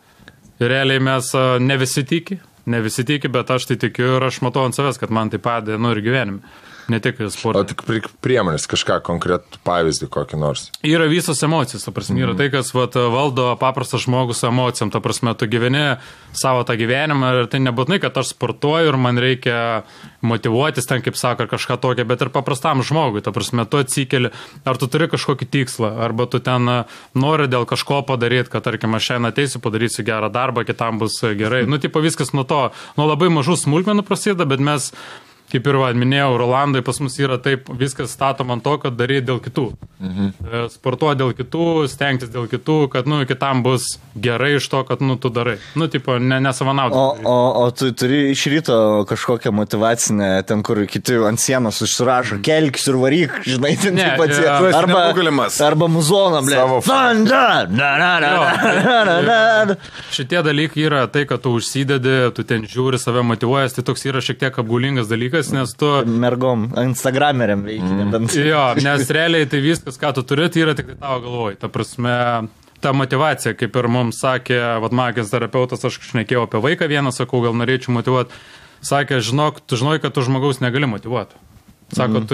Ir realiai mes ne visi tiki, bet aš tai tikiu ir aš matau ant savęs, kad man tai padeda, ir gyvenime. Ne tik sportą. O tik priemonės, kažką konkretų pavyzdį kokį nors. Yra visos emocijos, ta prasme, yra tai, kas valdo paprastas žmogus emocijom, ta prasme, tu gyveni savo tą gyvenimą ir tai nebūtinai, kad aš sportuoju ir man reikia motyvuotis ten, kaip sako, ar kažką tokio, bet ir paprastam žmogui, ta prasme, tu atsikeli, ar tu turi kažkokį tikslą, arba tu ten nori dėl kažko padaryti, kad, tarkim, aš šiandien ateisiu, padarysiu gerą darbą, kitam bus gerai. Tipo viskas nuo labai mažų smulkmenų prasideda, bet mes kaip ir minėjau, Rolandai pas mus yra taip, viskas statom ant to, kad daryti dėl kitų. Sportuoti dėl kitų, stengtis dėl kitų, kad, kitam bus gerai iš to, kad, tu darai. Tipo, nesavanaudai. O tu turi iš ryto kažkokią motivacinę, ten, kur kiti ant sienos užsirašo, kelkis ir varyk, žinai, ten arba muzoną, blė. Šitie dalykai yra tai, kad tu užsidedi, tu ten žiūri, save motyvuojas, tai toks yra šiek tiek apgaulingas dalykas. Nes tu... Mergom, Instagrameriam veikia. Jo, nes realiai tai viskas, ką tu turi, tai yra tik tavo galvoj. Ta prasme, ta motivacija, kaip ir mums sakė, magijos terapeutas, aš šnekėjau apie vaiką vieną, sakau, gal norėčiau motyvuoti. Sakė, tu žinai, kad tu žmogaus negali motyvuoti. Sako, tu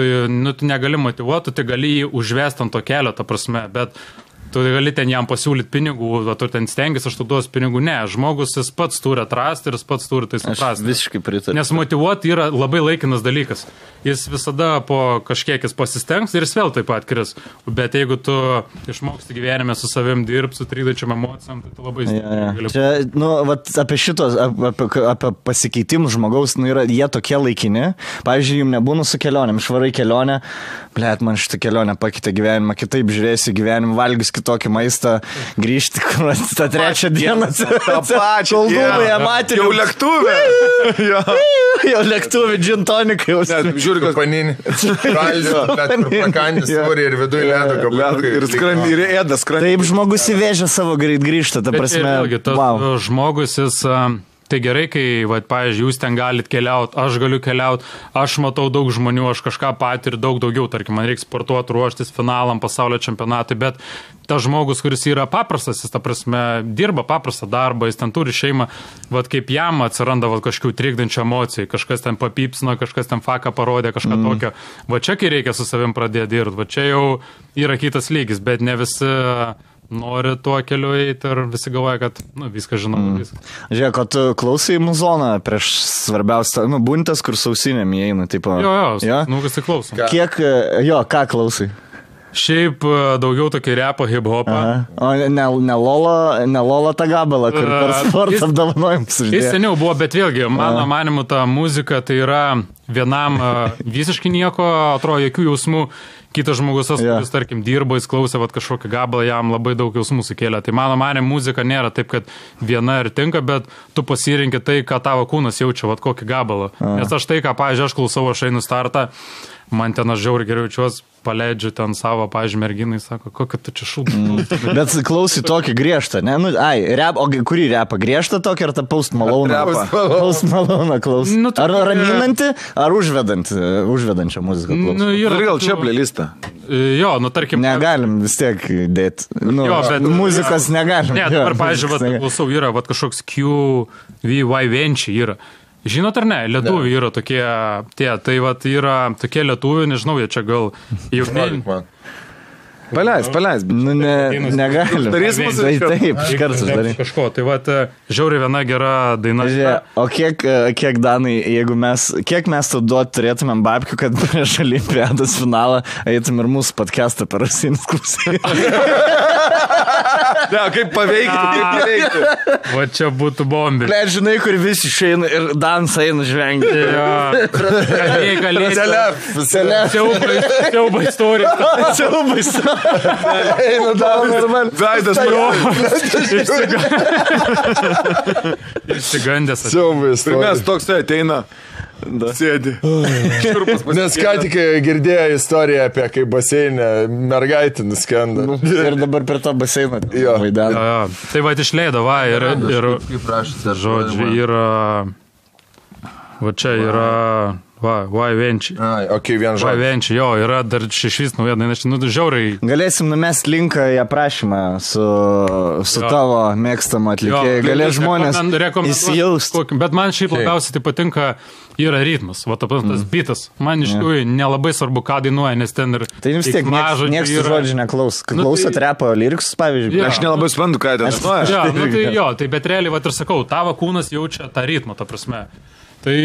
negali motyvuoti, tu gali jį užvesti ant to kelio, ta prasme, bet tu gali ten jam pasiūlyti pinigų, tu ten stengiasi, aš tu duos pinigų. Ne, žmogus jis pats turi atrasti ir jis pats turi tai suprasti. Aš visiškai pritariu. Nes motyvuoti yra labai laikinas dalykas. Jis visada po kažkiek jis pasistengs ir jis vėl taip pat kris. Bet jeigu tu išmoksti gyvenime su savim dirbti, su trydačiam emocijom, tai tu labai gali. Čia, apie šitos, apie pasikeitimus žmogaus, jie tokie laikini. Pavyzdžiui, jums nebūna su kelionėm, išvarai kelionę, blėt, man šitą kelionę pakeitė gyvenimą, kitaip žiūrėsi gyvenimą, valgys tokį maistą, grįžti, kur tą trečią dieną. Tą pačią dieną. Jau lėktuvė. Jau lėktuvė, džintonikai. Žiūri, kad paninį. Prakandis svorį ir viduje ledo gabalai. Ir ėda skrandį. Taip žmogus įvežė savo greit grįžtą, ta prasme. Bet vėlgi, žmogus jis... Tai gerai, kai, pavyzdžiui, jūs ten galit keliauti, aš galiu keliauti, aš matau daug žmonių, aš kažką patiriu daug daugiau, tarkim, man reikia sportuoti, ruoštis finalam, pasaulio čempionatui, bet tas žmogus, kuris yra paprastas, jis, ta prasme, dirba paprastą darbą, jis ten turi šeimą, kaip jam atsiranda kažkokių trikdančių emocijų, kažkas ten papypsino, kažkas ten faką parodė, kažką tokio. Čia, kai reikia su savim pradėti dirbti, čia jau yra kitas lygis, bet ne visi... nori tuo keliu eiti ir visi galvoja, kad viską žinau. Žiūrėk, o tu klausai muzoną prieš svarbiausią, buntas, kur sausinėm įeina, tipo... Jo, kas tai klausom. Kiek, ką klausai? Šiaip daugiau tokį repo hip-hopą. O ne Lola tą gabalą, kur per sportą apdovanojimus uždėjo. Jis seniau buvo, bet vėlgi, mano manimu, ta muzika tai yra vienam visiškai nieko, atrodo, jokių jausmų. Kitas žmogus, kuris, tarkim, dirbo, jis klausė kažkokį gabalą, jam labai daug jausmų sukėlė. Tai mano manimu, muzika nėra taip, kad viena ir tinka, bet tu pasirinki tai, ką tavo kūnas jaučia, kokį gabalą. Nes aš tai, ką, pavyzdžiui, aš klausau, aš einu startą, man ten aš žiauriai geriau jaučiuos, paleidžiu ten savo, pavyzdžiui, merginai, sako, kokia tu čia šūdą. Bet klausai tokį griežtą, ne? Nu, o kurį repą? Griežtą tokį ar tą Post Malone? Post Malone klausai. Ar raminantį, ar užvedančią muziką klausai? Ir gal čia playlistą. Jo, tarkim. Negalim vis tiek dėti. Jo, bet muzikos negalim. Ne, dabar, pavyzdžiui, klausau, yra kažkoks QVY Venčiai yra. Žinot ar ne, lietuviai yra tokie, tai yra tokie lietuviai, nežinau, jie čia gal jau... Paleis. Nu, negalim. Darys mūsų. Taip, iš karto darai. Kažko, tai žiauriai viena gera daina. O kiek Danai, kiek mes tau duoti turėtumėm babkių, kad prieš Olimpiados finalą eitum ir mūsų podcastą per Rusinis klausai. Ne, kaip paveikti. Va čia būtų bombė. Ble, žinai, kur visi išeina ir Dans eina žvengti. Siauba istorija. Siauba istorija. Eina Dans. Veidas. Išsigandęs. Siauba istorija. Mes toks ateina. Sėdi. Nes ką tik girdėjo istoriją apie kaip baseinė mergaitė nuskenda. Ir dabar per tą baseiną vaidena. Tai išleido, ir kaip prašyti, žodžiu, yra va čia yra Venčiai. Vien žodžiu. Venčiai, jo, yra dar šešvis nauja daina, žiauriai. Galėsim numest linką į aprašymą su tavo mėgstamu atlikėjai. Galės žmonės įsijausti. Bet man šiaip labiausiai tai patinka yra ritmas, tas bitas. Man iš tikrųjų nelabai svarbu, ką dainuoja, nes ten ir... Tai vis tiek niekas žodžių neklaus. Klausot repo lyriksus, pavyzdžiui. Aš nelabai suprantu, ką ten dainuoja. Tai bet realiai, ir sakau, tavo kūnas jaučia tą ritmą, ta prasme. Tai...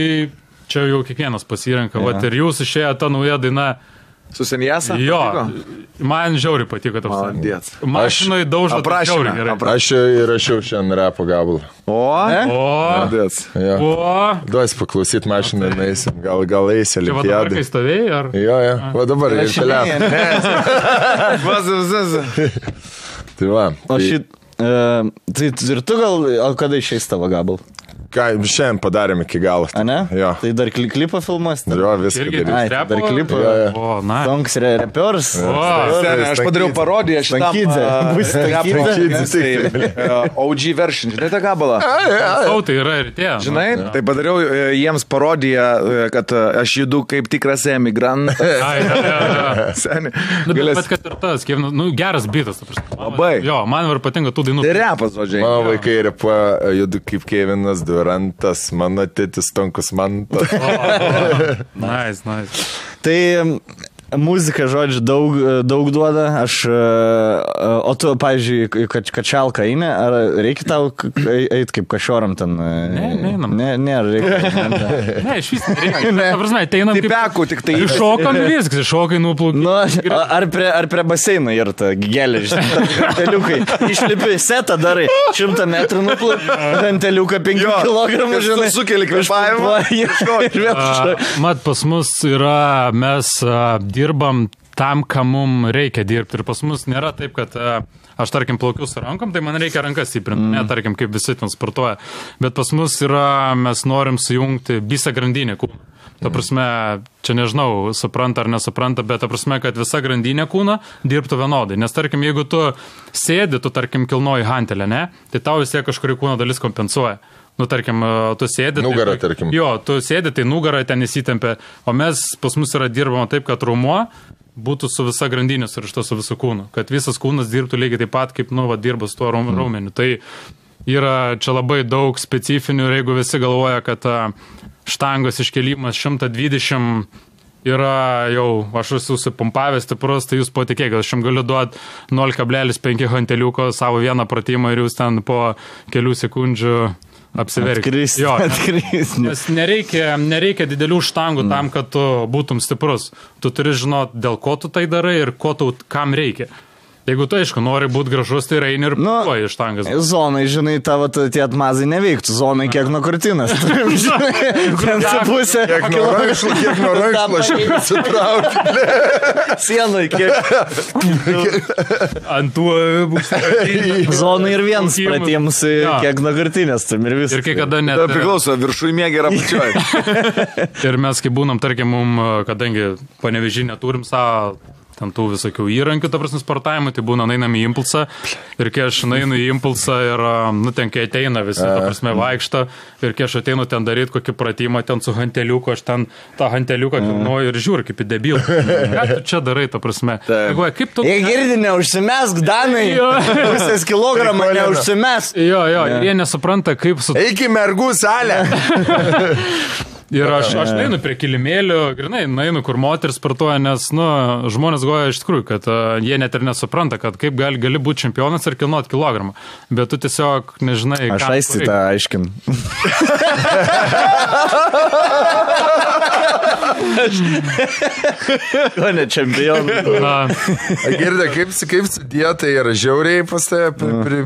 Čia jau kiekvienas pasirenka, ir jūs išėjo ta nauja daina. Su Senjasa? Jo, man žiauriai patiko. Mašinai daužo žiauriai gerai. Aš įrašiau šiandien repo gabalą. Duos paklausyt mašiną, eisim, gal eisi Olimpiadai. Čia dabar kai stovėjai, ar? Jo, va dabar ir telefon. Tai va. Tai ir tu gal, o kada išeis tavo gabalą? Ką, šiandien padarėm iki galo. A ne? Jo. Tai dar klipą filmuos? Jo, viską darys. Dar klipą. Tonks repiors. Aš padariau parodiją šitam. OG version. Žinai tą gabalą? Tai yra ir tie. Žinai, tai padariau jiems parodiją, kad aš judu kaip tikras emigrantas. Bet kad ir tas, geras bitas. Labai. Jo, man ir patinka tų dainų. Tai repas, žodžiai. Mano vaikai repa judu kaip Kevinas Durantas, mano tėtis Tonkus Mantas. Nice. Tai muzika, žodžiu, daug duoda. O tu, pavyzdžiui, kačalką eini, ar reikia tau eiti kaip kažoram ten? Ne, reikia. Ne, iš vis nereikia. Ta prasme, ateinam kaip... Tipekų tik tai. Iššokam viskas, iššokai nuplaukai. Ar prie baseino yra ta gėlė, ganteliukai. Išlipi setą darai, 100 metrų nuplaukai, ganteliuką 5 kilogramų, žinai. Sukeli kvėpavimą. Mat, pas mus yra, mes dirbam tam, ką mums reikia dirbti. Ir pas mus nėra taip, kad aš, tarkim, plaukiu su rankom, tai man reikia rankas stiprinti. Ne, tarkim, kaip visi ten sportuoja. Bet pas mus yra, mes norim sujungti visą grandinę kūną. Ta prasme, čia nežinau, supranta ar nesupranta, bet ta prasme, kad visa grandinė kūna dirbtų vienodai. Nes, tarkim, jeigu tu sėdi, tu, tarkim, kilnoji hantelę, ne, tai tau vis tiek kažkuri kūno dalis kompensuoja. Tarkim, tu sėdi... Nugarą, tarkim. Jo, tu sėdi, tai nugarą ten įsitempia, o mes pas mus yra dirbama taip, kad rumuo būtų su visa grandinė surišta su visu kūnu. Kad visas kūnas dirbtų lygiai taip pat, kaip, dirba su tuo raumeniu. Tai yra čia labai daug specifinių ir jeigu visi galvoja, kad štangos iškelimas 120 yra jau, aš esu supumpavęs stiprus, tai jūs patikėkit, aš jums galiu duoti 0,5 hanteliuko savo vieną pratimą ir jūs ten po kelių sekundžių apsiverkti. Atkristi. Nes nereikia didelių štangų tam, kad tu būtum stiprus. Tu turi žinoti, dėl ko tu tai darai ir kam reikia. Jeigu tu, aišku, nori būti gražus, tai eini ir puoji štangas. Zonai, žinai, tavo tie atmazai neveiktų. Zonai kiek nuo krūtinės. Ten su pusė. Kiek nuo rankšlo šiaip atsitraukti. Sienai kiek. Ant tų Zonai ir vienas pratiems kiek nuo krūtinės. Ir viskas. Ir kai kada net... Tai priklauso, viršui mėgė ir apačioj. Ir mes, kai būnam, tarkim, kadangi Panevėžy neturim savo ten tų visokių įrankių, ta prasme, sportavimui, tai būna einam į impulsą ir kai aš einu į impulsą ir, ten kai ateina visi, ta prasme, vaikšto ir kai aš ateinu ten daryti kokį pratimą, ten su hanteliuku, aš ten tą hanteliuką kilnuoju ir žiūriu kaip į debilą. Ką tu čia darai, ta prasme? Kaip tu... Jie girdi, neužsimesk, Danai, pusės kilogramą neužsimesk. Jo, ir jie nesupranta, kaip su... Eik į mergų salę. Ir aš neinu prie kilimėlių, grinai, neinu, kur moteris sportuoja, nes, žmonės goja iš tikrųjų, kad jie net ir nesupranta, kad kaip gali būti čempionas ir kilnuot kilogramą. Bet tu tiesiog nežinai, ką... Aš aisti tą aiškin. Ko ne čempionas? Girdė, kaip su dieta yra žiauriai pas tave?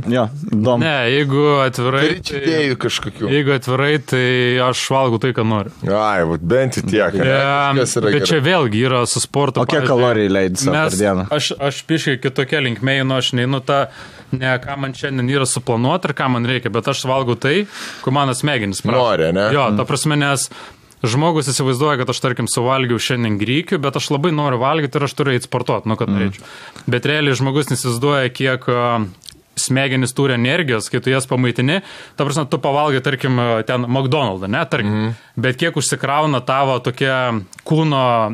Jo, įdomu. Ne, jeigu atvirai, tai aš valgau tai, ką noriu. Ai, bent į tiek. Bet čia vėlgi yra su sportu. O kiek kalorijų leidai savo per dieną? Aš piškai kitokia linkme, aš neinu tą, ne ką man šiandien yra suplanuoti ir ką man reikia, bet aš valgau tai, ko mano smegenys prašo. Nori, ne? Jo, ta prasme, nes žmogus įsivaizduoja, kad aš, tarkim, suvalgiau šiandien grykių, bet aš labai noriu valgyti ir aš turiu eiti sportuoti, kad norėčiau. Bet realiai žmogus įsivaizduoja, kiek smegenys turi energijos, kai tu jas pamaitini, ta prasme, tu pavalgai, tarkim, ten McDonald's, ne, tarkim, bet kiek užsikrauna tavo tokia kūno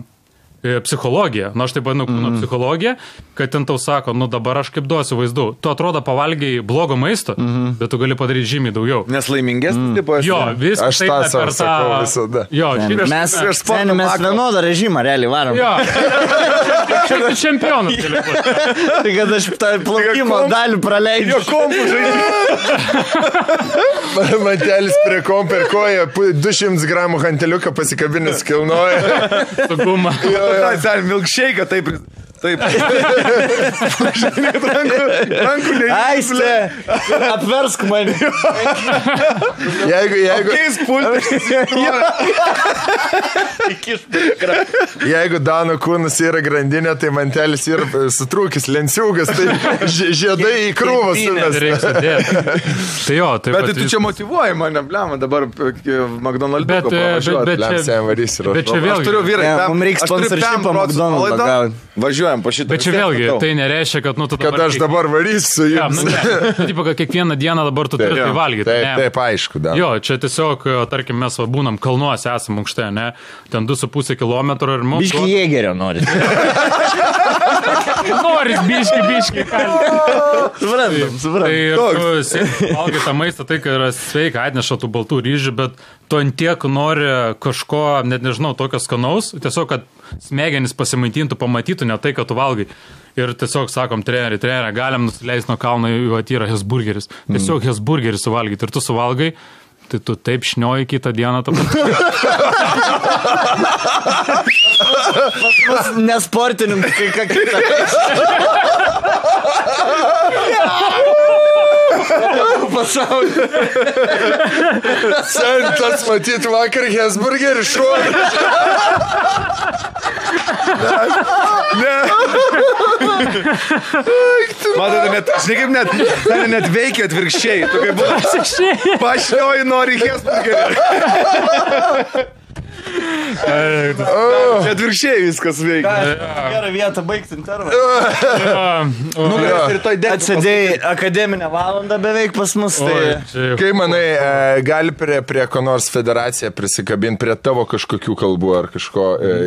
psichologija, aš taip vadinu kūno psichologija, kad ten tau sako, dabar aš kaip duosiu vaizdų. Tu atrodo pavalgiai blogo maisto, bet tu gali padaryti žymiai daugiau. Nes laimingesnis tipo esi. Jo, viskas. Aš tą savo sakau visada. Jo, mes vienodą režimą realiai varom. Jo, kaip čempionas. Tai kad aš tą plaukimo dalį praleidžiu. Jo kompų žaidžiu. Matelis prie kompų ir koja 200 gramų hanteliuką pasikabinęs kilnoja. Suguma. Dar milkshake, taip. Rankų Aiste, apversk mane. Jeigu Dano kūnas yra grandinė, tai mantelis yra sutrūkis, lenciūgas, tai žiedai į krūvą sumės. Tai jo, taip. Bet tu čia motyvuoji mane, blema, dabar McDonald's pavažiuoti. Bet čia vėlgi. Aš turiu vyrai, mums reikia sponsorshipą McDonald's gauti. Važiuojam po šitą. Bet čia vėlgi, tai nereiškia, kad tu dabar... Kad aš dabar varysiu jums. Tipo, kad kiekvieną dieną dabar tu turi tai valgyti. Taip, aišku, da. Jo, čia tiesiog, tarkim, mes būnam kalnuose, esam aukšte, ne? Ten 2,5 kilometro ir mums... Biški jėgerio noris. Noris, biški. Suprantam. Tai tu valgai tą maistą, tai, kad yra sveika, atneša tų baltų ryžių, bet tu ant tiek nori kažko, net nežinau, tokio skanaus, tiesiog, kad smegenis pasimaitintų, pamatytų ne tai, kad tu valgai. Ir tiesiog sakom, treneri, galim nusileisti nuo kalno, yra hesburgeris. Tiesiog hesburgeris suvalgyti ir tu suvalgai, tai tu taip šnioji kitą dieną. Pas nesportininkai, ką kitą. Pasaulį. Sentas matyt vakar hesburgerį šuolį. Ne. Matote, net veikia atvirkščiai. Tu kaip buvo pašnioji nori hesburgerį. Čia atvirkščiai viskas veikia. Gerą vietą baigti intervalą. Atsidėjai akademinę valandą beveik pas mus. Kai manai, gali prie ko nors federacija prisikabinti prie tavo kažkokių kalbų ar kažko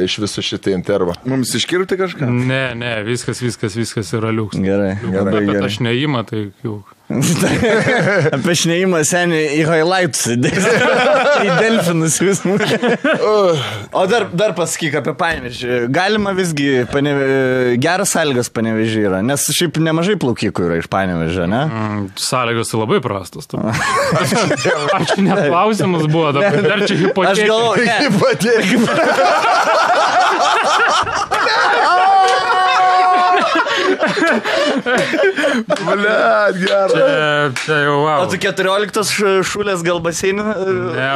iš viso šitą intervą? Mums iškirpti kažką? Ne, viskas yra liuks. Gerai. Bet aš neįmą, tai jau... Apie šnėjimą senį į highlights. Į delfinus vis mūsų. O dar pasakyk apie Panevėžį. Galima visgi, geras sąlygas Panevėžį yra, nes šiaip nemažai plaukikų yra iš Panevėžio, ne? Sąlygos labai prastos. Aš net klausimas buvo, dar čia hipotetika. Aš galvoju, Blet, gerai. Čia jau, wow. O tu 14 šulės gal baseinį? Ne,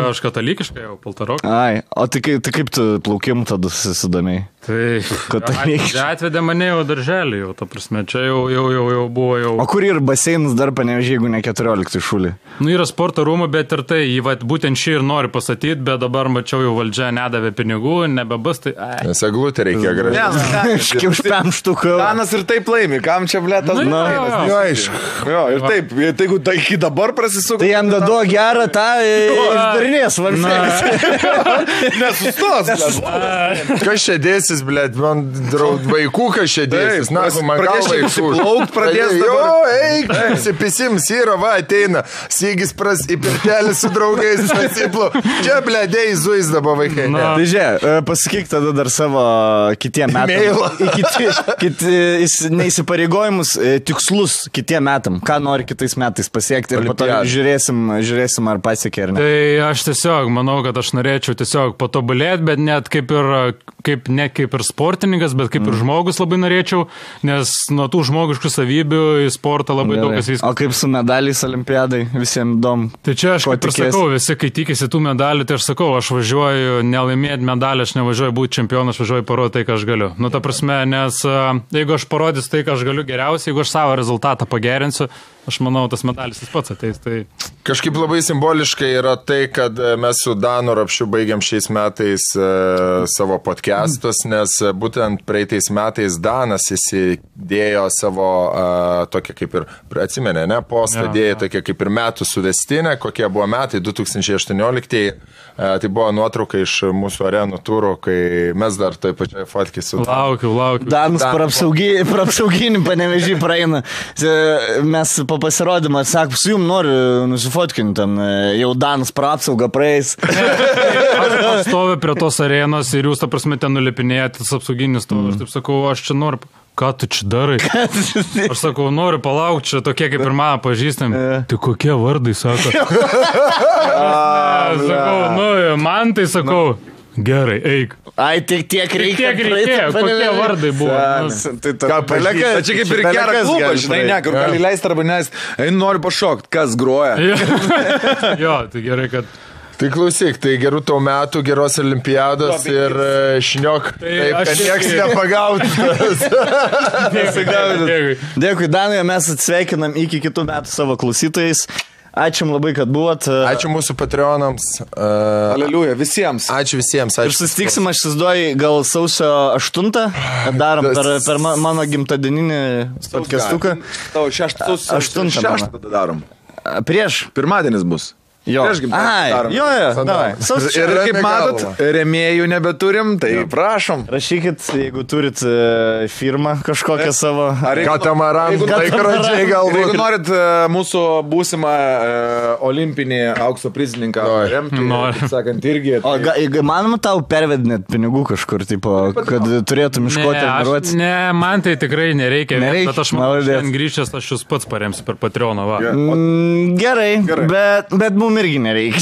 aš katalikiškai jau paltarok. Ai, o tai kaip tu plaukim tada susidomėjai? Tai atvedė mane jau darželį, jau, ta prasme, čia jau buvo jau. O kur yra baseinas dar Panevėžį, jeigu ne 14 šulį? Nu, yra sporto rūmų, bet ir tai, būtent šį ir nori pasakyti, bet dabar mačiau jau valdžia nedavė pinigų, nebebus, tai... Nes eglutė reikia gražiai. Už 5 štukų. Danas ir taip laimi, kam čia blėtas? Jo, aišku. Jo, ir taip, jeigu tai iki dabar prasisuka. Tai jam dado gerą tą išdarinės valstybės. Nesustos. Kas čia dėsis, blėt, man vaikų kas čia dėsis. Na, man galva išplaukt pradės dabar. Jo, eik, pasipisims, yra, va, ateina. Sygis į pirtelį su draugais pasiplau. Čia, blėdėjai, zuis dabar vaikai. Tai žiūrėk, pasakyk tada dar savo kitiem metam. Neįsipareigojimus, tikslus kitiem metam. Ką nori kitais metais pasiekti ir po to žiūrėsim ar pasiekė ar ne. Tai aš tiesiog manau, kad aš norėčiau tiesiog patobulėti, bet net kaip ir sportininkas, bet kaip ir žmogus labai norėčiau, nes nuo tų žmogiškų savybių į sportą labai daug kas viskas. O kaip su medaliais olimpiadai, visiems įdomu. Tai čia aš kaip ir sakau, visi, kai tikisi tų medalių, tai aš sakau, aš važiuoju nelaimėti medalį, aš nevažiuoju būti čempionas, aš važiuoju parodyti tai, ką aš galiu. Nu, ta prasme, nes jeigu aš parodysiu tai, ką aš galiu geriausiai, jeigu aš savo rezultatą pagerinsiu, aš manau, tas medalis jis pats ateis. Tai... Kažkaip labai simboliškai yra tai, kad mes su Danu Rapšiu baigiam šiais metais savo podcastus, nes būtent praeitais metais Danas įsidėjo savo tokia kaip ir, atsimenė, ne, postą dėjo tokia kaip ir metų suvestinę, kokie buvo metai 2018. Tai buvo nuotrauka iš mūsų arenų turų, kai mes dar toj pačioj fotkį su... Laukiu. Danas praapsauginį Panevėžį praeina. Mes po pasirodymą sakom, su jum noriu nusifotkinti, jau Danas praapsaugą praeis. Aš stoviu prie tos arenos ir jūs, ta prasme, ten nulipinėjate tas apsauginis stovi. Aš taip sakau, aš čia noriu... Ką tu čia darai? Aš sakau, noriu palaukti, čia tokie kaip ir mano pažįstami. Tai kokie vardai, sako? Sakau, man tai sakau, gerai, eik. Ai, tiek reikia. Kokie vardai buvo? Čia kaip ir gerą klubą, žinai, kur gali leisti arba nes. Einu, noriu pašokti, kas groja. Jo, tai gerai, kad... Tai klausyk, tai gerų tau metų, geros olimpiados ir šniok, taip, kad nieks nepagautas. Dėkui, Danui, mes atsveikinam iki kitų metų savo klausytojais. Ačiū labai, kad buvot. Ačiū mūsų patreonams. Aleliuja, visiems. Ačiū visiems. Ir susitiksim, aš įsivaizduoju, gal sausio 8, darom per mano gimtadieninį podcastuką. Tavo 6 tada darom. Prieš. Pirmadienis bus. Jo. Davai. Ir kaip matot, rėmėjų nebeturim, tai prašom. Rašykit, jeigu turit firmą kažkokią savo. Katamaran, laikrodžiai galbūt. Jeigu norit mūsų būsimą olimpinį aukso prizininką remti, taip sakant, irgi. O manoma tau pervedinėt pinigų kažkur, tipo, kad turėtum iškoti treniruotis? Ne, man tai tikrai nereikia. Bet aš manau, šiandien grįžęs, aš jūs pats paremsiu per Patreoną. Gerai, bet mums irgi nereikia.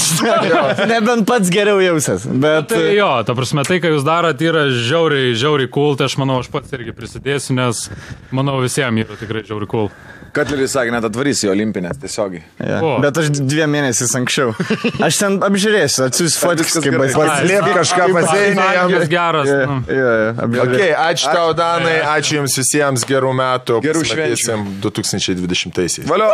Nebent pats geriau jausias. Bet... Tai jo, ta prasme, tai, ką jūs darot, yra žiauriai cool, tai aš manau, aš pats irgi prisidėsiu, nes manau, visiems yra tikrai žiauriai cool. Katleris sakė, net atvarys į olimpinės tiesiogiai. Ja. Bet aš 2 mėnesius anksčiau. Aš ten apžiūrėsiu, atsiųsiu fotikas, kaip paslėp kažką pasėnė. Jis geras. Okay, ačiū tau, Danai, ačiū jums visiems, gerų metų. Gerų švenčių. 2020-aisiais. Valio!